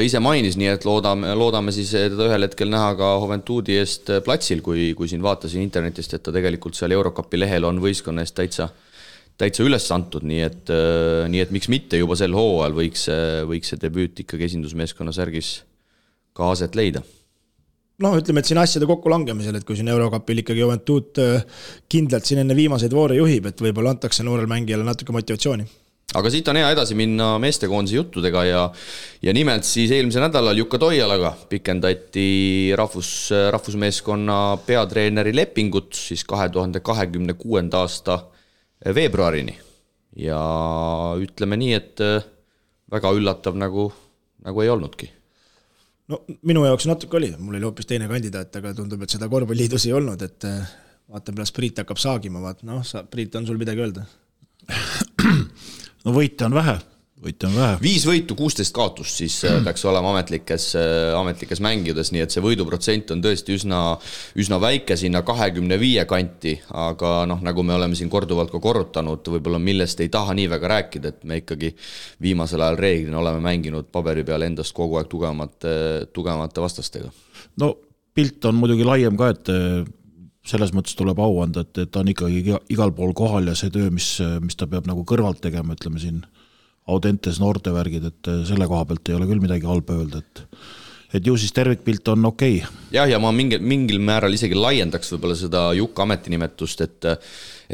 ise mainis, nii et loodame siis teda ühel hetkel näha ka Juventudi eest platsil, kui siin vaatasin internetist, et ta tegelikult seal Eurocupi lehel on võistkonna eest täitsa üles antud, nii et miks mitte juba sel hooajal võiks see debüüt ikkagi esindusmeeskonna särgis ka aset leida. Ütleme, et siin asjade kokku langemisel, et kui siin Eurocupil ikkagi Juventud kindlalt siin enne viimaseid voore juhib, et võib-olla antakse noorel mängijale natuke motivatsiooni. Aga siit on hea edasi minna meestekoondise juttudega ja nimelt siis eelmise nädalal Jukka Toialaga pikendati rahvusmeeskonna peatreeneri lepingut siis 2026. aasta veebruarini ja ütleme nii, et väga üllatav nagu ei olnudki. Minu jaoks natuke oli, mul oli hoopis teine kandidaat, aga tundub, et seda korvpalliliidus ei olnud, et vaatan pärast Priit hakkab saagima, Priit on sul midagi öelda? Võite on vähe. 5 võitu, 16 kaotust siis peaks olema ametlikes mängides, nii et see võiduprotsent on tõesti üsna väike sinna 25 kanti, aga nagu me oleme siin korduvalt ka korrutanud, võib-olla millest ei taha nii väga rääkida, et me ikkagi viimasel ajal reeglina oleme mänginud paberi peal endast kogu aeg tugevamate vastastega. Pilt on muidugi laiem ka, et selles mõttes tuleb au anda, et ta on ikkagi igal pool kohal ja see töö, mis ta peab nagu kõrvalt tegema, ütleme siin Audentes noortevärgid, et selle koha pealt ei ole küll midagi halba öelda, et ju siis tervikpilt on okei. Jah, ja ma mingil määral isegi laiendaks võib-olla seda Jukka ametinimetust, et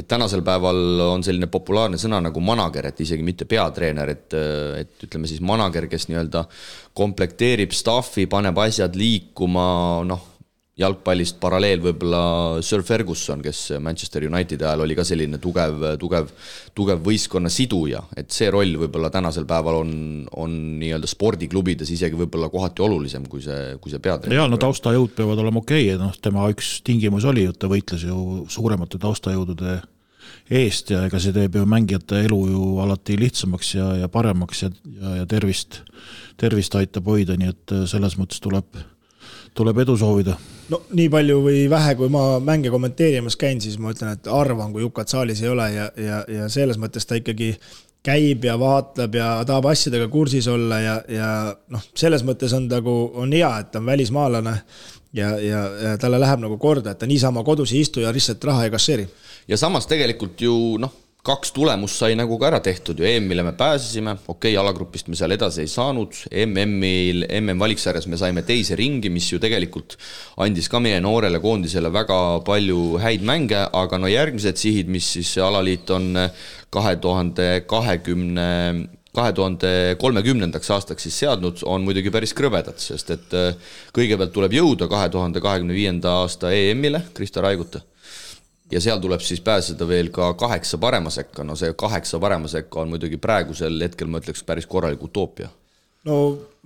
tänasel päeval on selline populaarne sõna nagu manager, et isegi mitte peatreener, et ütleme siis manager, kes nii-öelda komplekteerib staffi, paneb asjad liikuma, jalgpallist paralleel võib-olla Sir Ferguson, kes Manchester United ajal oli ka selline tugev võistkonna siduja, et see roll võib-olla tänasel päeval on nii-öelda spordiklubides isegi võib-olla kohati olulisem kui see peatreener. Ja taustajõud peavad olema okei, tema üks tingimus oli, et ta võitles ju suuremate taustajõudude eest ja ega see teeb ju mängijate elu ju alati lihtsamaks ja paremaks ja tervist aitab hoida, nii et selles mõttes tuleb edu soovida. No nii palju või vähe, kui ma mänge kommenteerimas käin, siis ma ütlen, et arvan, kui Jukat saalis ei ole ja selles mõttes ta ikkagi käib ja vaatleb ja tahab asjadega kursis olla ja selles mõttes on hea, et ta on välismaalane ja talle läheb nagu korda, et ta niisama kodus ei istu ja lihtsalt raha ei kasseeri. Ja samas tegelikult ju 2 tulemust sai nagu ka ära tehtud ju, EM-ile me pääsesime, alagrupist me seal edasi ei saanud, MM-valiksarjas me saime teise ringi, mis ju tegelikult andis ka meie noorele koondisele väga palju häid mänge, aga järgmised sihid, mis siis alaliit on 2030. aastaks siis seadnud, on muidugi päris krõvedad, sest et kõigepealt tuleb jõuda 2025. aasta EM-ile Krista Raiguta. Ja seal tuleb siis pääseda veel ka 8 parema sekka. No see 8 parema sekka on muidugi praegusel hetkel, ma ütleks, päris korralik utoopia. No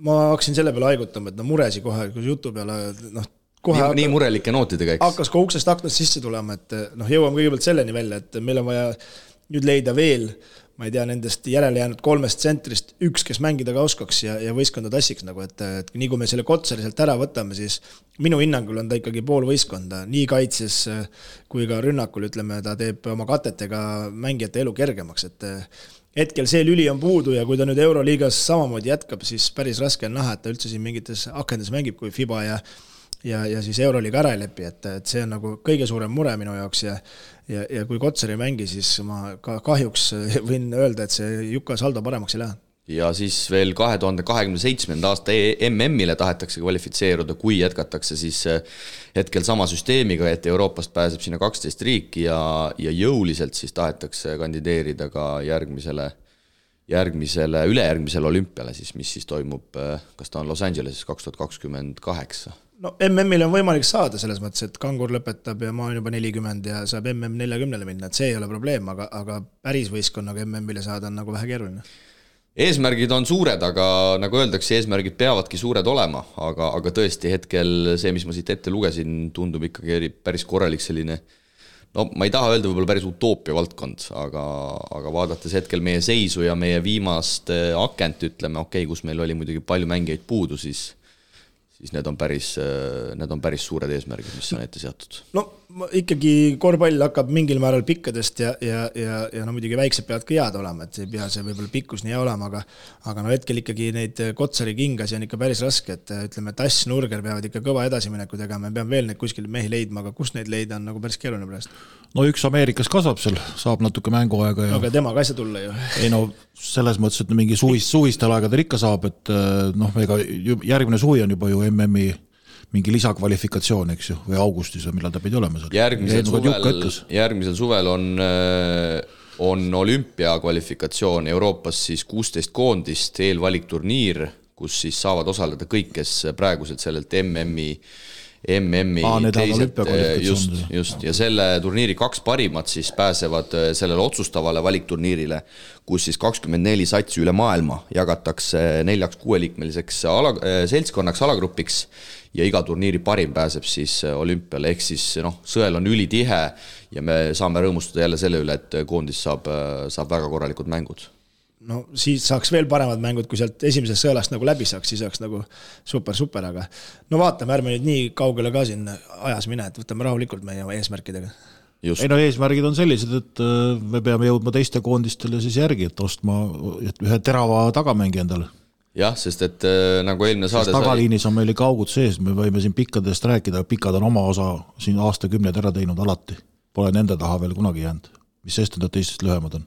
ma hakkasin selle peale haigutama, et muresi kohe, kui jutu peale nii murelike nootidega, eks? Hakkas ka uksest aknast sisse tulema, et jõuame kõigepealt selleni välja, et meil on vaja nüüd leida veel, ma ei tea, nendest järele jäänud 3 tsentrist üks, kes mängida ka oskaks ja võistkonda tassiks, et nii kui me selle Kotsari sealt ära võtame, siis minu hinnangul on ta ikkagi pool võistkonda, nii kaitses kui ka rünnakul, ütleme, ta teeb oma katetega mängijate elu kergemaks, et hetkel see lüli on puudu ja kui ta nüüd Euroliigas samamoodi jätkab, siis päris raske on näha, et ta üldse siin mingites akendes mängib, kui FIBA ja siis Euroliiga ära ei lepi, et see on nagu kõige suurem mure minu jaoks ja kui Kotsar ei mängi, siis ma kahjuks võin öelda, et see Juka saldo paremaks ei lähe. Ja siis veel 2027. aasta MM-ile tahetakse kvalifitseeruda, kui jätkatakse siis hetkel sama süsteemiga, et Euroopast pääseb sinna 12 riiki ja jõuliselt siis tahetakse kandideerida ka ülejärgmisele olümpiale, siis, mis siis toimub, kas ta on Los Angeleses 2028. No MM-il on võimalik saada selles mõttes, et Kangur lõpetab ja ma olen juba 40 ja saab MM 40 minna, et see ei ole probleem, aga päris võistkonnaga MM-ile saada on nagu vähe keeruline. Eesmärgid on suured, aga nagu öeldakse, eesmärgid peavadki suured olema, aga tõesti hetkel see, mis ma siit ette lugesin, tundub ikkagi päris korralik selline, ma ei taha öelda võib-olla päris utoopia valdkond, aga vaadates hetkel meie seisu ja meie viimast akent, ütleme, kus meil oli muidugi palju mängijaid puudu, siis need on päris suured eesmärgid, mis on ette seatud. No ikkagi korvpall hakkab mingil määral pikkadest ja muidugi väiksed peavad ka head olema, et ei pea see võib-olla pikkus nii olema, aga hetkel ikkagi neid Kotsari kingasi on ikka päris raske, et ütleme, Tass, Nurger peavad ikka kõva edasimineku tegema, me peame veel neid kuskil mehi leidma, aga kus neid leida on nagu päris keeruline praegu. No üks Ameerikas kasvab seal, saab natuke mänguaega. Aga tema ka ei saa tulla ju. Ei selles mõttes, et mingi suvistel aegadel ikka saab, et ega järgmine suvi on juba ju MM-i mingi lisakvalifikatsioon, eks ju, või augustis või millal ta pidi olema seal. Järgmisel suvel on olümpiakvalifikatsioon Euroopas siis 16 koondist eelvalikturniir, kus siis saavad osaleda kõik, kes praeguselt sellelt MM-i teised, just, ja selle turniiri 2 parimat siis pääsevad sellele otsustavale valikturniirile, kus siis 24 satsi üle maailma jagatakse 4-6-liikmeliseks seltskonnaks alagrupiks ja iga turniiri parim pääseb siis olümpiale, ehk siis sõel on ülitihe ja me saame rõõmustada jälle selle üle, et koondis saab väga korralikud mängud. No siis saaks veel paremad mängud, kui sealt esimesest sõelast nagu läbi saaks, siis saaks nagu super, aga vaatame, ärme nüüd nii kaugele ka siin ajas mine, et võtame rahulikult meie eesmärkidega. Just. Eesmärgid on sellised, et me peame jõudma teiste koondistele siis järgi, et ostma ühe terava tagamängi endale. Jah, sest et nagu eelmine saade tagaliinis on meil ikka augud sees, me võime siin pikkadest rääkida, pikad on oma osa siin aastakümned ära teinud alati. Pole nende taha veel kunagi jäänud, mis sest nad teistest lühemad on.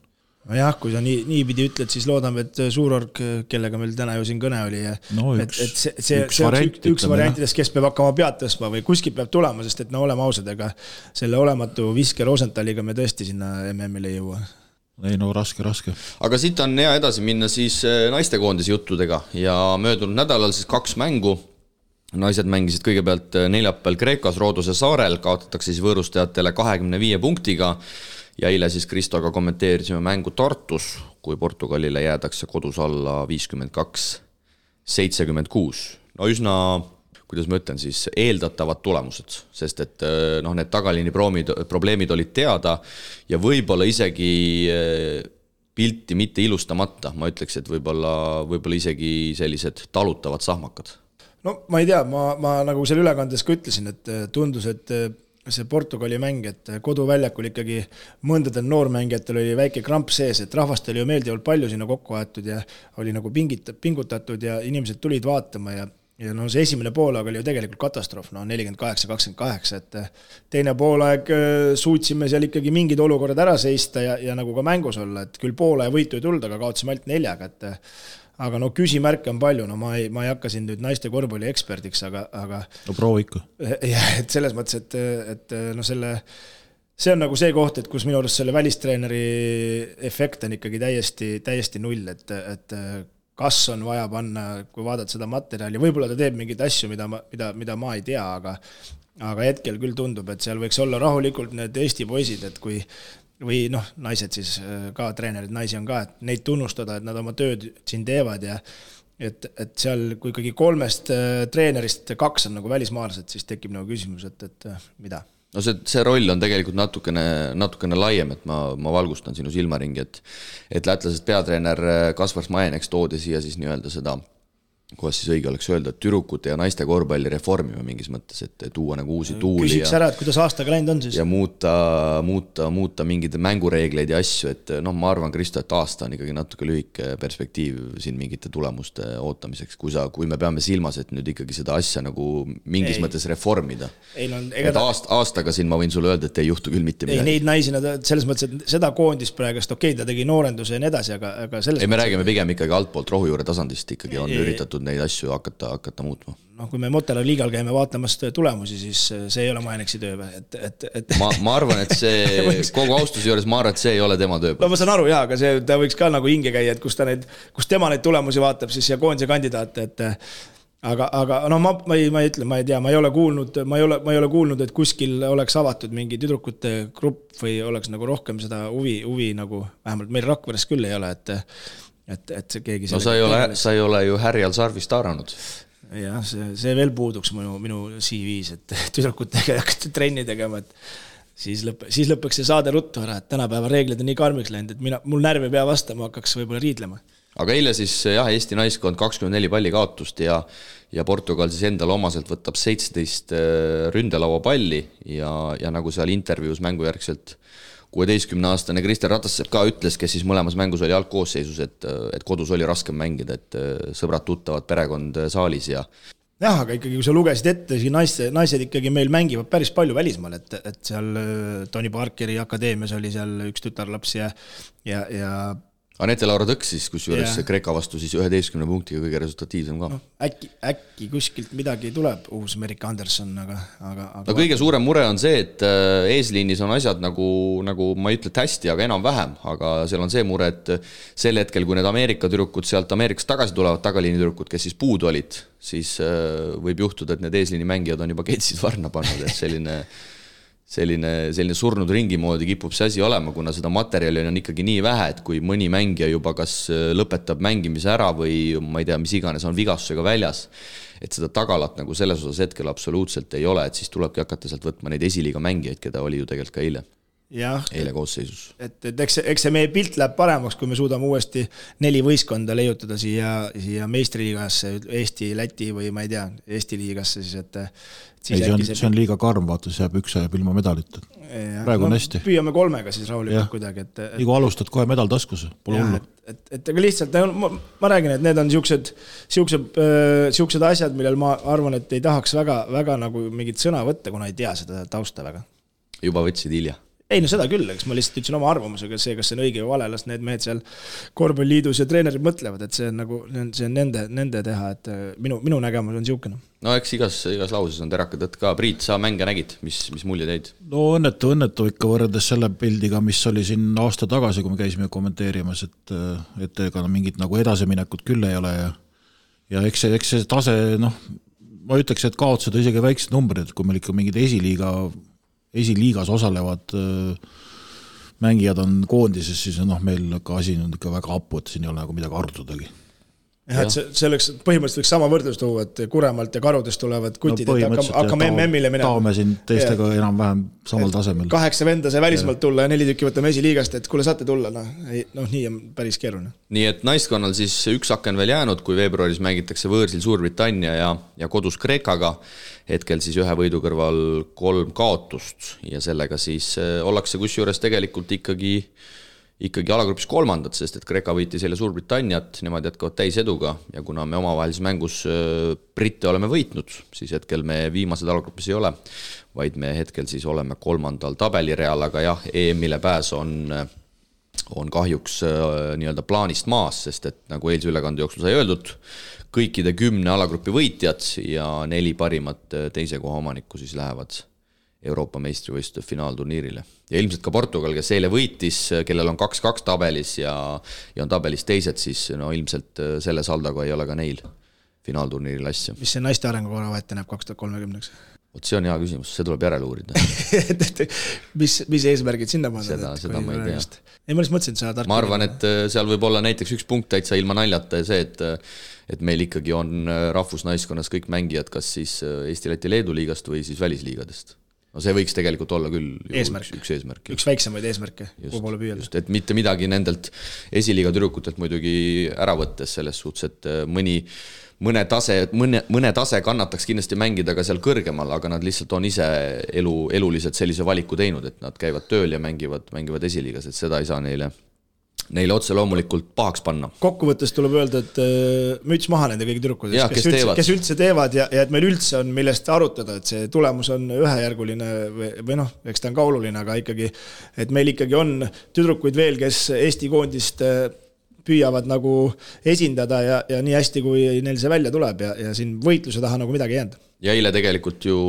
Jah, kui sa nii pidi ütled, siis loodame, et Suurorg, kellega meil täna ju siin kõne oli, üks variantidest, kes peab hakkama pead tõstma või kuskil peab tulema, sest et oleme ausad, ega selle olematu Viske Rosentaliga me tõesti sinna MM-ile ei jõua. Ei raske. Aga siit on hea edasi minna siis naistekoondise juttudega ja möödunud nädalal siis 2 mängu. Naised mängisid kõigepealt neljapäeval Kreekas Rooduse saarel, kaotatakse siis võõrustajatele 25 punktiga ja eile siis Kristoga kommenteerisime mängu Tartus, kui Portugalile jäädakse kodus alla 52-76. No üsna kuidas ma ütlen siis, eeldatavad tulemused, sest et noh, need tagaliini probleemid olid teada ja võib-olla isegi pilti mitte ilustamata, ma ütleks, et võib-olla isegi sellised talutavad sahmakad. No ma ei tea, ma nagu selle ülekandes ka ütlesin, et tundus, et see Portugali mäng, et koduväljakul ikkagi mõndadel noormängijatel oli väike kramp sees, et rahvast oli ju meeldivalt palju sinna kokku aetud ja oli nagu pingutatud ja inimesed tulid vaatama ja no see esimene poolaeg oli ju tegelikult katastroof, no 48-28, et teine poolaeg suutsime seal ikkagi mingid olukorrad ära seista ja nagu ka mängus olla, et küll poole võitu ei tulda, aga kaotasime ainult 4, et aga no küsimärke on palju, no ma ei hakka siin nüüd naiste korvpalli eksperdiks, aga no proovi ikka. Et selles mõttes, et no see on nagu see koht, et kus minu arust selle välistreeneri efekt on ikkagi täiesti null, et kas on vaja panna, kui vaadata seda materjali, võib-olla ta teeb mingeid asju, mida ma ei tea, aga hetkel küll tundub, et seal võiks olla rahulikult need Eesti poisid, et kui või noh, naised siis ka, treenerid, naisi on ka, et neid tunnustada, et nad oma tööd siin teevad ja et seal, kui ikkagi 3 treenerist 2 on nagu välismaalased, siis tekib nagu küsimus, et mida? No see roll on tegelikult natukene laiem, et ma valgustan sinu silmaringi, et lätlasest peatreener Kaspar Smajeneks toodi siia siis nii-öelda seda, kuidas siis õige oleks öelda, et tüdrukute ja naiste korvpalli reformima mingis mõttes, et tuua nagu uusi tuuli küsiks ära, et kuidas aastaga läinud on siis? Ja muuta mingid mängureegleid ja asju, et noh, ma arvan, Kristo, et aasta on ikkagi natuke lühike perspektiiv siin mingite tulemuste ootamiseks, kui me peame silmas, et nüüd ikkagi seda asja nagu mingis mõttes reformida. Et aastaga siin ma võin sulle öelda, et ei juhtu küll mitte midagi. Ei, neid naisi, selles mõttes, et seda koondist praegust, ta tegi noorenduse ja nii edasi, aga selles me räägime pigem ikkagi altpoolt rohujuure tasandist ikkagi on üritatud neid asju hakata muutma. No kui me Motala liigal käime vaatamast tulemusi, siis see ei ole Majeneksi töö. Ma arvan, et see kogu austuse juures ma arvan, et see ei ole tema töö. No ma saan aru, jah, aga ta võiks ka nagu hinge käia, et kus tema neid tulemusi vaatab siis ja koondise kandidaate, aga no ma ei tea, ma ei ole kuulnud, et kuskil oleks avatud mingi tüdrukute grupp või oleks nagu rohkem seda huvi nagu, vähemalt meil Rakveres küll ei ole, et see keegi... No sa ei ole ju härjal sarvist haaranud. Jah, see veel puuduks minu CV-s, et tüdrukutega hakata trenni tegema, et siis lõpeks see saade ruttu ära, et tänapäeva reeglid on nii karmiks läinud, et mul närv ei pea vastama, hakkaks võib-olla riidlema. Aga eile siis jah, Eesti naiskond 24 palli kaotust ja Portugal siis endal omaselt võtab 17 ründelaua palli ja nagu seal intervjuus mängujärgselt 16-aastane Kristjan Ratassepp ka ütles, kes siis mõlemas mängus oli algkoosseisus, et kodus oli raskem mängida, et sõbrad tuttavad perekond saalis ja... Jah, aga ikkagi, kui sa lugesid ette, siis naised ikkagi meil mängivad päris palju välismaal, et seal Tony Parkeri akadeemias oli seal üks tütarlaps ja Anette Laura Tõks siis, kus juures Kreeka vastu siis 11 punktiga kõige resultatiivsem ka. No, äkki kuskilt midagi tuleb, uus Merika Anderson, aga... No kõige suurem mure on see, et eesliinis on asjad nagu ma ei ütle hästi, aga enam vähem, aga seal on see mure, et sel hetkel, kui need Ameerika tüdrukud sealt Ameerikast tagasi tulevad, tagaliini tüdrukud, kes siis puudu olid, siis võib juhtuda, et need eesliini mängijad on juba ketsid varna pannud, et selline surnud ringi moodi kipub see asi olema, kuna seda materjali on ikkagi nii vähe, et kui mõni mängija juba kas lõpetab mängimise ära või ma ei tea, mis iganes on vigastusega väljas, et seda tagalat nagu selles osas hetkel absoluutselt ei ole, et siis tulebki hakata sealt võtma neid esiliiga mängijaid, keda oli ju tegelikult ka eile koosseisus. Et eks see meie pilt läheb paremaks, kui me suudame uuesti 4 võistkonda leiutada siia meistriliigasse, Eesti, Läti või ma ei tea, Eesti liigasse siis, et see on liiga karm, vaata, see jääb üks ajab ilma medalit. Praegu on hästi. Püüame 3 siis rahulikult kuidagi. Igu alustad kohe medal taskus, pole hullu. Et aga lihtsalt, ma räägin, et need on siuksed asjad, millel ma arvan, et ei tahaks väga nagu mingit sõna võtta, kuna ei tea seda tausta väga. Juba võtsid hilja. Ei, no seda küll, eks ma lihtsalt ütlesin oma arvamusega, see, kas see on õige või vale, las need mehed seal korvpalliliidus ja treenerid mõtlevad, et see on nagu, see on nende teha, et minu nägemus on siukene. No eks igas lauses on teraka tõtt ka. Priit, sa mänge nägid, mis mulje teid? No õnnetu ikka võrreldes selle pildiga, mis oli siin aasta tagasi, kui me käisime kommenteerimas, et ega mingit nagu edasiminekut küll ei ole ja eks see tase, ma ütleks, et kaotused isegi väiksed numbrid, kui meil ikka mingid esiliigas osalevad mängijad on koondises, siis meil ka asi on ikka väga hapu, et siin ei ole nagu midagi arutudagi. jah, et see oleks põhimõtteliselt sama võrdlus tuua, et Kuremalt ja Karudest tulevad kutid, et hakkame MM-ile minema. Taome siin teistega enam-vähem samal tasemel. 8 venda sai välismaalt tulla ja 4 tükki võtame esiliigast, et kuule saate tulla, nii on päris keeruline. Nii et naiskonnal siis üks aken veel jäänud, kui veebruaris mängitakse võõrsil Suurbritannia ja kodus Kreekaga, hetkel siis 1 võidu kõrval 3 kaotust ja sellega siis ollakse kusjuures tegelikult ikkagi alagrupis 3, sest et Kreeka võitis jälle Suurbritanniat, nemad jätkavad täiseduga ja kuna me omavahelises mängus Britte oleme võitnud, siis hetkel me viimased alagrupis ei ole, vaid me hetkel siis oleme 3. tabelireal, aga jah, EM-ile pääs on kahjuks nii-öelda plaanist maas, sest et nagu eilse ülekande jooksul sai öeldud, kõikide 10 alagrupi võitjad ja 4 parimat teise koha omanikku siis lähevad Euroopa meistrivõistluste finaalturniirile. Ja ilmselt ka Portugal, kes eile võitis, kellel on 2-2 tabelis ja on tabelis teised, siis no ilmselt selle saldaga ei ole ka neil finaalturniiril asja. Mis see naiste arengukora ette näeb 2030? Vot see on hea küsimus, see tuleb järele uurida. mis eesmärgid sinna panna? Seda ma ei tea. Ei, ma mõtlesin, et sa tark. Ma arvan, et seal võib olla näiteks üks punkt täitsa ilma naljata ja see, et meil ikkagi on rahvusnaiskonnas kõik mängijad, kas siis Eesti, Läti, Leedu liigast või siis välisliigadest. No see võiks tegelikult olla küll üks eesmärk. Üks väiksemaid eesmärke, kuhu poole püüelda. Et mitte midagi nendelt esiliiga tüdrukutelt muidugi ära võttes selles suhtes, et mõne tase kannataks kindlasti mängida ka seal kõrgemal, aga nad lihtsalt on ise eluliselt sellise valiku teinud, et nad käivad tööl ja mängivad esiliigas, et seda ei saa neile otse loomulikult pahaks panna. Kokkuvõttes tuleb öelda, et müts maha nende kõigi tüdrukudest, kes üldse teevad ja et meil üldse on millest arutada, et see tulemus on ühejärguline või noh, eks ta on ka oluline, aga ikkagi, et meil ikkagi on tüdrukuid veel, kes Eesti koondist püüavad nagu esindada ja nii hästi, kui neil see välja tuleb ja siin võitluse taha nagu midagi jäänud. Ja eile tegelikult ju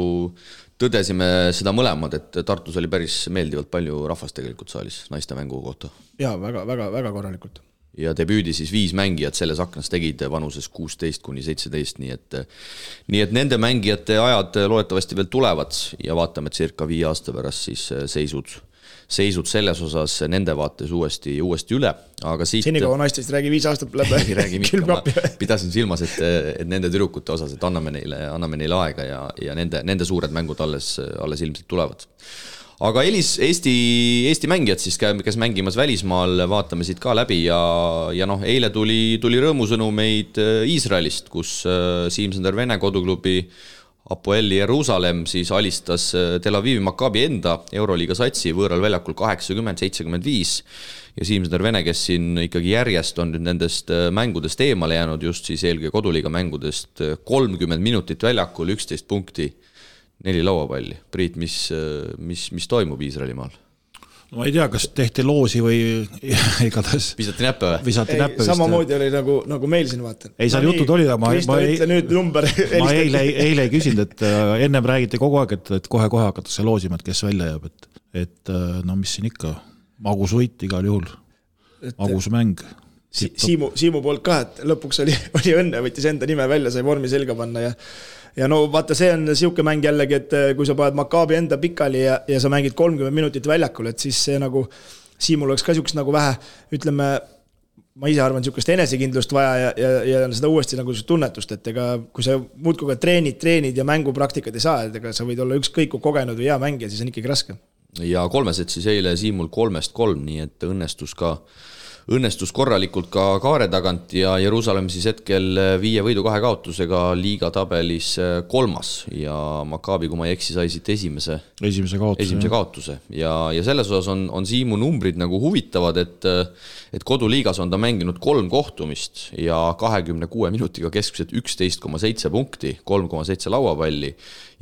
tõdesime seda mõlemad, et Tartus oli päris meeldivalt palju rahvast tegelikult saalis naiste mängu kohta. Jaa, väga korralikult. Ja debüüdi siis 5 mängijat selles aknas tegid vanuses 16-17, nii et nende mängijate ajad loodetavasti veel tulevad ja vaatame circa 5 aasta pärast siis seisud selles osas nende vaates uuesti üle, aga siit... Senikaua naistest räägi 5 aastat läbi külmkapi. Pidasin silmas, et nende tüdrukute osas, et anname neile aega ja nende suured mängud alles ilmselt tulevad. Aga Eesti mängijad siis, kes mängimas välismaal, vaatame siit ka läbi ja noh, eile tuli rõõmusõnumeid Iisraelist, kus Siim-Sander Vene koduklubi Apoeli Jerusalem siis alistas Tel Avivi Maccabi enda Euroliiga satsi võõral väljakul 80-75 ja Siim-Sander Vene, kes siin ikkagi järjest on nüüd nendest mängudest eemale jäänud, just siis eelkõige koduliiga mängudest 30 minutit väljakul, 11 punkti, 4 lauapalli. Priit, mis toimub Iisraelimaal? Ma ei tea, kas tehti loosi või igatahes visati näppe või? Samamoodi oli nagu meil siin vaatan. Ei, seal jutud oli, ma eile ei küsinud, et ennem räägiti kogu aeg, et kohe hakatakse loosima, et kes välja jääb, et no mis siin ikka, magus võit igal juhul, magus mäng. Siimu poolt ka, et lõpuks oli õnne, võttis enda nime välja, sai vormi selga panna ja no vaata, see on siuke mäng jällegi, et kui sa paned Maccabi enda pikali ja sa mängid 30 minutit väljakul, et siis see nagu Siimul oleks ka siukest nagu vähe, ütleme, ma ise arvan, siukest enesekindlust vaja ja seda uuesti nagu tunnetust, et ega kui sa muudkuga treenid ja mängupraktikad ei saa, et ega sa võid olla ükskõik kui kogenud või hea mängija, siis on ikkagi raske. Ja 3 siis eile Siimul 3-3, nii et õnnestus korralikult ka kaare tagant ja Jerusalem siis hetkel 5 võidu 2 kaotusega liiga tabelis 3. ja Maccabi, kui ma ei eksi, sai siit esimese kaotuse ja selles osas on Siimu numbrid nagu huvitavad, et koduliigas on ta mänginud 3 kohtumist ja 26 minutiga keskmiselt 11,7 punkti, 3,7 lauapalli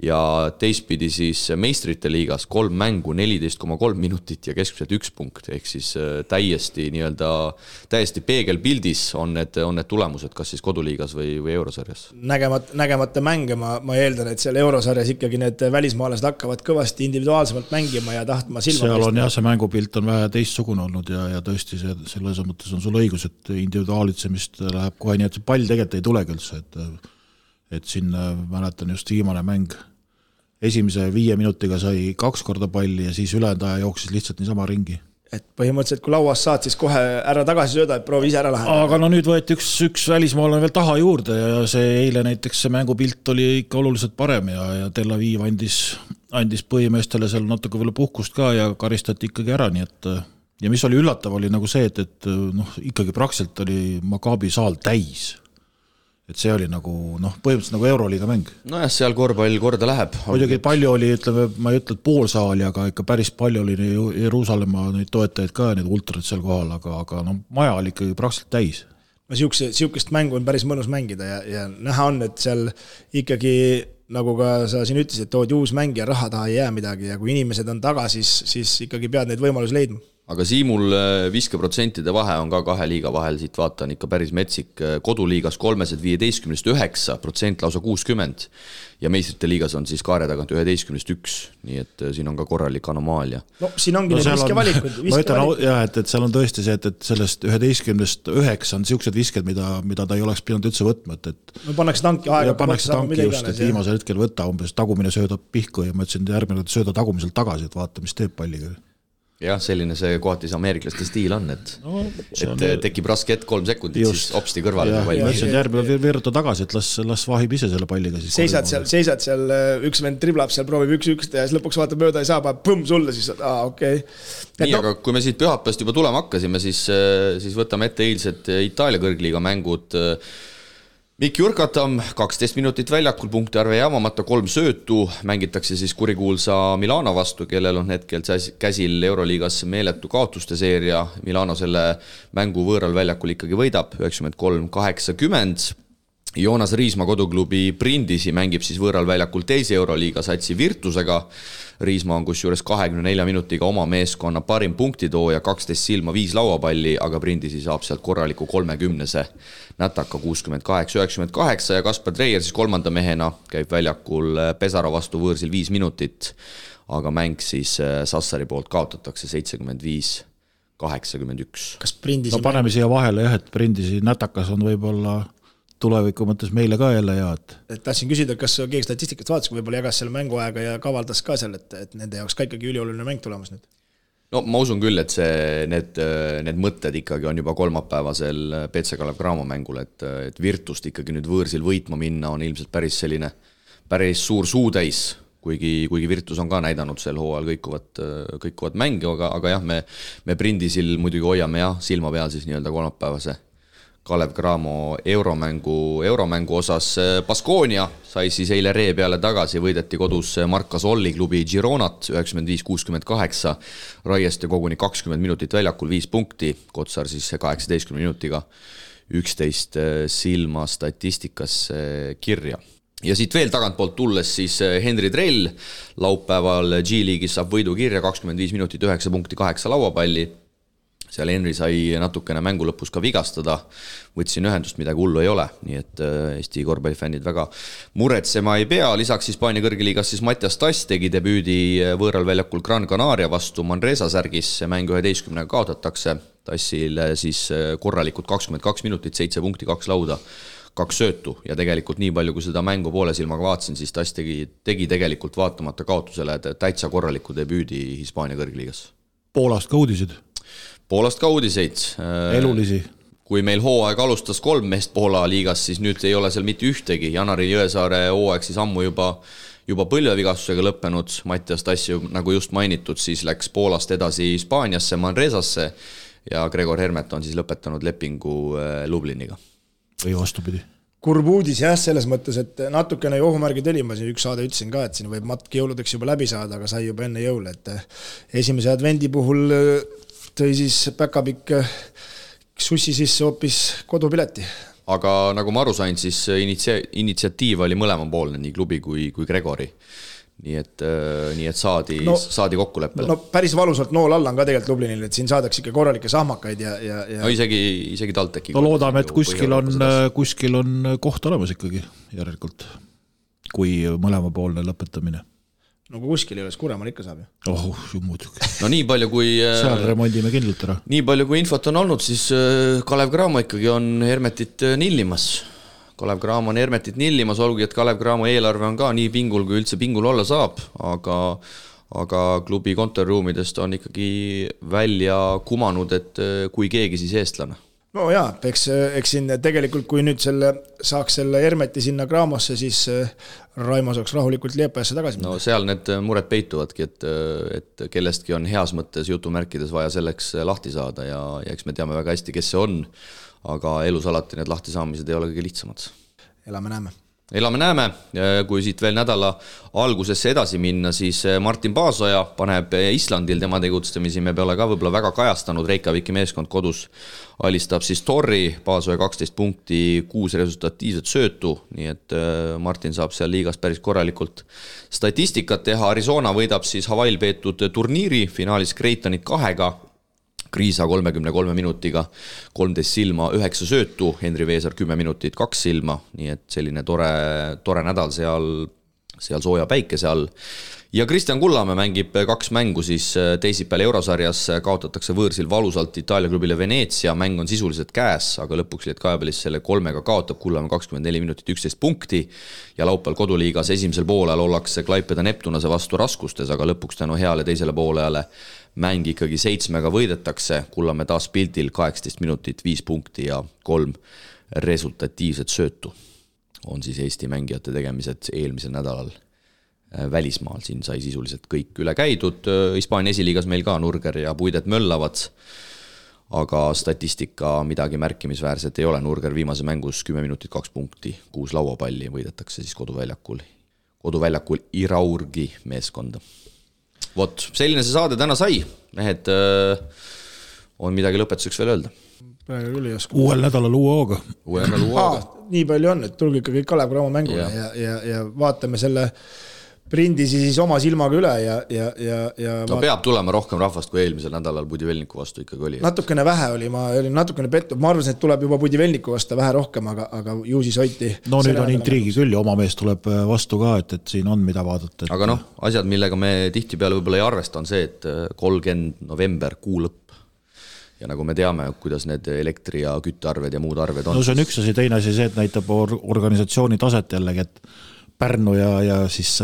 ja teistpidi siis meistrite liigas 3 mängu, 14,3 minutit ja keskmiselt 1 punkt, ehk siis täiesti peegelpildis on need tulemused, kas siis koduliigas või eurosarjas. Nägemata mänge, ma eeldan, et seal eurosarjas ikkagi need välismaalased hakkavad kõvasti individuaalsemalt mängima ja tahtma silma. Seal on jah, see mängupilt on vähe teistsugune olnud ja tõesti selles mõttes on sul õigus, et individuaalitsemist läheb kohe nii, et see pall tegelikult ei tulegi üldse, et siin mäletan just viimane mäng. Esimese 5 minutiga sai 2 korda palli ja siis ülejäänud aja jooksis lihtsalt niisama ringi. et põhimõtteliselt kui lauast saad, siis kohe ära tagasi sööda, et proovi ise ära lahendada. Aga no nüüd võeti üks välismaalane veel taha juurde ja see eile näiteks see mängupilt oli ikka oluliselt parem ja Tel Aviv andis põhimeestele seal natuke veel puhkust ka ja karistati ikkagi ära, nii et ja mis oli üllatav oli nagu see, et noh, ikkagi praktiliselt oli Maccabi saal täis. Et see oli nagu, noh, põhimõtteliselt nagu Euroliiga mäng. Nojah, seal korvpall korda läheb. Muidugi palju oli, ütleme, ma ei ütle, et pool saali, aga ikka päris palju oli Jeruusalemma neid toetajaid ka ja neid ultrat seal kohal, aga no, maja oli ikkagi praktiliselt täis. No siukest mängu on päris mõnus mängida ja näha on, et seal ikkagi, nagu ka sa siin ütlesid, et tood uus mäng ja raha taha ei jää midagi ja kui inimesed on taga, siis ikkagi pead neid võimalusi leidma. Aga Siimul viske% vahe on ka kahe liiga vahel, siit vaatan ikka päris metsik. Koduliigas 315% lausa 60 ja meistrite liigas on siis kaare tagant 11-1, nii et siin on ka korralik anomaalia. No siin ongi need viskevalikud. Ma ütlen, jah, et seal on tõesti see, et sellest 11-9 on siuksed visked, mida ta ei oleks pidanud üldse võtma. No pannakse tanki aega. Pannakse tanki just, et viimasel hetkel võtta umbes tagumine sööda pihku ja ma ütlesin järgmine sööda tagumiselt tagasi, et vaata, mis teeb palliga. Jah, selline see kohati see ameeriklaste stiil on, et tekib raske hetk 3 sekundit, just. Siis opsti kõrvale. Ma ütlesin järgmine veeruta tagasi, et las vahib ise selle palliga. Seisad seal, üks vend triblab seal, proovib 1-1 ja siis lõpuks vaata mööda ei saa, põmm sulle, siis okei. Nii, aga kui me siit pühapäevast juba tulema hakkasime, siis võtame ette eilsed Itaalia kõrgliiga mängud. Mikki Urkatam, 12 minutit väljakul, punkti arve jaamamata, 3 söötu, mängitakse siis kurikuulsa Milano vastu, kellel on hetkel käsil Euroliigas meeletu kaotuste seeria. Milano selle mängu võõral väljakul ikkagi võidab, 93-80. Joonas Riisma koduklubi Brindisi mängib siis võõral väljakul teise Euroliiga satsi Virtusega. Riisma on kusjuures 24 minutiga oma meeskonna parim punktitooja, 12 silma, 5 lauapalli, aga Brindisi saab sealt korraliku 30-se nätaka 68-98 ja Kaspar Treier siis kolmanda mehena käib väljakul Pesara vastu võõrsil 5 minutit, aga mäng siis Sassari poolt kaotatakse 75-81. Kas Brindisi no paneme siia vahele jah, et Brindisi nätakas on võib-olla tuleviku mõttes meile ka jälle head. Tahtsin küsida, kas keegi statistikast vaatas, kui võib-olla jagas selle mänguaega ja kavaldas ka seal, et nende jaoks ka ikkagi ülioluline mäng tulemas nüüd? No ma usun küll, et need mõtted ikkagi on juba kolmapäevasel PC Kalev Cramo mängul, et Virtust ikkagi nüüd võõrsil võitma minna on ilmselt päris suur suutäis, kuigi Virtus on ka näidanud sel hooajal kõikuvat mängi, aga jah, me Brindisil muidugi hoiame jah, silma peal siis nii-öelda kolmapäevase Kalev Cramo euromängu osas. Baskonia sai siis eile ree peale tagasi, võideti kodus Marca Solli klubi Gironat 95-68, Raieste koguni 20 minutit väljakul, 5 punkti, Kotsar siis 18 minutiga 11 silma statistikasse kirja. Ja siit veel tagantpoolt tulles siis Henri Trell laupäeval G-liigis saab võidu kirja, 25 minutit, 9 punkti, 8 lauapalli. Seal Henri sai natukene mängu lõpus ka vigastada, võtsin ühendust, midagi hullu ei ole, nii et Eesti korvpallifännid väga muretsema ei pea. Lisaks Hispaania kõrgeliigas siis Mattias Tass tegi debüüdi võõral väljakul Gran Canaria vastu Manresa särgis, mäng 11 kaotatakse, Tassil siis korralikult 22 minutit, 7 punkti, 2 lauda, 2 söötu ja tegelikult nii palju, kui seda mängu poole silmaga vaatasin, siis Tass tegi tegelikult vaatamata kaotusele täitsa korraliku debüüdi Hispaania kõrgeliigas. Poolast ka uudiseid. Elulisi. Kui meil hooaeg alustas 3 meest Poola liigas, siis nüüd ei ole seal mitte ühtegi. Janari Jõesaare hooaeg siis ammu juba põlvevigastusega lõppenud. Mattias Tass, nagu just mainitud, siis läks Poolast edasi Hispaaniasse, Manresasse ja Gregor Hermet on siis lõpetanud lepingu Lubliniga. Või vastupidi. Kurb uudis jah, selles mõttes, et natukene ohumärgid oli, ma siin üks saade ütlesin ka, et siin võib matk jõuludeks juba läbi saada, aga sai juba enne jõule, et esimese advendi puhul tõi siis päkapikk sussi sisse hoopis kodupileti. Aga nagu ma aru sain, siis initsiatiiv oli mõlemapoolne, nii klubi kui Gregori. Nii et saadi kokkuleppele. No päris valusalt nool alla on ka tegelikult Lublinil, et siin saadaks ikka korralikke sahmakaid ja... No isegi TalTechi. No loodame, et kuskil on koht olemas ikkagi järelikult, kui mõlemapoolne lõpetamine. No kui kuskil ei ole, Kuremal ikka saab ju. Muidugi. No nii palju kui... Seal remondime kindlalt ära. Nii palju kui infot on olnud, siis Kalev Cramo ikkagi on Hermetit nillimas. Kalev Cramo on Hermetit nillimas, olgugi, et Kalev Cramo eelarve on ka nii pingul, kui üldse pingul olla saab, aga aga klubi kontoriruumidest on ikkagi välja kumanud, et kui keegi siis eestlane. No jaa, eks siin tegelikult, kui nüüd saaks selle Hermeti sinna Graamosse, siis Raimo saaks rahulikult Liepajasse tagasi. No seal need mured peituvadki, et kellestki on heas mõttes jutumärkides vaja selleks lahti saada ja eks me teame väga hästi, kes see on, aga elus alati need lahti saamised ei ole kõige lihtsamad. Elame-näeme, kui siit veel nädala algusesse edasi minna, siis Martin Paasoja paneb Islandil tema tegutsemisi, me peale ka võib-olla väga kajastanud, Reykjaviki meeskond kodus alistab siis Torri, Paasoja 12 punkti, 6 resultatiivset söötu, nii et Martin saab seal liigas päris korralikult statistikat teha, Arizona võidab siis Hawaii'l peetud turniiri, finaalis Creightonit 2-ga, Kriisa 33 minutiga, 13 silma, 9 söötu, Henri Veesar 10 minutit, 2 silma, nii et selline tore nädal seal sooja päikese all. Ja Kristjan Kullamäe mängib 2 mängu siis teisipäeval Eurosarjas, kaotatakse võõrsil valusalt Itaalia klubile Venezia, mäng on sisuliselt käes, aga lõpuks Lietkajabelis selle 3-ga kaotab Kullamäe 24 minutit 11 punkti ja laupäeval koduliigas esimesel poolel ollakse Klaipeda Neptunase vastu raskustes, aga lõpuks tänu heale teisele poolele mäng ikkagi 7-ga võidetakse, Kullamäe taas pildil 18 minutit, 5 punkti ja 3 resultatiivset söötu. On siis Eesti mängijate tegemised eelmisel nädalal välismaal, siin sai sisuliselt kõik üle käidud, Hispaania esiliigas meil ka Nurger ja Puidet möllavad, aga statistika midagi märkimisväärset ei ole, Nurger viimase mängus 10 minutit 2 punkti, 6 lauapalli võidetakse siis koduväljakul Iraurgi meeskonda. Vot, selline see saade täna sai, mehed, on midagi lõpetuseks veel öelda? Uuel nädalal uue hooga. Nii palju on, et tulge ikka kõik Kalev Cramo mängule ja vaatame selle prindi siis oma silmaga üle ja no peab tulema rohkem rahvast kui eelmisel nädalal Budivelniku vastu ikkagi oli. Natukene vähe oli, ma olin natukene pettud, ma arvasin, et tuleb juba Budivelniku vastu vähe rohkem, aga ju siis hoiti. No nüüd on intriigi küll ja oma mees tuleb vastu ka, et siin on mida vaadata. Aga asjad, millega me tihtipeale võib-olla ei arvesta, on see, et 30 november, kuu lõpp. Ja nagu me teame, kuidas need elektri- ja küttearved ja muud arved on. No see on üks asi, teine asi see, et näitab organisatsiooni taset jällegi, et Pärnu ja siis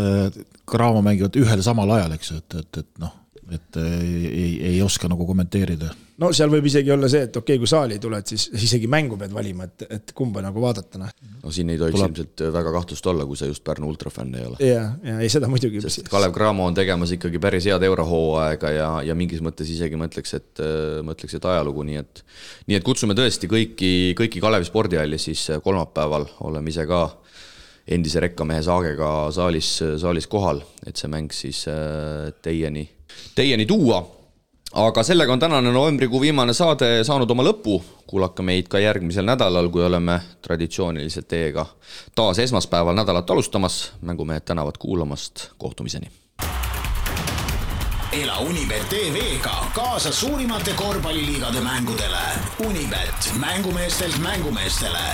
Cramo mängivad ühel samal ajal, eks, et ei oska nagu kommenteerida. No seal võib isegi olla see, et okei, kui saali tuled, siis isegi mängu pead valima, et kumba nagu vaadata. No siin ei tohiks ilmselt väga kahtlust olla, kui sa just Pärnu ultrafänn ei ole. Ja ei seda muidugi. Sest Kalev Cramo on tegemas ikkagi päris head eurohooaega ja mingis mõttes isegi mõtleks, et ajalugu, nii et kutsume tõesti kõiki Kalevi spordihalli siis kolmapäeval, oleme ise ka endise rekkamehe Saagega saalis kohal, et see mäng siis teieni tuua. Aga sellega on tänane novembrikuu viimane saade saanud oma lõpu. Kuulake meid ka järgmisel nädalal, kui oleme traditsiooniliselt teiega taas esmaspäeval nädalat alustamas. Mängumehed tänavad kuulamast. Kohtumiseni. Ela Unibet TV-ga kaasa suurimate korvpalliliigade mängudele. Unibet, mängumeestelt mängumeestele.